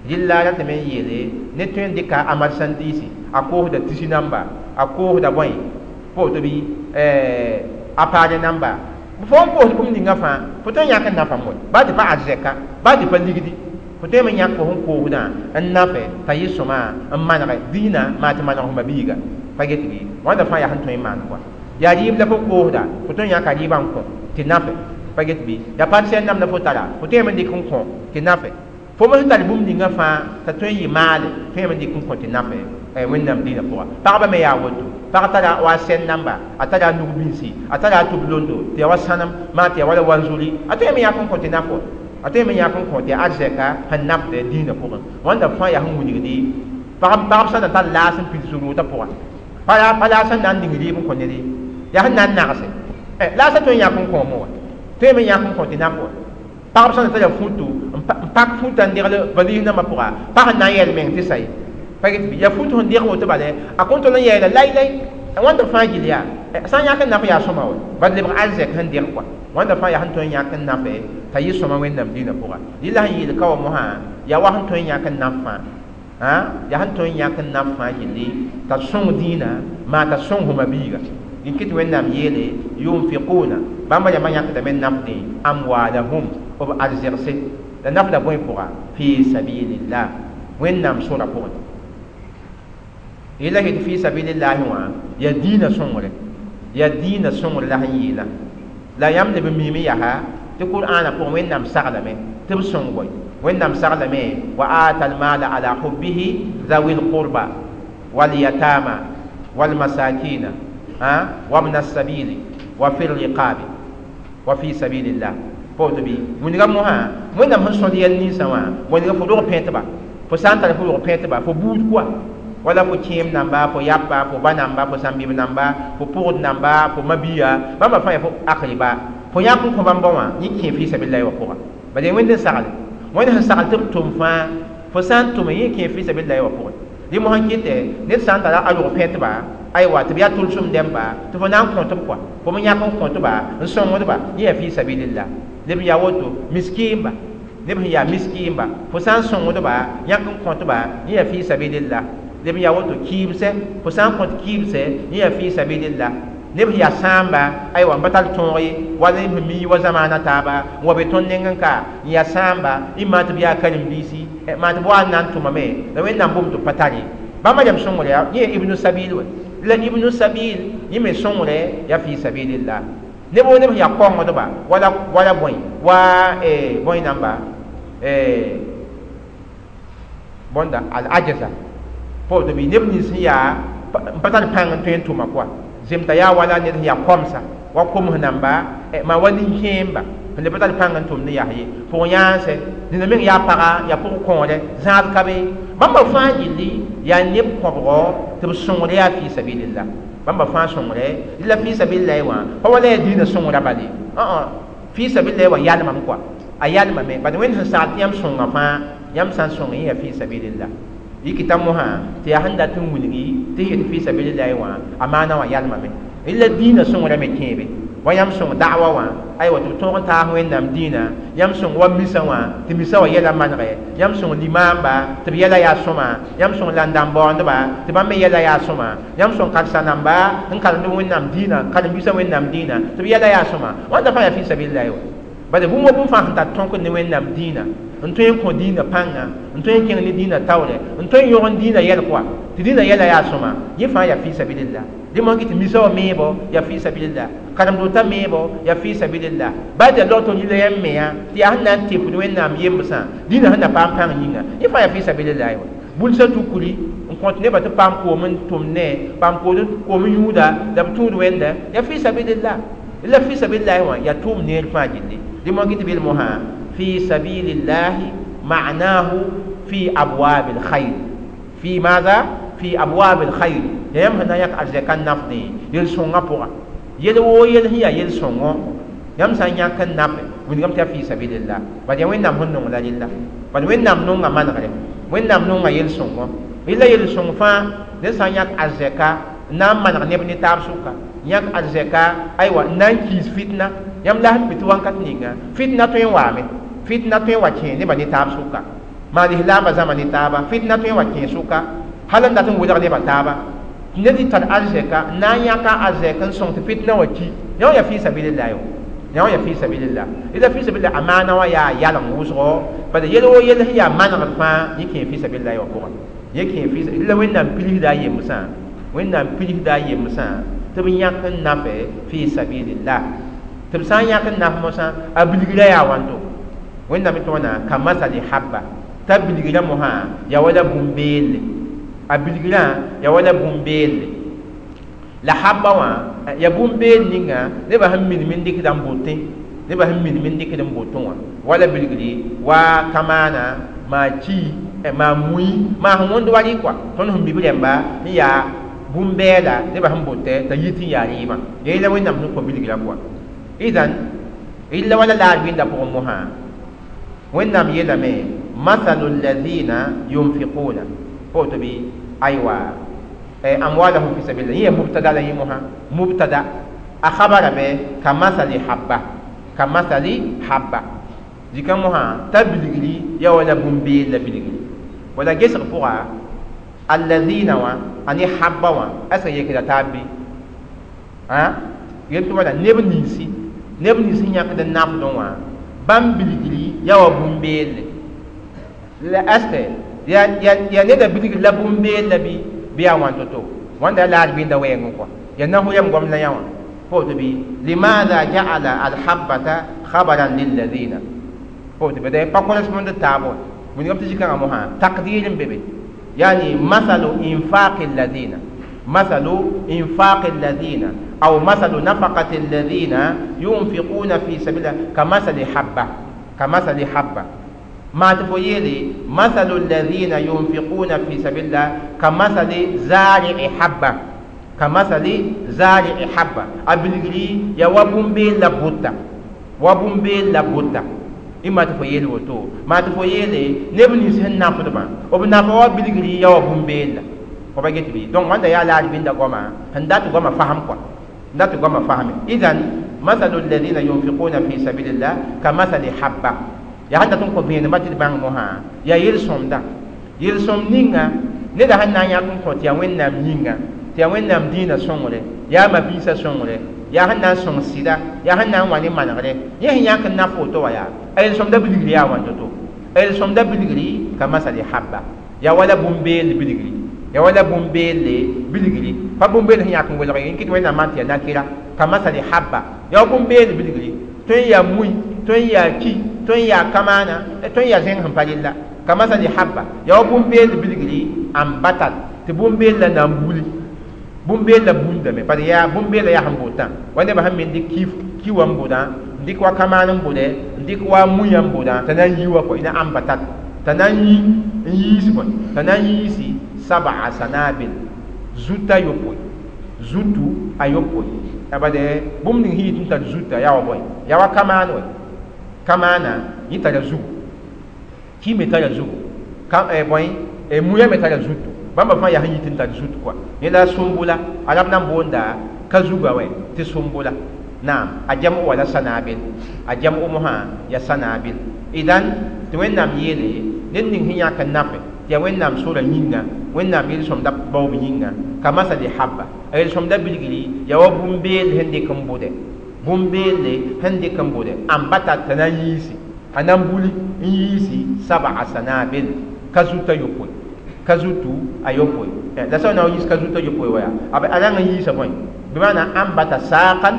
rɩlla ratame n yeele ne tõe n dɩka a marchandise a koosda tisi namba a koosda bõe pa woto bɩ a paare namba fo n koosd bũmb ninga fãa fo tõe n yãk n nafame wa baa tɩ pa arzɛka baa tɩ pa ligdi fo tõeme n yãk fo sẽn koosdã n nafe t'a yɩ sõma n manege dĩinã maa tɩ maneg fo biiga pa get bɩ wãnda fãa yaa sẽn tõe n maan kɔa yaa rɩɩb la fo koosda fo tõe n yãka rɩɩbã n kõ tɩ nafe pa get bɩ yaa parcelle nam la fo tara fo tõeme n dɩk n kõ tɩ nafe fo me sẽn tar bũmb ninga fãa t'a tõe n yɩ maale tõeme n dɩk n kõ tɩ nafe wẽnnaam dĩinã pʋga pagba me yaa woto pag tara wa sɛn namba a tara a nug-bĩnsi a tara a tʋb-londo tɩ yaa wa sãnem maa tɩ yaa wala wanzuri a tõeme yãk n kõ tɩ naf wa a tõeme yãk n kõ tɩ arzɛka sẽn nafd dĩinã pʋgẽ wãnda fãa yaa sẽn wilgdi pagb sã na tar laas n pids rʋʋtã pʋga pa laas sẽn na n ning rɩɩb n kõ ned ye yaa sẽn na n nagse laasã tõe n yãk n kõome wa tõeme yãk n kõ tɩ naf wa pagb sã na tara futu n pak futã n degl valise nambã pʋga pa sẽn na n yɛl meng tɩ sa ye pa get bɩ yaa futu sẽn deg woto bale a kõn tol n yɛɛla lai-lai wãnda fãa gill yaa sã n yãk n naf yaa sõma wa bad lebg arzɛk sẽn deg kɔa wãnda fãa yaa sẽn tõe n yãk n nafe t'a yɩ sõma wẽnnaam dĩinã pʋga rɩla sẽn yeel ka wa mosã yaa wa sẽn tõe n yãk n naf fãa yaa sẽn tõe n yãk n naf fãa gilli t'a sõng dĩinã maa t'a sõng fo ma-biiga n kɩt wẽnnaam yeele yunfiquna bãmba yãmba yãkdame n nafdẽ amwalahum b arzɛgse la nafda bõe pʋga fi sabilillah wẽnnaam sora pʋgẽ yela yetɩ fi sabilillahi wã yaa dĩinã sõngre yaa dĩinã sõngre la sẽn yeelã la yãmb leb n miime yaa tɩ qur'aanã pʋgẽ wẽnnaam saglame tɩ b sõng bõe wẽnnaam saglame wa ata almala ala hubbihi zawi lqurba walyatama walmasakina wabna السبيل وفي الرقاب وفي سبيل الله pa woto bɩ wilga mosã wẽnnaam sẽn sõd yɛl ninsã wã wilga fo rog pẽtba fo sã n tar fo rog pẽtba fo buud kɔa wala fo kẽem namba fo yapa fo ba namba fo sãn-bɩb namba fo pʋgd namba fo mabia bãmba fãa yaa fo akriba fo yãk n kõ bãmba wã yẽ kẽ fi sabilillahi wã pʋga bala wẽnd n sagle wẽnd sẽn sagl tɩ b tʋm fãa Fo sã n tʋme yẽ kẽ fi sabilillahi wã pʋgẽ. Dẽ mosã n kɩtɛ ned sã n tara a rog pẽtba, aywa, tɩ b yaa tʋlsem dẽmba, tɩ fo na n kõt-b kɔa, fo me yãk n kõt-ba, n sõngdba, yẽ yaa fi sabilillah. Neb n yaa woto, miskiimba, neb sẽn yaa miskiimba, fo sã n sõngdba, yãk n kõt-ba, yẽ yaa fi sabilillah. Neb n yaa woto, kɩɩmsɛ, fo sã n kõt kɩɩmsɛ, yẽ yaa fi sabilillah. Neb sẽn yaa sãamba, aywa, n pa tar tõog ye, wala neb sẽn mi wa zamaana taaba n wa be tõnd nengẽ ka n yaa sãamba, y maan tɩ b yaa karen-biisi, maan tɩ b wa n na n tʋmame la Wẽnnaam bʋʋm tɩ b pa tar ye. Bãmba rem sõngre yaa yẽ ibnu sabil wa. La ibnu sabil yẽ me sõngre yaa fi sabilillah. Neb woo neb sẽn yaa kongdba wala wala bõe wa bõe namba bõnda al ajaza pa woto bɩ neb nins sẽn yaa n pa tar pãng n tõe n tʋma kɔa zemta yaa wala ned sẽn yaa komsa wa koms namba maa wa nin-kẽemba sẽn le pa tar pãng n tʋmd n yas ye pʋg yãanse nina meng yaa paga yaa pʋg kõore zãad ka be bãmba fãa gilli yaa neb kõbgɔ tɩ b sõngre yaa fi sabilillah. Bãmba fãa sõngre la fi sabilillahi wã pa wala yaa dĩinã sõngra bale fi sabilillahi wã yalmame kɔa a yalmame bad Wẽnd sẽn sagl tɩ yãmb sõnga fãa yãmb sã n sõng yẽ yaa fi sabilillah. Yikita mosã tɩ yaa sẽn dat n wilgi tɩ yet fi sabilillahi wã a maana wã yalmame la dĩinã sõngra me kẽebe wa yãmb sõng da'wa wã aywa tɩ b tõog n taas Wẽnnaam dĩinã yãmb sõng wa misa wã tɩ misa wã yɛla manegɛ yãmb sõng limaamba tɩ b yɛla yaa sõma yãmb sõng landãm-baoondba tɩ bãmb me yɛla yaa sõma yãmb sõng karsa-namba n karemd Wẽnnaam dĩinã karen-biisã Wẽnnaam dĩinã tɩ b yɛla yaa sõma wãnda fãa yaa fi sabilillahi wã bala bũmb wa bũmb fãa sẽn tar tõk ne Wẽnnaam dĩinã n tõe n kõ dĩinã pãnga n tõe n kẽng ne dĩinã taoorɛ n tõe n yõg n dĩinã yɛl kɔa tɩ dĩinã yɛla yaa sõma yẽ fãa yaa fi sabilillah. Dẽ moan tɩ misa wã meebo yaa fi sabilillah, karem-dota meebo yaa fi sabilillah, baa tɩ yaa log tɩ yila yãmb mea tɩ yaa sẽn na n tɩpd Wẽnnaam yembsã dĩinã sẽn na paam pãng yĩnga yẽ fãa yaa fi sabilillah wã. Bulsã tukuri n kõt nebã tɩ paam koom n tʋm ne paam koom n yũuda la b tũud wẽnda yaa fi sabilillah. La fi sabilillahi wã yaa tʋʋm neer fãa gilli. Dẽ moan tɩ bel mosã fi sabilillahi ma'nahu fi abwabil khayr fi maza fi abwabil khayr yãmb sẽn na n yãk arzɛka n nafdẽ yel-sõngã pʋga yel woo yel sẽn yaa yel-sõngõ yãmb sã n yãk n nafe wilgame tɩ yaa fi sabilillah bad yaa Wẽnnaam sẽn nong la rella bad Wẽnnaam nonga manegre Wẽnnaam nonga yel-sõngõ rella yel-sõng fãa ned sã n yãk arzɛka n na n maneg neb ne taab sʋka yãk arzɛka aywa n na n kiis fitna yãmb la sẽn mi tɩ wãnkat ninga fitna tõe n waame fitna tõe n wa kẽ nebã ne taab sʋka maan lislaambã zãma ne taaba fitna tõe n wa kẽ sʋka hal n dat n welg nebã taaba ned y tar arzɛka n na n yãka arzɛk n sõng tɩ fitna wã ki yã wã yaa fi sabilillahi wã yã wã yaa fi sabilillah. La fi sabilillah a maana wã yaa yalem wʋsgo bala yel woo yel sẽn yaa manegd fãa yẽ kẽ fi sabilillahi wã pʋgẽ yẽ kẽ fi la Wẽnnaam pilsda a yembsã Wẽnnaam pilsda a yembsã tɩ b yãk n nafe fi sabilillah tɩ b sã n yãk n naf mosã a bilgra yaa wãnto Wẽnnaam tɩ wãna ka masali habba t'a bilgra mosã yaa wala bũmb-beelle a bilgrã yaa wala bũmb-beelle la habba wã yaa bũmb-beel ninga nebã sẽn minim n dɩkda n botẽ nebã sẽn minim n dɩkd n botẽ wã wala bilgri wa kamaana maa ki maa mui maa sẽn wõnd wa rɩ kɔa tõnd sẽn mi b rẽmba n yaa bũmb-bɛɛla nebã sẽn botɛ t'a yit n yaa rɩɩbã yaa yẽla Wẽnnaam sẽn kõ bilgrã pʋga idan illa wala laar wĩnda pʋgẽ mosã Wẽnnaam yeelame mathalu alladhina yunfiquna pa woto bɩ aywa amwalahum fi sabilillah yẽ yaa mubtada la yẽ mosã mubtada a khabara me kamathali habba kamathali habba zikã mosã t'a bilgri yaa wala bũmb-beel la bilgri wala gesg pʋga alladhina wã a ne habba wã a sẽn yekda taab bɩ yel tɩ wala neb ninsi neb nins sẽn yãkd n nafdẽ wã bãmb bilgri yaa wa bũmb-beelle la aste yaa neda bilgri la bũmb-beel la bɩ yaa wãn to-to wãnda laar bĩnda wɛɛngẽ kɔa yaa nasʋ yam goam la yã wã pa woto bɩ limaada ja'ala alhabbata khabaran lilladina pa woto bɩ pa correspond taab wã wilgame tɩ zikãngã mosã taqdir n be be yani mathalu infaqi alladina mathalu infaqi alladina aw mathalu nafaqati alladina yunfiquna fi sabilillah kamathali habba kamathali habba ما تفويلي مثل الذين ينفقون في سبيل الله كمثل زارع حبة كمثل زارع حبة أبلغري يا وبومبي لابوتا وبومبي لابوتا Ĩmma tɩ fo yeel woto maa tɩ fo yeele neb nins sẽn nafdbã b nafa wa bilgri ya wa bũmb-beella fo pa get bɩ donc wãnda yaa la a ribĩnda goama sẽn dat goamã fasem kɔa n dat goamã fasme idan mathalu alladhina yunfiquna fi sabilillah ka mathali habba yaa sẽn dat n kõ vẽenemã tɩ d bãng mosã yaa yel-sõmda yel-sõmd ninga neda sẽn na n yãk n kõ tɩ yaa Wẽnnaam yĩnga tɩ yaa Wẽnnaam dĩinã sõngre yaa ma-biisã sõngre yaa sẽn na n sõng sɩda yaa sẽn na n wa ne manegre yẽ sẽn yãk n naf woto wã yaa a yel-sõmda bilgri yaa wãn to-to a yel-sõmda bilgri ka masali habba yaa wala bũmb-beel bilgri yaa wala bũmb-beelle bilgri pa bũmb-beel sẽn yãk n welg n kɩt Wẽnnaam maan tɩ yaa nakɩra ka masali habba yaa bũmb-beel bilgri tõe n yaa mui tõe n yaa ki tõe n yaa kamaana tõe n yaa zẽng sẽn pa rella ka masali habba yaa bũmb-beel bilgri ambatat tɩ bũmb-beel la na n buli bũmb-beel la bundame par yaa bũmb-beela yaa sẽn botã wa nebã sẽn me n dɩk ki wa n bʋdã n dɩk wa kamaan n bʋdɛ n dɩk wa muiyã n bʋdã t'a na n yi wa kɔ ina ambatat t'a na n yi n yiis bõe t'a na n yiisi sab'a sanabil zuta yopoe zutu a yopoe a bade bũmb ning sẽn yit n tar zuta yaa wa bõe yaa wa kamaan wɛ kamaana yẽ tara zugu ki me tara zugu ka bõe muiyã me tara zutu bãmba fãa yaa sẽn yit n tar zut kɔa yẽ la sumbula arab na n boonda ka zuga wɛ tɩ sumbula naam a jam'u wala sanabil a jam'u mosã yaa sanabil idan tɩ Wẽnnaam yeele ned ning sẽn yãk n nafe tɩ yaa Wẽnnaam sora yĩnga Wẽnnaam yel-sõmda baoob yĩnga ka masali habba a yel-sõmda bilgri yaa wa bũmb-beel sẽn dɩk n bʋdɛ bũmb-beelle sẽn dɩk n bʋdɛ ambata t'a na n yiisi a na n buli n yiisi sab'a sanabil ka zuta yopoe ka zutu a yopoe la sã n na n yiis ka zuta yopoe wa yaa a rãng n yiisa bõe bɩ ambata saaqan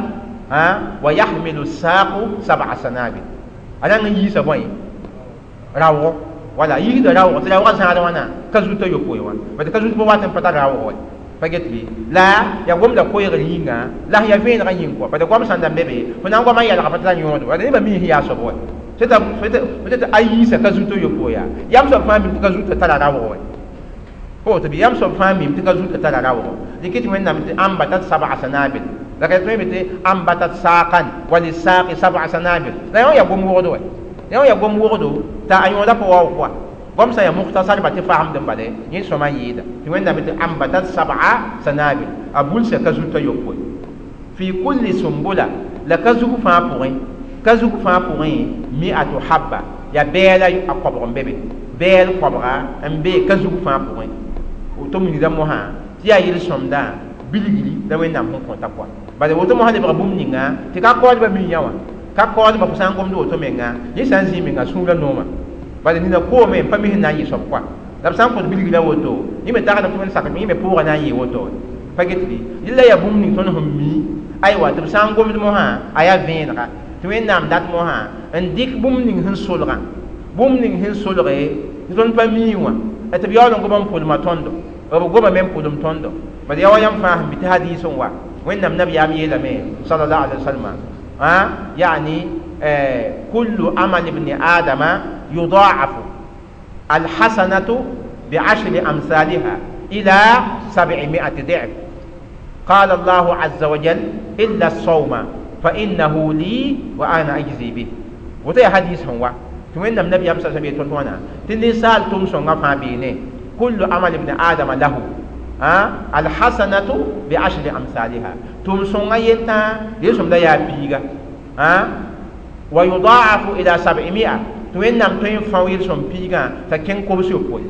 wa yahmilu saaqu sab'a sanabil a rãng n yiisa bõe raoogo wala yiisda raoogo tɩ raoogã zãad wãna ka zuta yopoe wã bad ka zut pa wat n pa tar raoog wɛ pa get bɩ la yaa gomda koeegr yĩnga la sẽn yaa vẽenegã yĩng kɔa bad goam sãn da n be be fo na n goamã yɛlga pa tɩ la yõod wala nebã mi sẽn yaa soab wɛ peut-être a yiisa ka zuta yopoe yaa yam soab fãa mim tɩ ka zuta tara raoog wɛ fo tɩ bɩ yam soab fãa mim tɩ ka zuta tara raoogo dɩk tɩ Wẽnnaam tɩ ambatat sab'a sanabil la ka tõe tɩ ambatat saaqan wa lisaaqi sab'a sanabil la yõ yaa gom wogdo wɛ yõ yaa gom wogdo t'a a yõoda pa waoog kɔa goam sã n yaa mukhtasar ba tɩ fasemd n bale yẽ sõma n yɩɩda tɩ Wẽnnaam tɩ ambatat sab'a sanabil a bulsa ka zuta yopoe fi kulli sumbula la ka zug fãa pʋgẽ ka zug fãa pʋgẽ mi'atu habba yaa bɛɛla a koabg n be be bɛɛl koabga n be ka zug fãa pʋgẽ woto wilgda mosã tɩ yaa yel-sõmda bilgri la Wẽnnaam sẽn kõta kɔa bala woto mosã lebga bũmb ninga tɩ ka kaoodbã mi yã wã ka kaoodbã fo sã n gomd woto menga yẽ sã n zĩ menga sũurã noomã bala nina koome n pa mi sẽn na n yɩ soab kɔa la b sã n kõt bilgrã woto yẽ me tagsdame tɩ wẽnd sakame yẽ me pʋʋgã na n yɩ woto pa get bɩ rɩla yaa bũmb ning tõnd sẽn mi aywa tɩ b sã n gomd mosã a yaa vẽenega tɩ Wẽnnaam dat mosã n dɩk bũmb ning sẽn solgã bũmb ning sẽn solge tɩ tõnd pa mii wã tɩ b yaool n goma n pʋlma tõndo b goma me n pʋlem tõndo bad yaa wa yãmb fãa sẽn bɩ tɩ hadiis n wa Wẽnnaam nabiyaam yeelame sallallahu alaihi wasallam yani kullu amal ibn adama yudaafu alhasanatu bi'ashri amsalha ila 700 ضعف قال الله عز وجل إلا الصوم فإنه لي وأنا أجزي به وتي حديث هو وين النبي صلى الله عليه وسلم تنسال تمسون فابينه كل عمل ابن آدم له الحسنة بعشر أمثالها تمسون ينتا يسوم دا يا بيغا ويضاعف إلى 700 توين نام توين فاويل سوم بيغا تكين كوبسيو بوي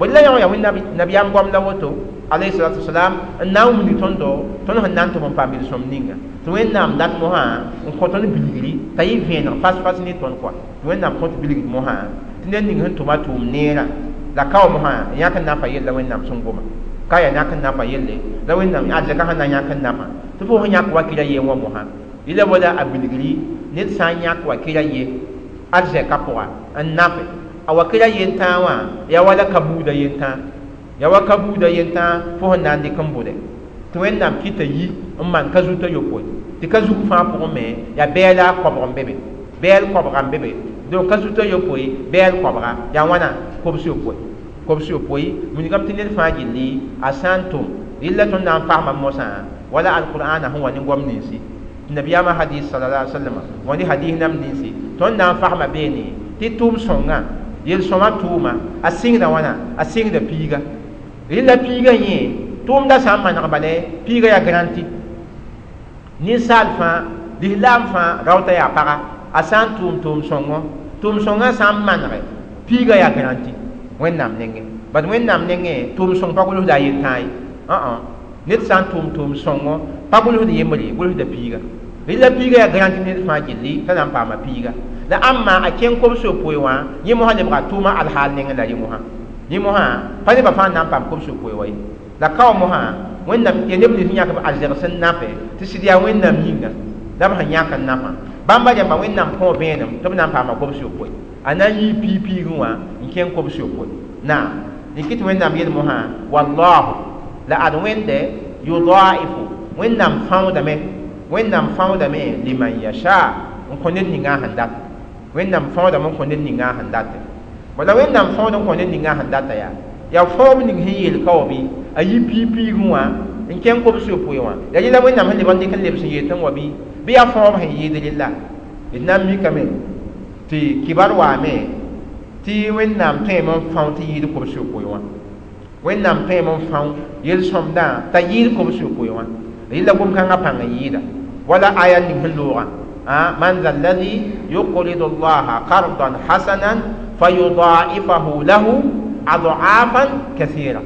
بل لا يوم النبي أم قام لوتو عليه الصلاة والسلام ناوم ni tondo tono han nan to mon pamil som ninga to wẽnnaam dat mosã n kõ tõnd bilgri t'a yɩ vẽeneg fas-fas ne tõnd kɔa tɩ Wẽnnaam kõt bilgd mosã tɩ ned ning sẽn tʋma tʋʋm neerã la kao mosã yãk n nafa yella Wẽnnaam sẽn goma ka yaa yãk n nafa yelle la Wẽnnaam arzɛka sẽn na yãk n nafa tɩ fo sẽn yãk wakɩra ye wã mosã yɩla wala a bilgri ned sã n yãk wakɩra ye arzɛka pʋga n nafe a wakɩra yentãa wã yaa wala ka buuda yentãa yaa wa ka buuda yentãa fo sẽn na n dɩk n bʋdɛ tɩ Wẽnnaam kɩta yi n maan ka zuta yopoe tɩ ka zug fãa pʋgẽ me yaa bɛɛla koabg n be be bɛɛl koabga n be be donc ka zuta yopoe bɛɛl koabga yaa wãna kobs yopoe kobs yopoe wilgame tɩ ned fãa gilli a sã n tʋm rɩlla tõnd na n fasma mosã wala alqur'ana sẽn wa ne goam ninsi nabiyaamã hadis sallallahu alaihi wasallam wa ne hadis nam ninsi Tõnd na n fasma beene tɩ tʋʋm sõngã yel-sõma tʋʋma a sɩngda wãna a sɩngda piiga rɩla piiga yẽ tʋʋmda sã n maneg bale piiga yaa garanti ninsaal fãa lislaam fãa raoota yaa paga a sã n tʋʋm tʋʋm-sõngõ tʋʋm-sõngã sã n manege piiga yaa garanti wẽnnaam nengẽ bad wẽnnaam nengẽ tʋʋm-sõng pa gʋlsda a yel-tãa ye ned sã n tʋʋm tʋʋm-sõngõ pa gʋlsd yembre gʋlsda piiga rɩla piiga yaa garanti ned fãa gilli t'a na n paama piiga la ãmma a kẽng kobs-yopoe wã yẽ mosã lebga tʋʋma alhaal nengẽ la rẽ mosã yẽ mosã pa nebã fãa n na n paam kobs-yopoe wa ye la kao mosã wẽnnaam ya neb nins yãk b arzɛg sẽn nafe tɩ sɩd yaa wẽnnaam yĩnga la b sẽn yãk n nafã bãmba rẽmba wẽnnaam kõ vẽenem tɩ b na n paama kobs-yopoe a na n yii piig-piigẽ wã n kẽng kobs-yopoe naam dɩk tɩ wẽnnaam yel mosã wallahu la ad wẽnde yudaifu wẽnnaam fãoodame wẽnnaam fãoodame liman yasha n kõ ned ninga sẽn dat wẽnnaam fãoodame n kõ ned ninga sẽn date wala wẽnnaam fãood n kõ ned ninga sẽn data yaa yaa fãoob ning sẽn yeel ka wa bɩ a yi piig-piigẽ wã n kẽng kobs-yopoe wã yaa rẽla wẽnnaam sẽn leb n dɩk n lebs n yeel tɩ n wa bɩ bɩ yaa fãoob sẽn yɩɩd rella d na n mikame tɩ kibar waame tɩ wẽnnaam tõeme n fão tɩ yɩɩd kobs-yopoe wã wẽnnaam tõeme n fão yel-sõmdã t'a yɩɩd kobs-yopoe wã rɩla gom-kãngã pãng n yɩɩda wala aya ning sẽn loogã man za alladhi yuqridu allaha qardan hasanan fayudaifahu lahu ad'afan kathira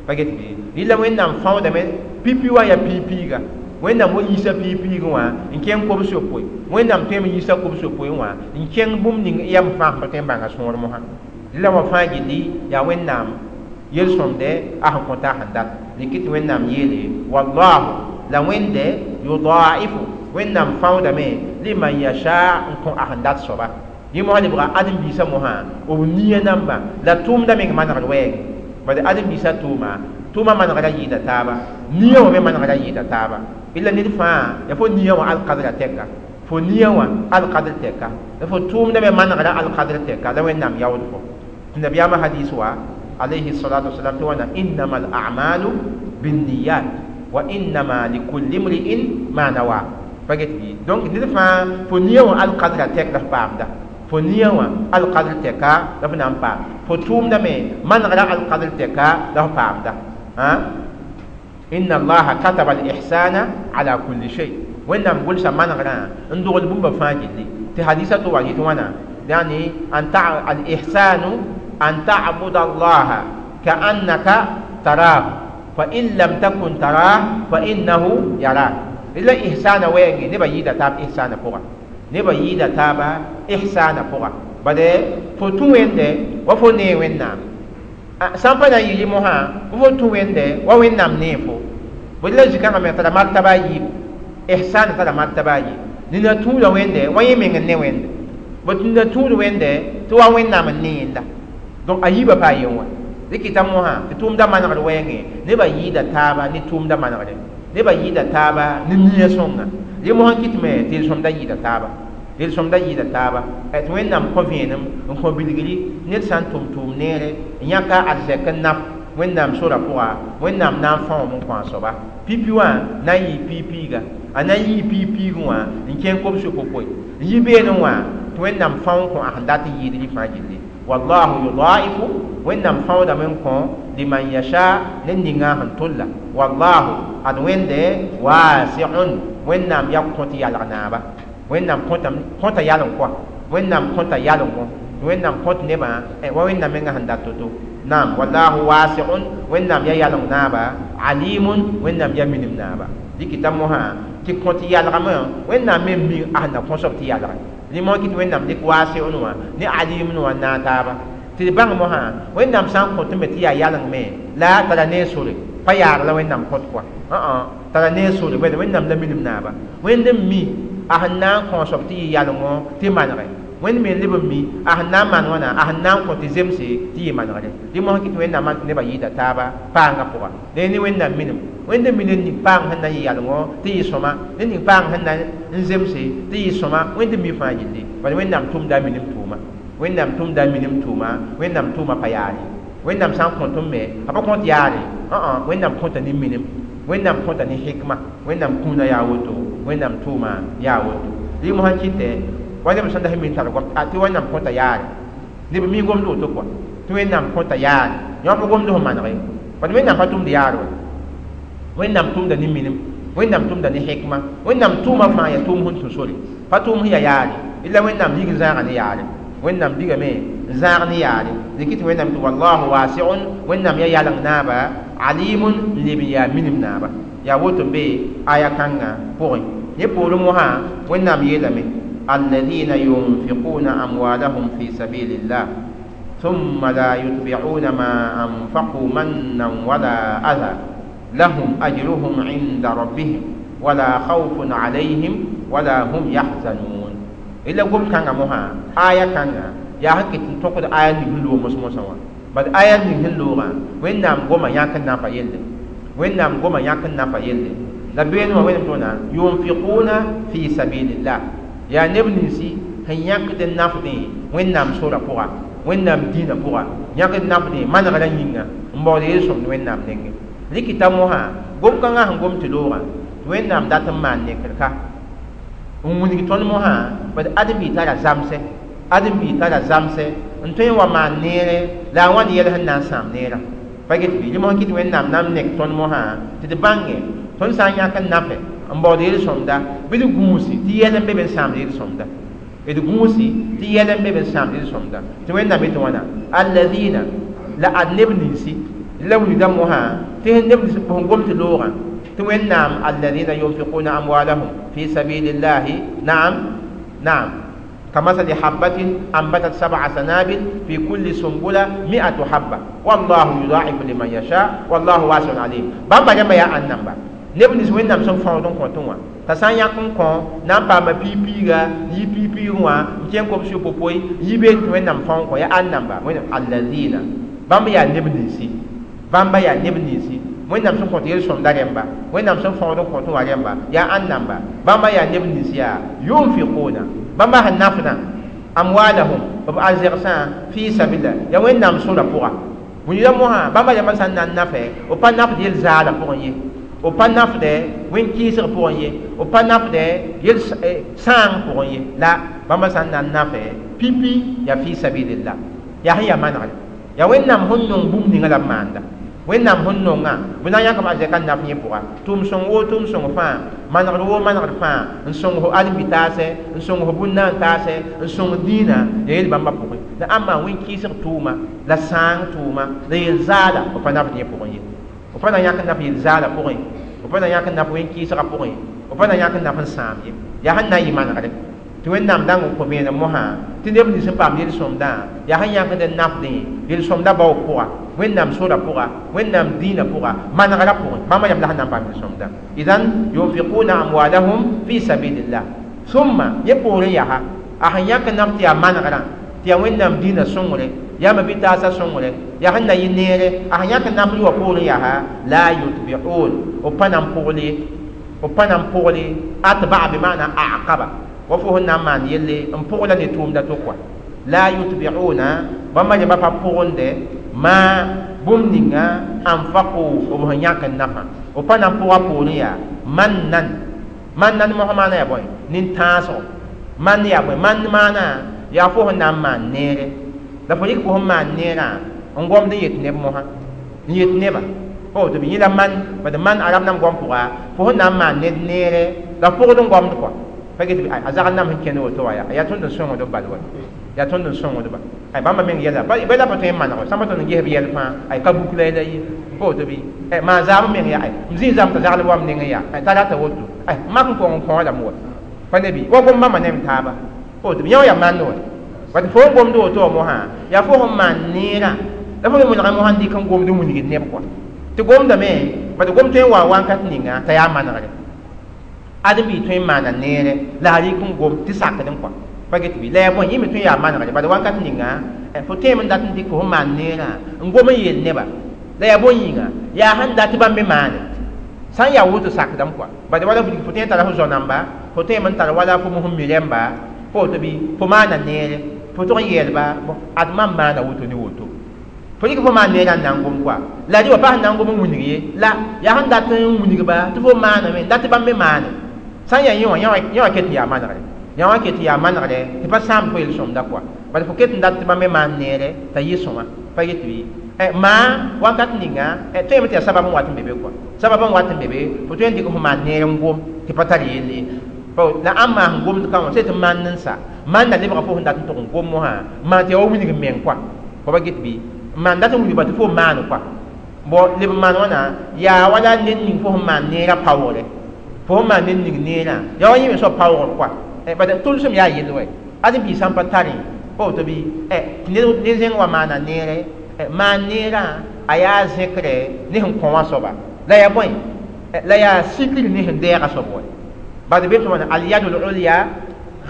pa get bɩ rɩla wẽnnaam fãoodame pipi wã yaa piig-piiga wẽnnaam wa yiisa piig-piigẽ wã n kẽng kobs-yopoe wẽnnaam tõeme n yiisa kobs-yopoe wã n kẽng bũmb ning yam fãa sẽn pa tõe n bãnga sõor mosã rɩla wã fãa gilli yaa wẽnnaam yel-sõmdɛ a sẽn kõta a sẽn dat dɩk tɩ wẽnnaam yeele wallahu la wẽnde yudaifu wẽnnaam fãoodame liman yasha n kõ a sẽn dat soaba yẽ mosã lebga ãdem-biisã mosã b nia namba la tʋʋmda meng manegd wɛɛngẽ bad ãdem-biisã tʋʋma tʋʋma manegra yɩɩda taaba nia wã me manegra yɩɩda taaba illa ned fãa yaa fo nia wã alkadra tɛka fo nia wã alkadr tɛka la fo tʋʋmda me manegra alkadr tɛka la wẽnnaam yaood fo tɩ nabiyaamã hadis wa alayhi salatu wasalam tɩ wãna innama al a'malu binniyat wa innama likulli imri'in ma nawa pa get bɩ donc ned fãa fo nia wã alkadra tɛk la f paamda fo nia wã alkadr tɛka la f na n paam fo tʋʋmda me manegra alkadr tɛka la f paamda inna allaha kataba al-ihsana ala kulli shay wẽnnaam gʋlsa manegrã n dogl bũmba fãa gilli tɩ hadisa tɩ wa yetɩ wãna yani an al-ihsanu an ta'buda allaha ka'annaka tarahu fa in lam takun tarah fa innahu yarak la ihsana wɛɛngẽ nebã yɩɩda taab ihsana pʋga nebã yɩɩda taaba ihsana pʋga bade fo tũ wẽnde wa fo nee wẽnnaam sã n pa na n yɩ mosã fo tũ wẽnde wa wẽnnaam nee fo bõe la zĩ-kãngã me tara martaba a yiibu ihsana tara martaba a yiib nina tũuda wẽnde wa yẽ meng n ne wẽnde bõe tɩ nina tũud wẽnde tɩ wa wẽnnaam n ne yẽnda donc a yiibã paa yen wã dɩk t'a mosã tɩ tʋʋmda manegd wɛɛngẽ nebã yɩɩda taaba ne tʋʋmda manegre nebã yɩɩda taaba ne nia sõnga rẽ mosã kɩtme tɩ yel-sõmda yɩɩda taaba yel-sõmda yɩɩda taaba tɩ wẽnnaam kõ vẽenem n kõ bilgri ned sã n tʋm tʋʋm neere n yãka arzɛk n naf wẽnnaam sora pʋga wẽnnaam na n fãoom n kõ a soaba pipi wã na n yɩɩ piig-piiga a na n yɩɩ piig-piigẽ wã n kẽng kobs-yopoe n yi beene wã tɩ wẽnnaam fão n kõ a sẽn dat n yɩɩd rɩ fãa gilli wallahu yudaifu wẽnnaam fãoodame n kõ liman yasha ned ninga sẽn tolla wallahu ad wẽnde wasiun wẽnnaam yaa kõt yalg naaba wẽnnaam kõta yaleng kɔa wẽnnaam kõta yalengõ wẽnnaam kõt nebã wa wẽnnaam menga sẽn dat to-to naam wallahu wasiun wẽnnaam yaa yaleng naaba alimun wẽnnaam yaa minim naaba dɩk t'a mosã tɩ kõt yalgame wẽnnaam me mi a sẽn na kõsob tɩ yalge rẽ mosã kɩ tɩ wẽnnaam dɩk wasiun wã ne alimun wã n naag taaba tɩ d bãng mosã wẽnnaam sã n kõt me tɩ yaa yaleng me la tara ne sore pa yaag la wẽnnaam kõt kɔa tara ne sore bõe wẽnnaam la minim naaba wẽnd n mi a sẽn na n kõsob tɩ yɩ yalengõ tɩ manege wẽnd me leb n mi a sẽn na n maan wãna a sẽn na n kõ tɩ zemse tɩ yɩ manegre rẽ mosã kɩ tɩ wẽnnaam maan tɩ nebã yɩɩda taaba paangã pʋga la ne wẽnnaam minim wẽnd n mi ned ning paang sẽn na n yɩ yalengõ tɩ yɩ sõma ned ning paang sẽn na n zemse tɩ yɩ sõma wẽnd n mi fãa gilli bala wẽnnaam tʋmda a minim tʋʋma wẽnnaam tʋmda a minim tʋʋma wẽnnaam tʋʋma pa yaare wẽnnaam sã n kõt n me a pa kõt yaare wẽnnaam kõta ne minim wẽnnaam kõta ne hikma wẽnnaam kũuna yaa woto wẽnnaam tʋʋma yaa woto rẽ mosã kɩtɛ Wa neb sẽn da sẽn min tar goam tɩ Wẽnnaam kõta yaare neb mi gomd woto kɔa tɩ Wẽnnaam kõta yaare yõ pa gomd sẽn maneg ye bad Wẽnnaam pa tʋmd yaar wa Wẽnnaam tʋmda ne minim Wẽnnaam tʋmda ne hikma Wẽnnaam tʋʋma fãa yaa tʋʋm sẽn tũ sore pa tʋʋm sẽn yaa yaare illa Wẽnnaam lig n zãaga ne yaare Wẽnnaam ligame n zãag ne yaare dɩk tɩ Wẽnnaam tɩ wallahu wasiun Wẽnnaam yaa yaleng naaba alimun n leb n yaa minim naaba yaa woto n be aya kãngã pʋgẽ ne poorẽ mosã Wẽnnaam yeelame الذين ينفقون أموالهم في سبيل الله ثم لا يتبعون ما أنفقوا منا ولا أذى لهم أجرهم عند ربهم ولا خوف عليهم ولا هم يحزنون إلا قم كان مها آية كان يا هكي تنتقد آية نهلو مسموسوا بل آية نهلو وين نام قم ياكن نافا يلي وين نام قم ياكن نافا يلي لبين وين تونا ينفقون في سبيل الله يا نبنسي هن ياكد النافدي وين نام سورة بوغا وين نام دين بوغا ياكد النافدي ما نغلا نينا مبودي يسوم وين نام نينغي likita moha gom kãngã sẽn gom tɩ loogã tɩ Wẽnnaam dat n maan nekrka n wilg tõnd mosã bad ãdem-bi tara zamsɛ ãdem-bi tara zamsɛ n tõe n wa maan neere la a wãnd yɛl sẽn na n sãam neerã pa get bɩ rẽ mosã kɩ tɩ Wẽnnaam na n nek tõnd mosã tɩ d bãnge tõnd sã n yãk n nafɛ n baood yel-sõmda bɩ d gũusi tɩ yɛl n be be n sãamd yel-sõmda d gũusi tɩ yɛl n be be n sãamd yel-sõmda tɩ Wẽnnaam yetɩ wãna alladina la ad neb ninsi la wilgda mosã tɩ neb sẽn gom tɩ loogã tɩ Wẽnnaam alladina yunfiquna amwalahum fi sabilillahi naam naam كمثل حبة أنبتت 7 سنابل في كل سنبلة 100 حبة والله يضاعف لمن يشاء والله واسع عليم بامبا جنب يا أنبا neb nins Wẽnnaam sẽn fãood n kõtẽ wã t'a sã n yãk n kõ na n paama piig-piiga n yi piig-piigẽ wã n kẽng kobs yopopoe n yi beene tɩ Wẽnnaam fão n kõ yaa ãnnamba Wẽnnaam alladina bãmb yaa neb ninsi bãmba yaa neb ninsi Wẽnnaam sẽn kõt yel-sõmda rẽmba Wẽnnaam sẽn fãood n kõtẽ wã rẽmba yaa ãnnamba bãmba yaa neb nins yaa yunfiquna bãmba sẽn nafdã amwalahum b arzegsã fi sabila yaa Wẽnnaam sora pʋga wilgda mosã bãmba rãmbã sã n na n nafɛ b pa nafd yel-zaala pʋgẽ ye b pa nafdɛ wẽn-kɩɩsg pʋgẽ ye b pa nafdɛ yel sãang pʋgẽ ye la bãmba sã n na n nafɛ pipi yaa fi sabilillah yaa sẽn yaa manegre yaa Wẽnnaam sẽn nong bũmb ninga la b maanda Wẽnnaam sẽn nongã bɩ na n yãkb arzɛka n naf yẽ pʋga tʋʋm sõng woo tʋʋm sõng fãa manegr woo manegr fãa n sõng fo ãdem-bi-taasɛ n sõng fo bũn-naan taasɛ n sõng dĩinã yaa yel bãmba pʋgẽ la ãmba wẽn-kɩɩsg tʋʋma la sãang tʋʋma la yel-zaala b pa nafd yẽ pʋgẽ ye b pa na yãk n naf yel-zaala pʋgẽ b pa na yãk n naf wẽn-kɩɩsgã pʋgẽ b pa na yãk n naf n sãam ye yaa sẽn na n yɩ manegre tɩ Wẽnnaam dãng n kõ vẽenem mosã tɩ neb nins sẽn paam yel-sõmdã yaa sẽn yãkd n nafdẽ yel-sõmdã baoog pʋga Wẽnnaam sora pʋga Wẽnnaam dĩinã pʋga manegrã pʋgẽ bãmba yam la sẽn na n paam yel-sõmdã idan yunfiquna amwalahum fi sabilillah summa yẽ poorẽ yaa a sẽn yãk n naf tɩ yaa manegrã tɩ yaa Wẽnnaam dĩinã sõngre yaa ma-bi-taasã sõngre yaa sẽn na yɩ neere a sẽn yãk n naf wã poorẽ yaa la yutbi'un b pa na n pʋgl ye b pa na n pʋgl ye atba'a bi maana aqaba wa fo sẽn na n maan yelle n pʋgla ne tʋʋmda to kɔa la yutbi'una bãmba rẽmba pa pʋgende ma bũmb ninga anfaqu b sẽn yãk n nafã b pa na n pʋga poorẽ yaa mannan mannan mosã maana yaa bõe nin-tãasgo man yaa bõe man maana yaa fo sẽn na n maan neere la fo rɩk fo sẽn maan neerã n gomd n yet neb mosã n yet neba fo tɩ b yẽ la man bad man arab nam gom pʋga fo sẽn na n maan ned neere la pʋgd n gomd kɔa pa get a zagl nam sẽn kẽnd woto wã yaa tõnd n sõngd b bal wa yaa tõnd n sõngdba ay bãmba meng yɛla bɩ la pa tõe n maneg sãmba tõnd n ges b yɛl fãa ay ka buk la la ye pa woto bɩ maa zaam meng yaa m zĩ zam t'a zagl wam nengẽ yaa t'a rata woto ay mak n kong n kõo lame wa pa ne bɩ wa gom bãmba ne m taaba pa woto bɩ yã wã yaa mand wa bat fo n gomd woto wã mosã yaa fo sẽn maan neerã la fo me molgã mosã n dɩk n gomd n wilgd neb kɔa tɩ gomdame bat gom tõe n wa wãnkat ninga t'a yaa manegre ãdem-bi tõe n maana neere la a rɩk n gom tɩ sakd n kɔa pa get bɩ la yaa bõe yẽ me tõe n yaa manegre bad wãnkat ninga fo tẽem n dat n dɩk fo sẽn maan neerã n gom n yeel neba la yaa bõe yĩnga yaa sẽn dat tɩ bãmb me maane sã n yaa woto sakdame kɔa bad wala fo tõe n tara fo zao-namba fo tõeme n tar wala fo mosẽn mi rẽmba fo woto bɩ fo maana neere fo tʋg n yeelba ad mam maana woto ne woto fo rɩk fo maan neerã n na n gom kɔa la rɩ wa pa sẽn na n gom n wilg ye la yaa sẽn dat n wilgba tɩ fo maaname n dat tɩ bãmb me maane sã n yaa yẽ wã yẽ wã ket n yaa manegre Yã wã ket yaa manegre tɩ pa sãam fo yel-sõmda kɔa bala fo ket n dat tɩ bãmb me maan neere t'a yɩ sõma pa get bɩ maa wakat ninga tõeme tɩ yaa sabab n wat n be be kɔa sabab n wat n be be fo tõe n dɩk fo maan neer n gom tɩ pa tar yell ye la ãmb maa sẽn gomd ka wã sẽn tɩ maan n sa maanda lebga fo sẽn dat n tʋg n gom mosã maan tɩ yaa wa wilg n meng kɔa fo pa get bɩ maan dat n wilgba tɩ fo maan kɔa bon leb n maan wãna yaa wala ned ning fo sẽn maan neerã paoogre fo sẽn maan ned ning neerã yaa wa yẽ me soab paoogr kɔa bad tʋlsem yaa yell wɛ ad biig sã n pa tarẽ pa woto bɩ tɩ ned zẽng wa maana neere maan neerã a yaa zẽkre ne sẽn kõ wã soaba la yaa bõe la yaa sikr ne sẽn dɛɛga soab wɛ bad be tɩ wãna alyadu lulya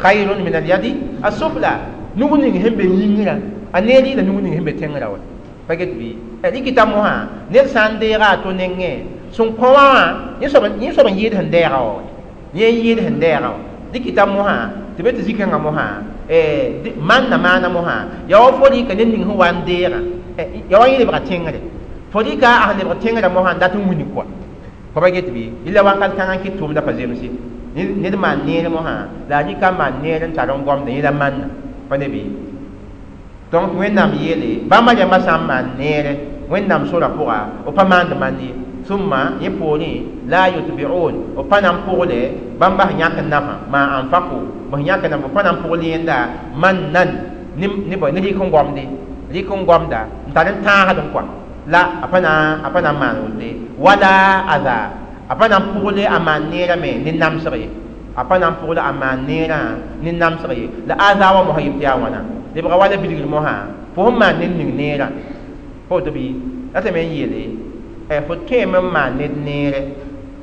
khayrun min alyadi asufla nug ning sẽn be yĩngrã a neer yɩla nug ning sẽn be tẽngrã wɛ pa get bɩ rɩkɩta mosã ned sã n deega a to nengẽ sẽn kõ wã wã yẽ soab n yɩɩd sẽn dɛɛga wã yẽ n yɩɩd sẽn dɛɛga wã dɩkɩta mosã tɩ be tɩ zĩ-kãngã mosã manna maana mosã yaa wa fo rɩka ned ning sẽn wa n deegã yaa wa yẽ lebga tẽngre fo rɩka a sẽn lebg tẽngrã mosã n dat n wilg kɔa fo pa get bɩ yella wakat kãngã n kɩt tʋʋmda pa zemse ned maan neer mosã la a rɩka n maan neer n tar n gomda yẽ la manna pa ne bɩ donc Wẽnnaam yeele bãmba rãmbã sã n maan neere Wẽnnaam sora pʋga b pa maand mand ye summa yẽ poorẽ la yutbi'un b pa na n pʋgle bãmba sẽn yãk n nafã ma anfaqu b sẽn yãk n naf b pa na n pʋgl yẽnda mannan ne ne rɩk n gomde rɩk n gomda n tar n tãasd n kɔa la a pa na n maan wote wala aza a pa na n pʋgle a maan neerã me ne namsg ye a pa na n pʋgle a maan neerã ne namsg ye la aza wã mosã yɩ tɩ yaa wãna lebga wala bilgr mosã fo sẽn maan ned ning neerã pa woto bɩ la tɩ me n yeele fo tõeme n maan ned neere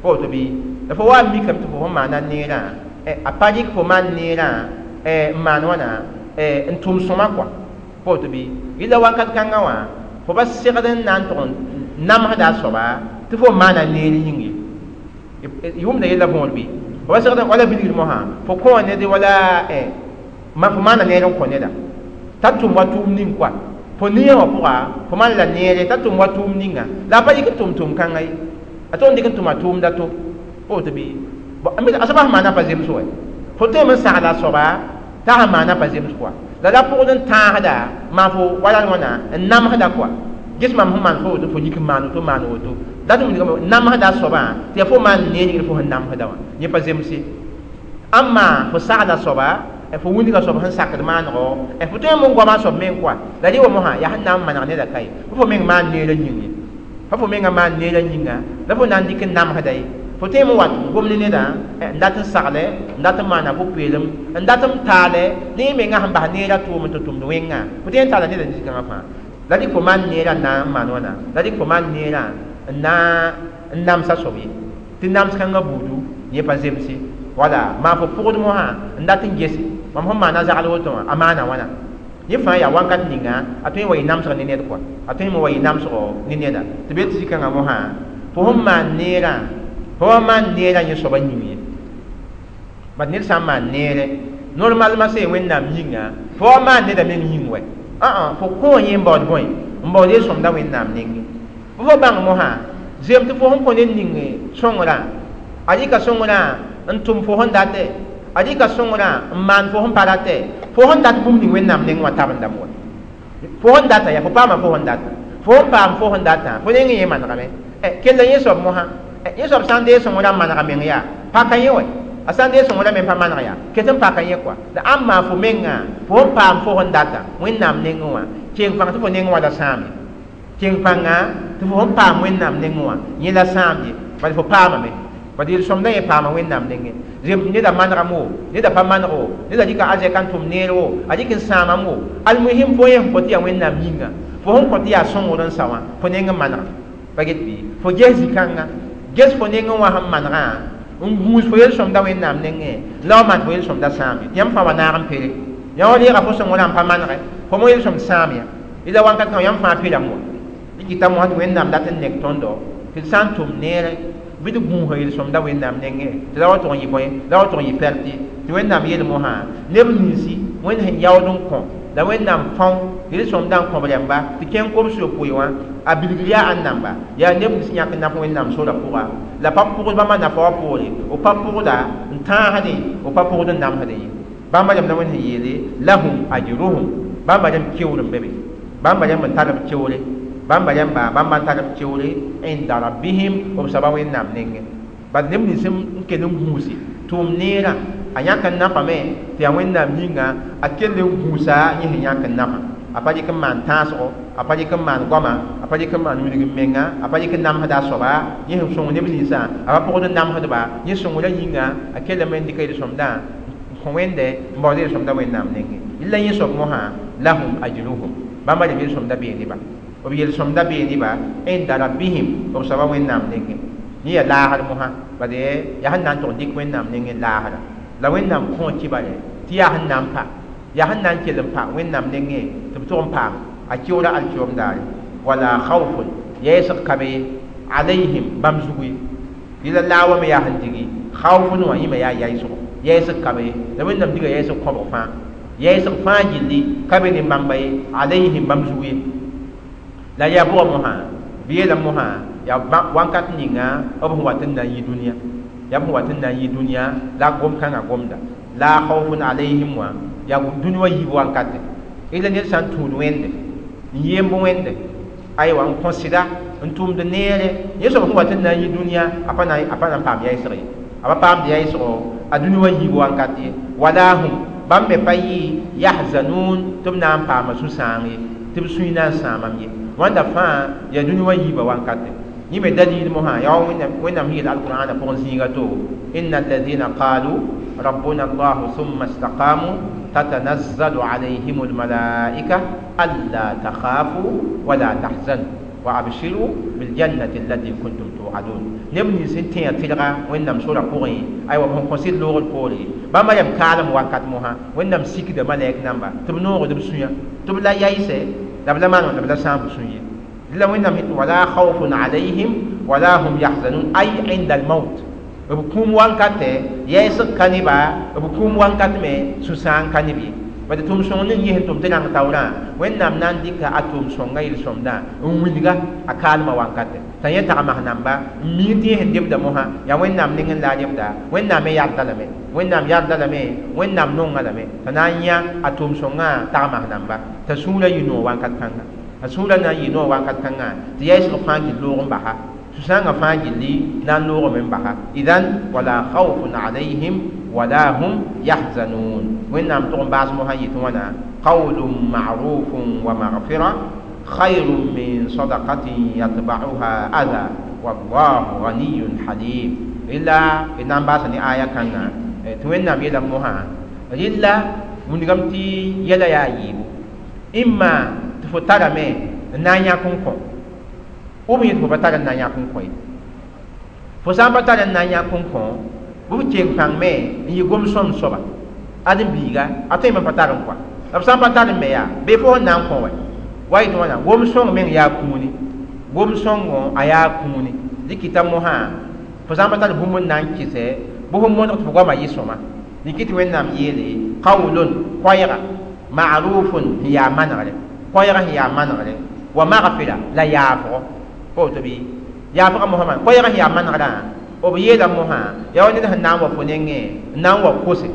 pa woto bɩ la fo wa n mikame tɩ fo sẽn maana neerã a pa rɩk fo maan neerã n maan wãna n tʋm sõma kɔa pa woto bɩ yɩla wakat kãngã wã fo pa segd n na n tʋg n namsda a soaba tɩ fo maana neer yĩng ye y wʋmda yella võor bɩ fo pa segd wala bilgr mosã fo kõ ned wala fo maana neer n kõ neda t'a tʋm wa tʋʋm ning kɔa fo nia wã pʋga fo maan la neere t'a tʋm wa tʋʋm ninga la a pa yik n tʋm tʋm-kãngã ye a tʋg n dɩk n tʋma tʋʋmda to pa woto bɩ a soaba sẽn maana pa zems wɛ fo tõeme n sagla a soaba t'a sẽn maana pa zems kɔa la la pʋgd n tãasda maan fo wala wãna n namsda kɔa ges mam sẽn maan fo woto fo yik n maan woto maan woto dat n namsda a soabã tɩ yaa fo maan neer yĩngr fo sẽn namsda wã yẽ pa zemse ãmma fo sagla soaba fo wilga soab sẽn sakd maanego fo tõe n goama soab meng kɔa la rɩ wa mosã yaa sẽn na n maneg neda ka ye fo meng maan neerã yĩng ye fa fo menga maan neerã yĩnga la fo na n dɩk n namsda ye fo tõe n wat gomd neda n dat n sagle n dat n maana pʋ-peelem n dat n taale ne yẽ menga sẽn bas neerã tʋʋm n tɩ tʋmd wẽnga fo tõe n taala neda nin-kãngã fãa la dɩk fo maan neerã n na n maan wãna la dɩk fo maan neerã n na n namsa soab ye tɩ nams kãngã buudu yẽ pa zemse wala maa fo pʋgd mosã n dat n gese mam sẽn maana zagl woto wã a maana wãna yẽ fãa yaa wakat ninga a tõe n wa yɩ namsg ne ned kɔa a tõe n wa yɩ namsgo ne neda tɩ be tɩ zĩ-kãngã mosã fo sẽn maan neerã fo wa maan neerã yẽ soaba yĩng ye bad ned sã n maan neere normalement sẽn Wẽnnaam yĩnga fo wa maan neda meng yĩng wɛ fo kõ yẽ n baood bõe n baood yel-sõmda Wẽnnaam nengẽ fo bãng mosã zem tɩ fo sẽn kõ ned ning sõngrã a rɩka sõngrã n tʋm fo sẽn datɛ a rɩka sõngrã n maan fo sẽn pa ratɛ fo sẽn dat bũmb ning Wẽnnaam neng wã tabendame wɛ fo sẽn data yaa fo paama fo sẽn data fo sẽn paam fo sẽn datã fo neng yẽ manegame kell yẽ soab mosã yẽ soab sã n dee sõngrã n manega meng yaa paka yẽ wɛ a sã n dee sõngrã me pa maneg yaa ket n paka yẽ kɔa la ãmb maa fo menga fo sẽn paam fo sẽn data Wẽnnaam nengẽ wã keng pãng tɩ fo neng wã la sãam ye keng pãnga tɩ fo sẽn paam Wẽnnaam nengẽ wã yẽ la sãam ye bala fo paamame bad yel-sõmdã yẽ paama Wẽnnaam nengẽ zem tɩ neda manegame wo neda pa maneg wo neda rɩka azɛka n tʋm neer wo a rɩk n sãamame wo almuhim fo yẽ sẽn kõ tɩ yaa Wẽnnaam yĩnga fo sẽn kõ tɩ yaa sõngr n sa wã fo neng n manega pa get bɩ fo ges zĩ-kãnga ges fo nengẽ wã sẽn manegã n gũus fo yel-sõmda Wẽnnaam nengẽ la wa maan fo yel-sõmda sãam ye yãmb fãa wa naag n pere yã wa reega fo sõngrã n pa manegɛ fo mo yel-sõmd sãam ya yẽla wakat kãng yãmb fãa perame wa rɩkɩta mosã tɩ Wẽnnaam dat n nek tõndo tɩ d sã n tʋm neere bɩ d gũusa yel-sõmda Wẽnnaam nengẽ tɩ la wa tʋg n yɩ bõe la wa tʋg n yɩ pɛrtɩ tɩ Wẽnnaam yeel mosã neb ninsi Wẽnd sẽn yaood n kõ la Wẽnnaam fão yel-sõmdã n kõb rãmba tɩ kẽng kobs yopoe wã a bilgr yaa ãn-namba yaa neb nins yãk n naf Wẽnnaam sora pʋga la pa pʋgd bãmba nafa wã poore b pa pʋgda n tãasdẽ b pa pʋgd n namsdẽ ye. Bãmba rãmb la Wẽnd sẽn yeele lahum ajruhum bãmba rãmb keoor n be be bãmba rãmb n tar b keoore bãmba rãmba bãmba n tar b keoore inda rabbihim b soaba Wẽnnaam nengẽ bad neb nins n kell n gũusi tʋʋm neerã a yãk n nafame tɩ yaa Wẽnnaam yĩnga a kell n gũusa yẽ sẽn yãk n nafa a pa dɩk n maan tãasgo a pa dɩk n maan goama a pa dɩk n maan wilg n menga a pa dɩk n namsda a soaba yẽ sẽn sõng neb ninsã a pa pʋgd n namsdba yẽ sõngrã yĩnga a kellame n dɩka yel-sõmdã n kõ Wẽnde n baood yel-sõmdã Wẽnnaam nengẽ la yẽ soab mosã lahum ajruhum bãmba rẽmb yel-sõmdã bee neba b yel-sõmdã bee neba inda rabbihim b soaba Wẽnnaam nengẽ yẽ yaa laasr mosã bad yaa sẽn na n tʋg n dɩk Wẽnnaam nengẽ laasra la Wẽnnaam kõ kibare tɩ yaa sẽn na n pa yaa sẽn na n kell n pa Wẽnnaam nengẽ tɩ b tʋg n paam a keoora alkiom daare wala khawfun yɛɛsg ka be alayhim bãmb zugu ye yẽla laa wã me yaa sẽn digi khawfun wã yẽ me yaa yaɩsgo yɛɛsg ka be la Wẽnnaam diga yɛɛsg kõbg fãa yɛɛsg fãa gilli ka be ne bãmba ye alayhim bãmb zugu ye la yaa bʋga mosã bɩ yeelame mosã yaa wãnkat ninga b sẽn wat n na n yi dũniyã yaa b sẽn wat n na n yi dũniyã la gom-kãngã gomda la khawfun alayhim wã yaa dũni wã yiib wankate ila ned sã n tũud Wẽnde n yemb Wẽnde aywa n kõ sɩda n tʋmd neere yẽ soab sẽn wat n na n yi dũniyã a pa na n paam yaɩsg ye a pa paamd yaɩsgo a dũni wã yiib wankat ye wala hum bãmb me pa yɩ yahzanun tɩ b na n paama sũ-sãang ye tɩ b sũy na n sãamam ye wãnda fãa yaa dũni wã yiibã wankate yẽ me dalil mosã yaa wa Wẽnnaam sẽn yeel alqur'ana pʋgẽ zĩiga to inna alladhina qalu rabbuna allah thumma istaqamu tatanazzalu alayhim almalaika alla takhafu wala tahzanu wa abshiru biljannati allati kuntum tu'adun neb nins n tẽa tɩlga Wẽnnaam sora pʋgẽ aywa b sẽn kõ sɩd loogr poore bãmba yam kaalem wakat mosã Wẽnnaam sikda malɛk namba tɩ b noogd b sũyã tɩ b la yaɩsɛ la b la maan la b la sãam b sũ ye la Wẽnnaam wala khawfun alayhim wala hum yahzanun ay inda almaut b kũum wankatɛ yɛɛsg ka neba b kũum wankat me sũ-sãang ka neb ye bad tʋʋm-sõng ning yẽ sẽn tʋm tɩ rãng taoorã Wẽnnaam na n dɩka a tʋʋm-sõngã yel-sõmdã n wilga a kaalmã wankatɛ t'a yẽ tagms namba n mii tɩ yẽ sẽn debda mosã yaa Wẽnnaam nengẽ la a debda Wẽnnaam me yarda lame Wẽnnaam yarda lame Wẽnnaam nonga lame t'a na n yã a tʋʋm-sõngã tagms namba t'a sũurã yɩ noog wankat kãnga a sũurã na n yɩ noog wankat kãnga tɩ yaɩsg fãa gil loog n basa sũ-sãangã fãa gilli na n loogame n basa idan wala khawfun alayhim wala hum yahzanun Wẽnnaam tʋg n baas mosã yetɩ wãna qawlun ma'rufun wa maghfira khayrun min sadaqatin yatba'uha adha wallahu ghaniyun halim rɩla d na n baasa ne aya kãngã tɩ Wẽnnaam yeelame mosã rɩla wilgame tɩ yɛla yaa yiibu imma tɩ fo tarame n na n yãk n kõ b yẽ tɩ fo pa tar n na n yãk n kõ ye fo sã n pa tar n na n yãk n kõ bɩ b keng pãng me n yɩ gom-sõmd soaba ad n biiga a tõeme n pa tar n kɔa la b sã n pa tar n me yaa bee fo sẽn na n kõ wɛ wa yetɩ wãna gom-sõng meng yaa kũuni gom-sõngo a yaa kũuni dɩkɩta mosã fo sã n pa tar bũmb n na n kɩsɛ bɩ fo modg tɩ fo goamã yɩ sõma dɩkɩ tɩ Wẽnnaam yeele qawlun koɛɛga ma'rufun sẽn yaa manegre koɛɛga sẽn yaa manegre wa maghfira la yaafgo pa woto bɩ yaafga mosã maan koɛɛga sẽn yaa manegrã b yeela mosã yaa wa ned sẽn na n wa fo nengẽ n na n wa kose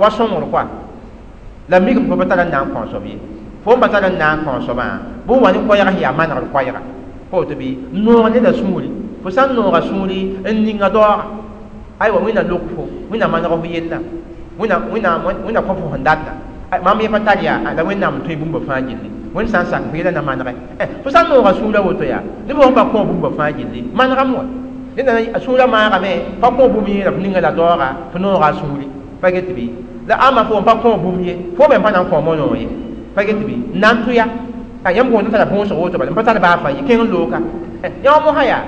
wa sõngr koa la mikame fo pa tar n na n kõ soab ye fo n pa tar n na n kõ soabã bɩ wa ne koɛɛga sẽn yaa manegr koɛɛga pa woto bɩ n noog neda sũuri fo sã n nooga sũuri n ninga daooga aywa Wẽnna lok fo Wẽnna maneg fo yella Wẽnna kõ fo sẽn data mam yẽ pa tar yaa la Wẽnnaam n tõe bũmba fãa gilli Wẽnd sã n sak fo yɛla na manegɛ fo sã n nooga sũurã woto yaa neb sẽn pa kõ bũmba fãa gilli manegame wa ned sũurã maagame pa kõ bũmb yẽ la fo ninga la daooga fo nooga a sũuri pa get bɩ la ãmba fo n pa kõ bũmb ye fo me n pa na n kõ monoog ye pa get bɩ n na n tʋ ya yãmb gõod n tara võosg woto bala n pa tar baa fãa ye kẽng n looka yã mosã yaa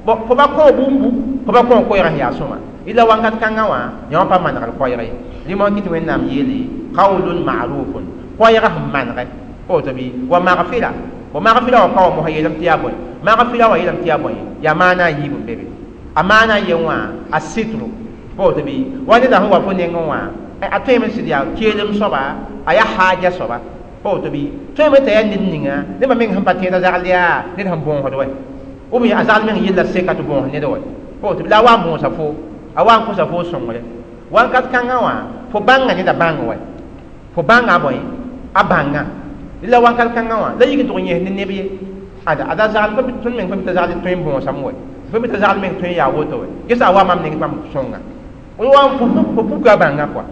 fo pa kõ bũmbu fo pa kõ koɛɛg sẽn yaa sõma ila wankat kãngã wã yã wã pa manegr koɛɛg ye rɩ kɩ tɩ Wẽnnaam yeele qawlun ma'rufun koɛɛg sẽn manegɛ pa woto bɩ wa maghfira wa maghfira wã pa wa mosã yeelame tɩ yaa bõe maghfira wã yeelame tɩ yaa bõe yaa maana a yiib n be be a maana yen wã a sitru pa woto bɩ wa neda sẽn wa fo nengẽ wã a tõeme sɩd yaa keelem soaba a yaa haaja soaba pa woto bɩ tõeme t'a yaa ned ninga nebã meng sẽn pa tẽeda zagl yaa ned sẽn bõosd wɛ ou bien a zagl meng yella seka tɩ bõos ned wɛ pa woto bɩ la a wa n bõosa fo a wa n kosa fo sõngre wankat kãngã wã fo Fo bãnga neda bãng wa fo bãnga a bõe a bãnga la wakat kãngã wã la yik n tʋg n yẽs ne neb ye ada ada zagl tõnd meng pa mi t'a zagl tõe n bõosame wa pa mi t'a zagl meng tõe n yaa woto wa gesa a wa mam neng bãmb sõnga wa fo puka a bãnga kɔa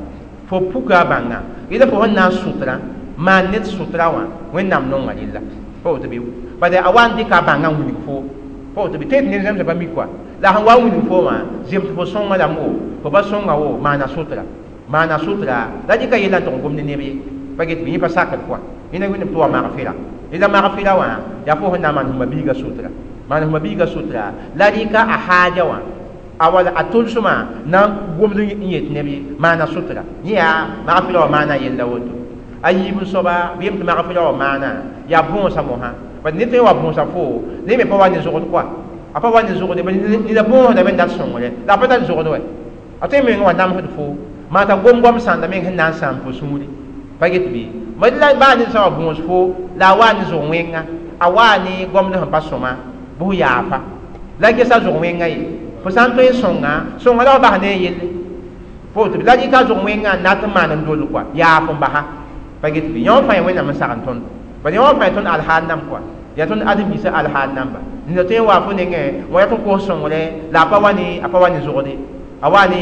fo puka a bãnga yẽla fo sẽn na n sʋtra maan ned sʋtra wã Wẽnnaam nonga rella pa woto bɩ bala a wa n dɩka a bãngã n wilg fo pa woto bɩ tõe tɩ ned zãmsã pa mi kɔa la sẽn wa n wilg fo wã zems fo sõnga lame wo fo pa sõnga wo maana sʋtra maana sʋtra la dɩka yella n tʋg n gom ne neb ye pa get bɩ yẽ pa sakd kɔa yẽna wẽnnaam tɩ wa magfɩra la magfɩra wã yaa fo sẽn na n maan sẽn biiga sʋtra maan sẽn biiga sʋtra la rɩka a haaja wã a wala a tʋlsmã na n gomd n yet neb ye maana sʋtra yẽ yaa magfɩra wã maana yella woto a yiib n soaba bɩ yem tɩ magfɩra wã maana yaa bõosa mosã bad ned tõe n wa bõosa fo ne me pa wa ne zogd kɔa a pa wa ne zogde neda bõosdame n dat sõngre la a pa tar zogd wɛ a tõe meng wa namsd fo maa t'a gom-goam sãnda meng sẽn na n sãam fo sũuri pa get bɩ la baa ned sã wa bõos fo la a waa ne zog wẽnga a waa ne gomd sẽn pa sõma bɩ f yaafa la gesa zog wẽnga ye fo sã n tõe n sõnga sõnga la f bas ne a yelle fo tɩ la rɩka zog wẽnga n nat n maan n dol kɔa yaaf n basa pa get bɩ yõ fãa Wẽnnaam n sagn tõndo bala yõ fãa tõnd alhaal nam kɔa yaa tõnd ãdem-biisã alhaal namba nina tõe n wa fo nengẽ wã yaa tɩ kos sõngre la a pa wa ne zogde a wa ne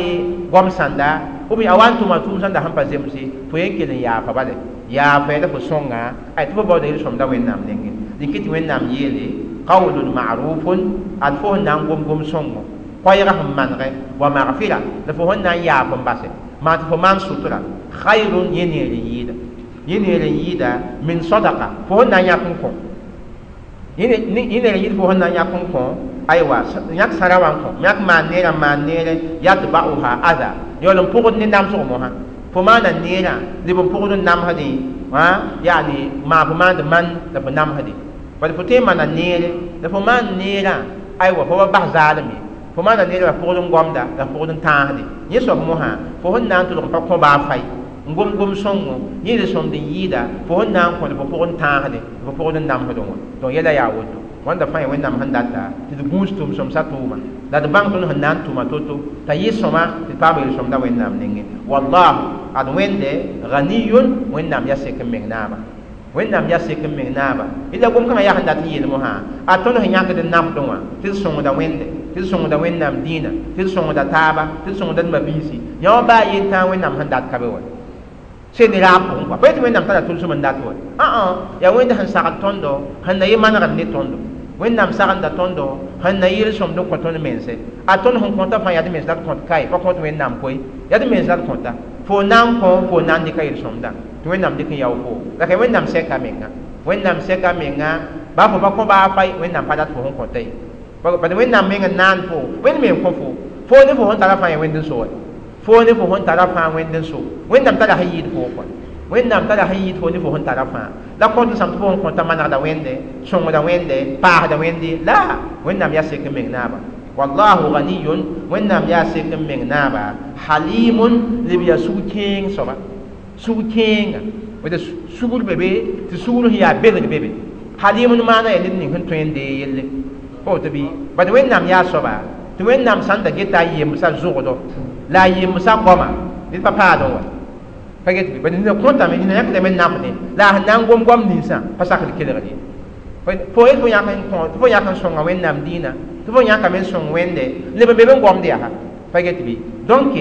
goam sãnda ou bien a wa n tʋma tʋʋm sãnda sẽn pa zemse fo yen kell n yaafa bale yaafa la fo sõnga ay tɩ fo baooda yel-sõmda Wẽnnaam nengẽ dẽn tɩ Wẽnnaam yeele qawlun ma'rufun ad fo sẽn na n gom-gom sõngo koɛɛga sẽn manegɛ wa magfira la fo sẽn na n yaaf n basɛ maa tɩ fo maan sʋtra khayrun yẽ neer n yɩɩda yẽ neer n yɩɩda min sadaqa fo sẽn na n yãk n kõ yẽ neer n yɩɩd fo sẽn na n yãk n kõ aywa yãk sãra wã n kõ yãk maan neerã n maan neere yatba'uha adha yaool n pʋgd ne namsg mosã fo maana neerã leb n pʋgd n namsdẽ yaani maa fo maand man la fo namsdẽ bala fo tõe n maana neere la fo maan neerã aywa fo pa bas zaalem ye fo maana neerã la pʋgd n gomda la pʋgd n tãasde yẽ soab mosã fo sẽn na n tʋlg n pa kõ baa fay n gom-gom sõngo yẽ yel-sõmd n yɩɩda fo sẽn na n kõ fo pʋgd n tãasde fo pʋgd n namsdẽ wã donc yɛla yaa woto wãnda fãa Wẽnnaam sẽn data tɩ d gũus tʋm-sõmsã tʋʋma la d bãng tõnd sẽn na n tʋma to-to t'a yɩ sõma tɩ paam yel-sõmda Wẽnnaam nengẽ wallahu ad Wẽnde ghaniyun Wẽnnaam yaa sek n meng naaba Wẽnnaam yaa sek n meng naaba la gom-kãngã yaa sẽn dat n yeel mosã a tõnd sẽn yãkd n nafdẽ wã tɩ d sõngda Wẽnde tɩ d sõngda Wẽnnaam dĩinã tɩ d sõngda taaba tɩ d sõngda d mabiisi yã wã baa yel tãa Wẽnnaam sẽn dat ka be wa sẽn ne raab pʋgẽ kɔa pa yetɩ Wẽnnaam tara tʋlsem n dat wa yaa Wẽnd sẽn sagl tõndo sẽn na yɩ manegd ne tõndo Wẽnnaam sagenda tõndo sẽn na yel-sõmd n kõ tõnd mense a tõnd sẽn kõta fãa yaa d mens la d kõt kae pa kõt Wẽnnaam koe yaa d mens la d kõta fo na n kõ fo na n dɩka yel-sõmdã tɩ Wẽnnaam dɩk n yao fo la ka Wẽnnaam sɛka menga Wẽnnaam sɛka menga baa fo pa kõ baa fay Wẽnnaam pa dat fo sẽn kõta ye bad Wẽnnaam meng n naan fo Wẽnd me n kõ fo fo ne fo sẽn tara fãa yaa Wẽnd n so wa fo ne fo sẽn tara fãa Wẽnd n so Wẽnnaam tara sẽn yɩɩd fo kɔa Wẽnnaam tara sẽn yɩɩd fo ne fo sẽn tara fãa la kõt n sãm tɩ fo sẽn kõta manegda Wẽnde sõngda Wẽnde paasda Wẽnde la Wẽnnaam yaa sek n meng naaba wallahu ghaniyun Wẽnnaam yaa sek n meng naaba halimun leb yaa sug-kẽeng soaba sug-kẽenga weta sugr be be tɩ sugr sẽn yaa bedg be be halimun maana yaa ned ning sẽn tõe n dee yelle pa woto bɩ bad Wẽnnaam yaa soaba tɩ Wẽnnaam sãn da geta a yemsã zogdo la a yemsã goama ned pa paadẽ wa pa get bɩ bad nina kõtame nina yãkdame n nafdẽ la a sẽn na n gom goam ninsã pa sakd kelgr ye fo yet fo yãk n kõ tɩ fo yãk n sõnga Wẽnnaam dĩinã tɩ fo yãkame n sõng Wẽnde leb n be be n gomd yaa pa get bɩ donc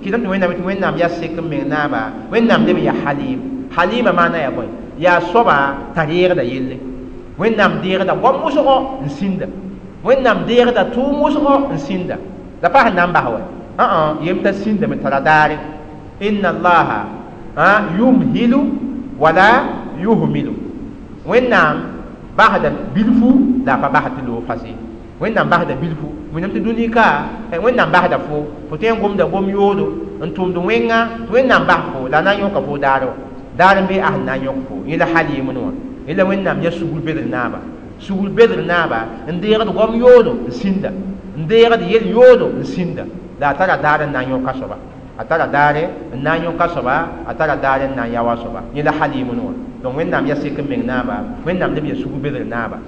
kɩtame tɩ Wẽnnaam tɩ Wẽnnaam yaa sek n meng naaba Wẽnnaam leb n yaa halim halima maana yaa bõe yaa soaba t'a reegda yelle Wẽnnaam deegda goam wʋsgo n sĩnda Wẽnnaam deegda tʋʋm wʋsgo n sĩnda la pa sẽn na n bas wa yem t'a sĩndame tara daare inna allaha yumhilu wala yuhmilu Wẽnnaam basda bilfu la a pa basd tɩ loog fase Wẽnnaam basda bilfu wẽnnaam tɩ dũni ka Wẽnnaam basda fo fo tõe n gomda gom yoodo n tʋmd wẽnga tɩ Wẽnnaam bas fo la a na n yõka fo daar wã daar n be a sẽn na n yõk fo yẽ la halimn wã yẽ la Wẽnnaam yaa sugr bedr naaba sugr bedr naaba n deegd goam yoodo n sĩnda n deegd yel yoodo n sĩnda la a tara daar n na n yõka soaba a tara daare n na n yõka soaba a tara daare n na n yaoa soaba yẽ la halimn wã donc Wẽnnaam yaa sek n meng naaba Wẽnnaam leb yaa sugr bedr naaba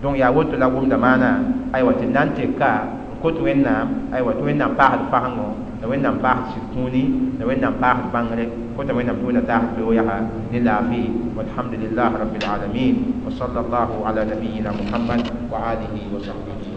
donc yaa woto la gomda maana aywa tɩ d na n teka n kot Wẽnnaam aywa tɩ Wẽnnaam paasd fasengo La Wẽnnaam paasd sɩd kũuni, la Wẽnnaam paasd bãngre, kota Wẽnnaam tɩ Wẽnna taasd beoog yaa ne laafɩ. Walhamdulillah rabbil alamin, wa sallallahu ala nabiyina Muhammad wa alihi wa sahbihi.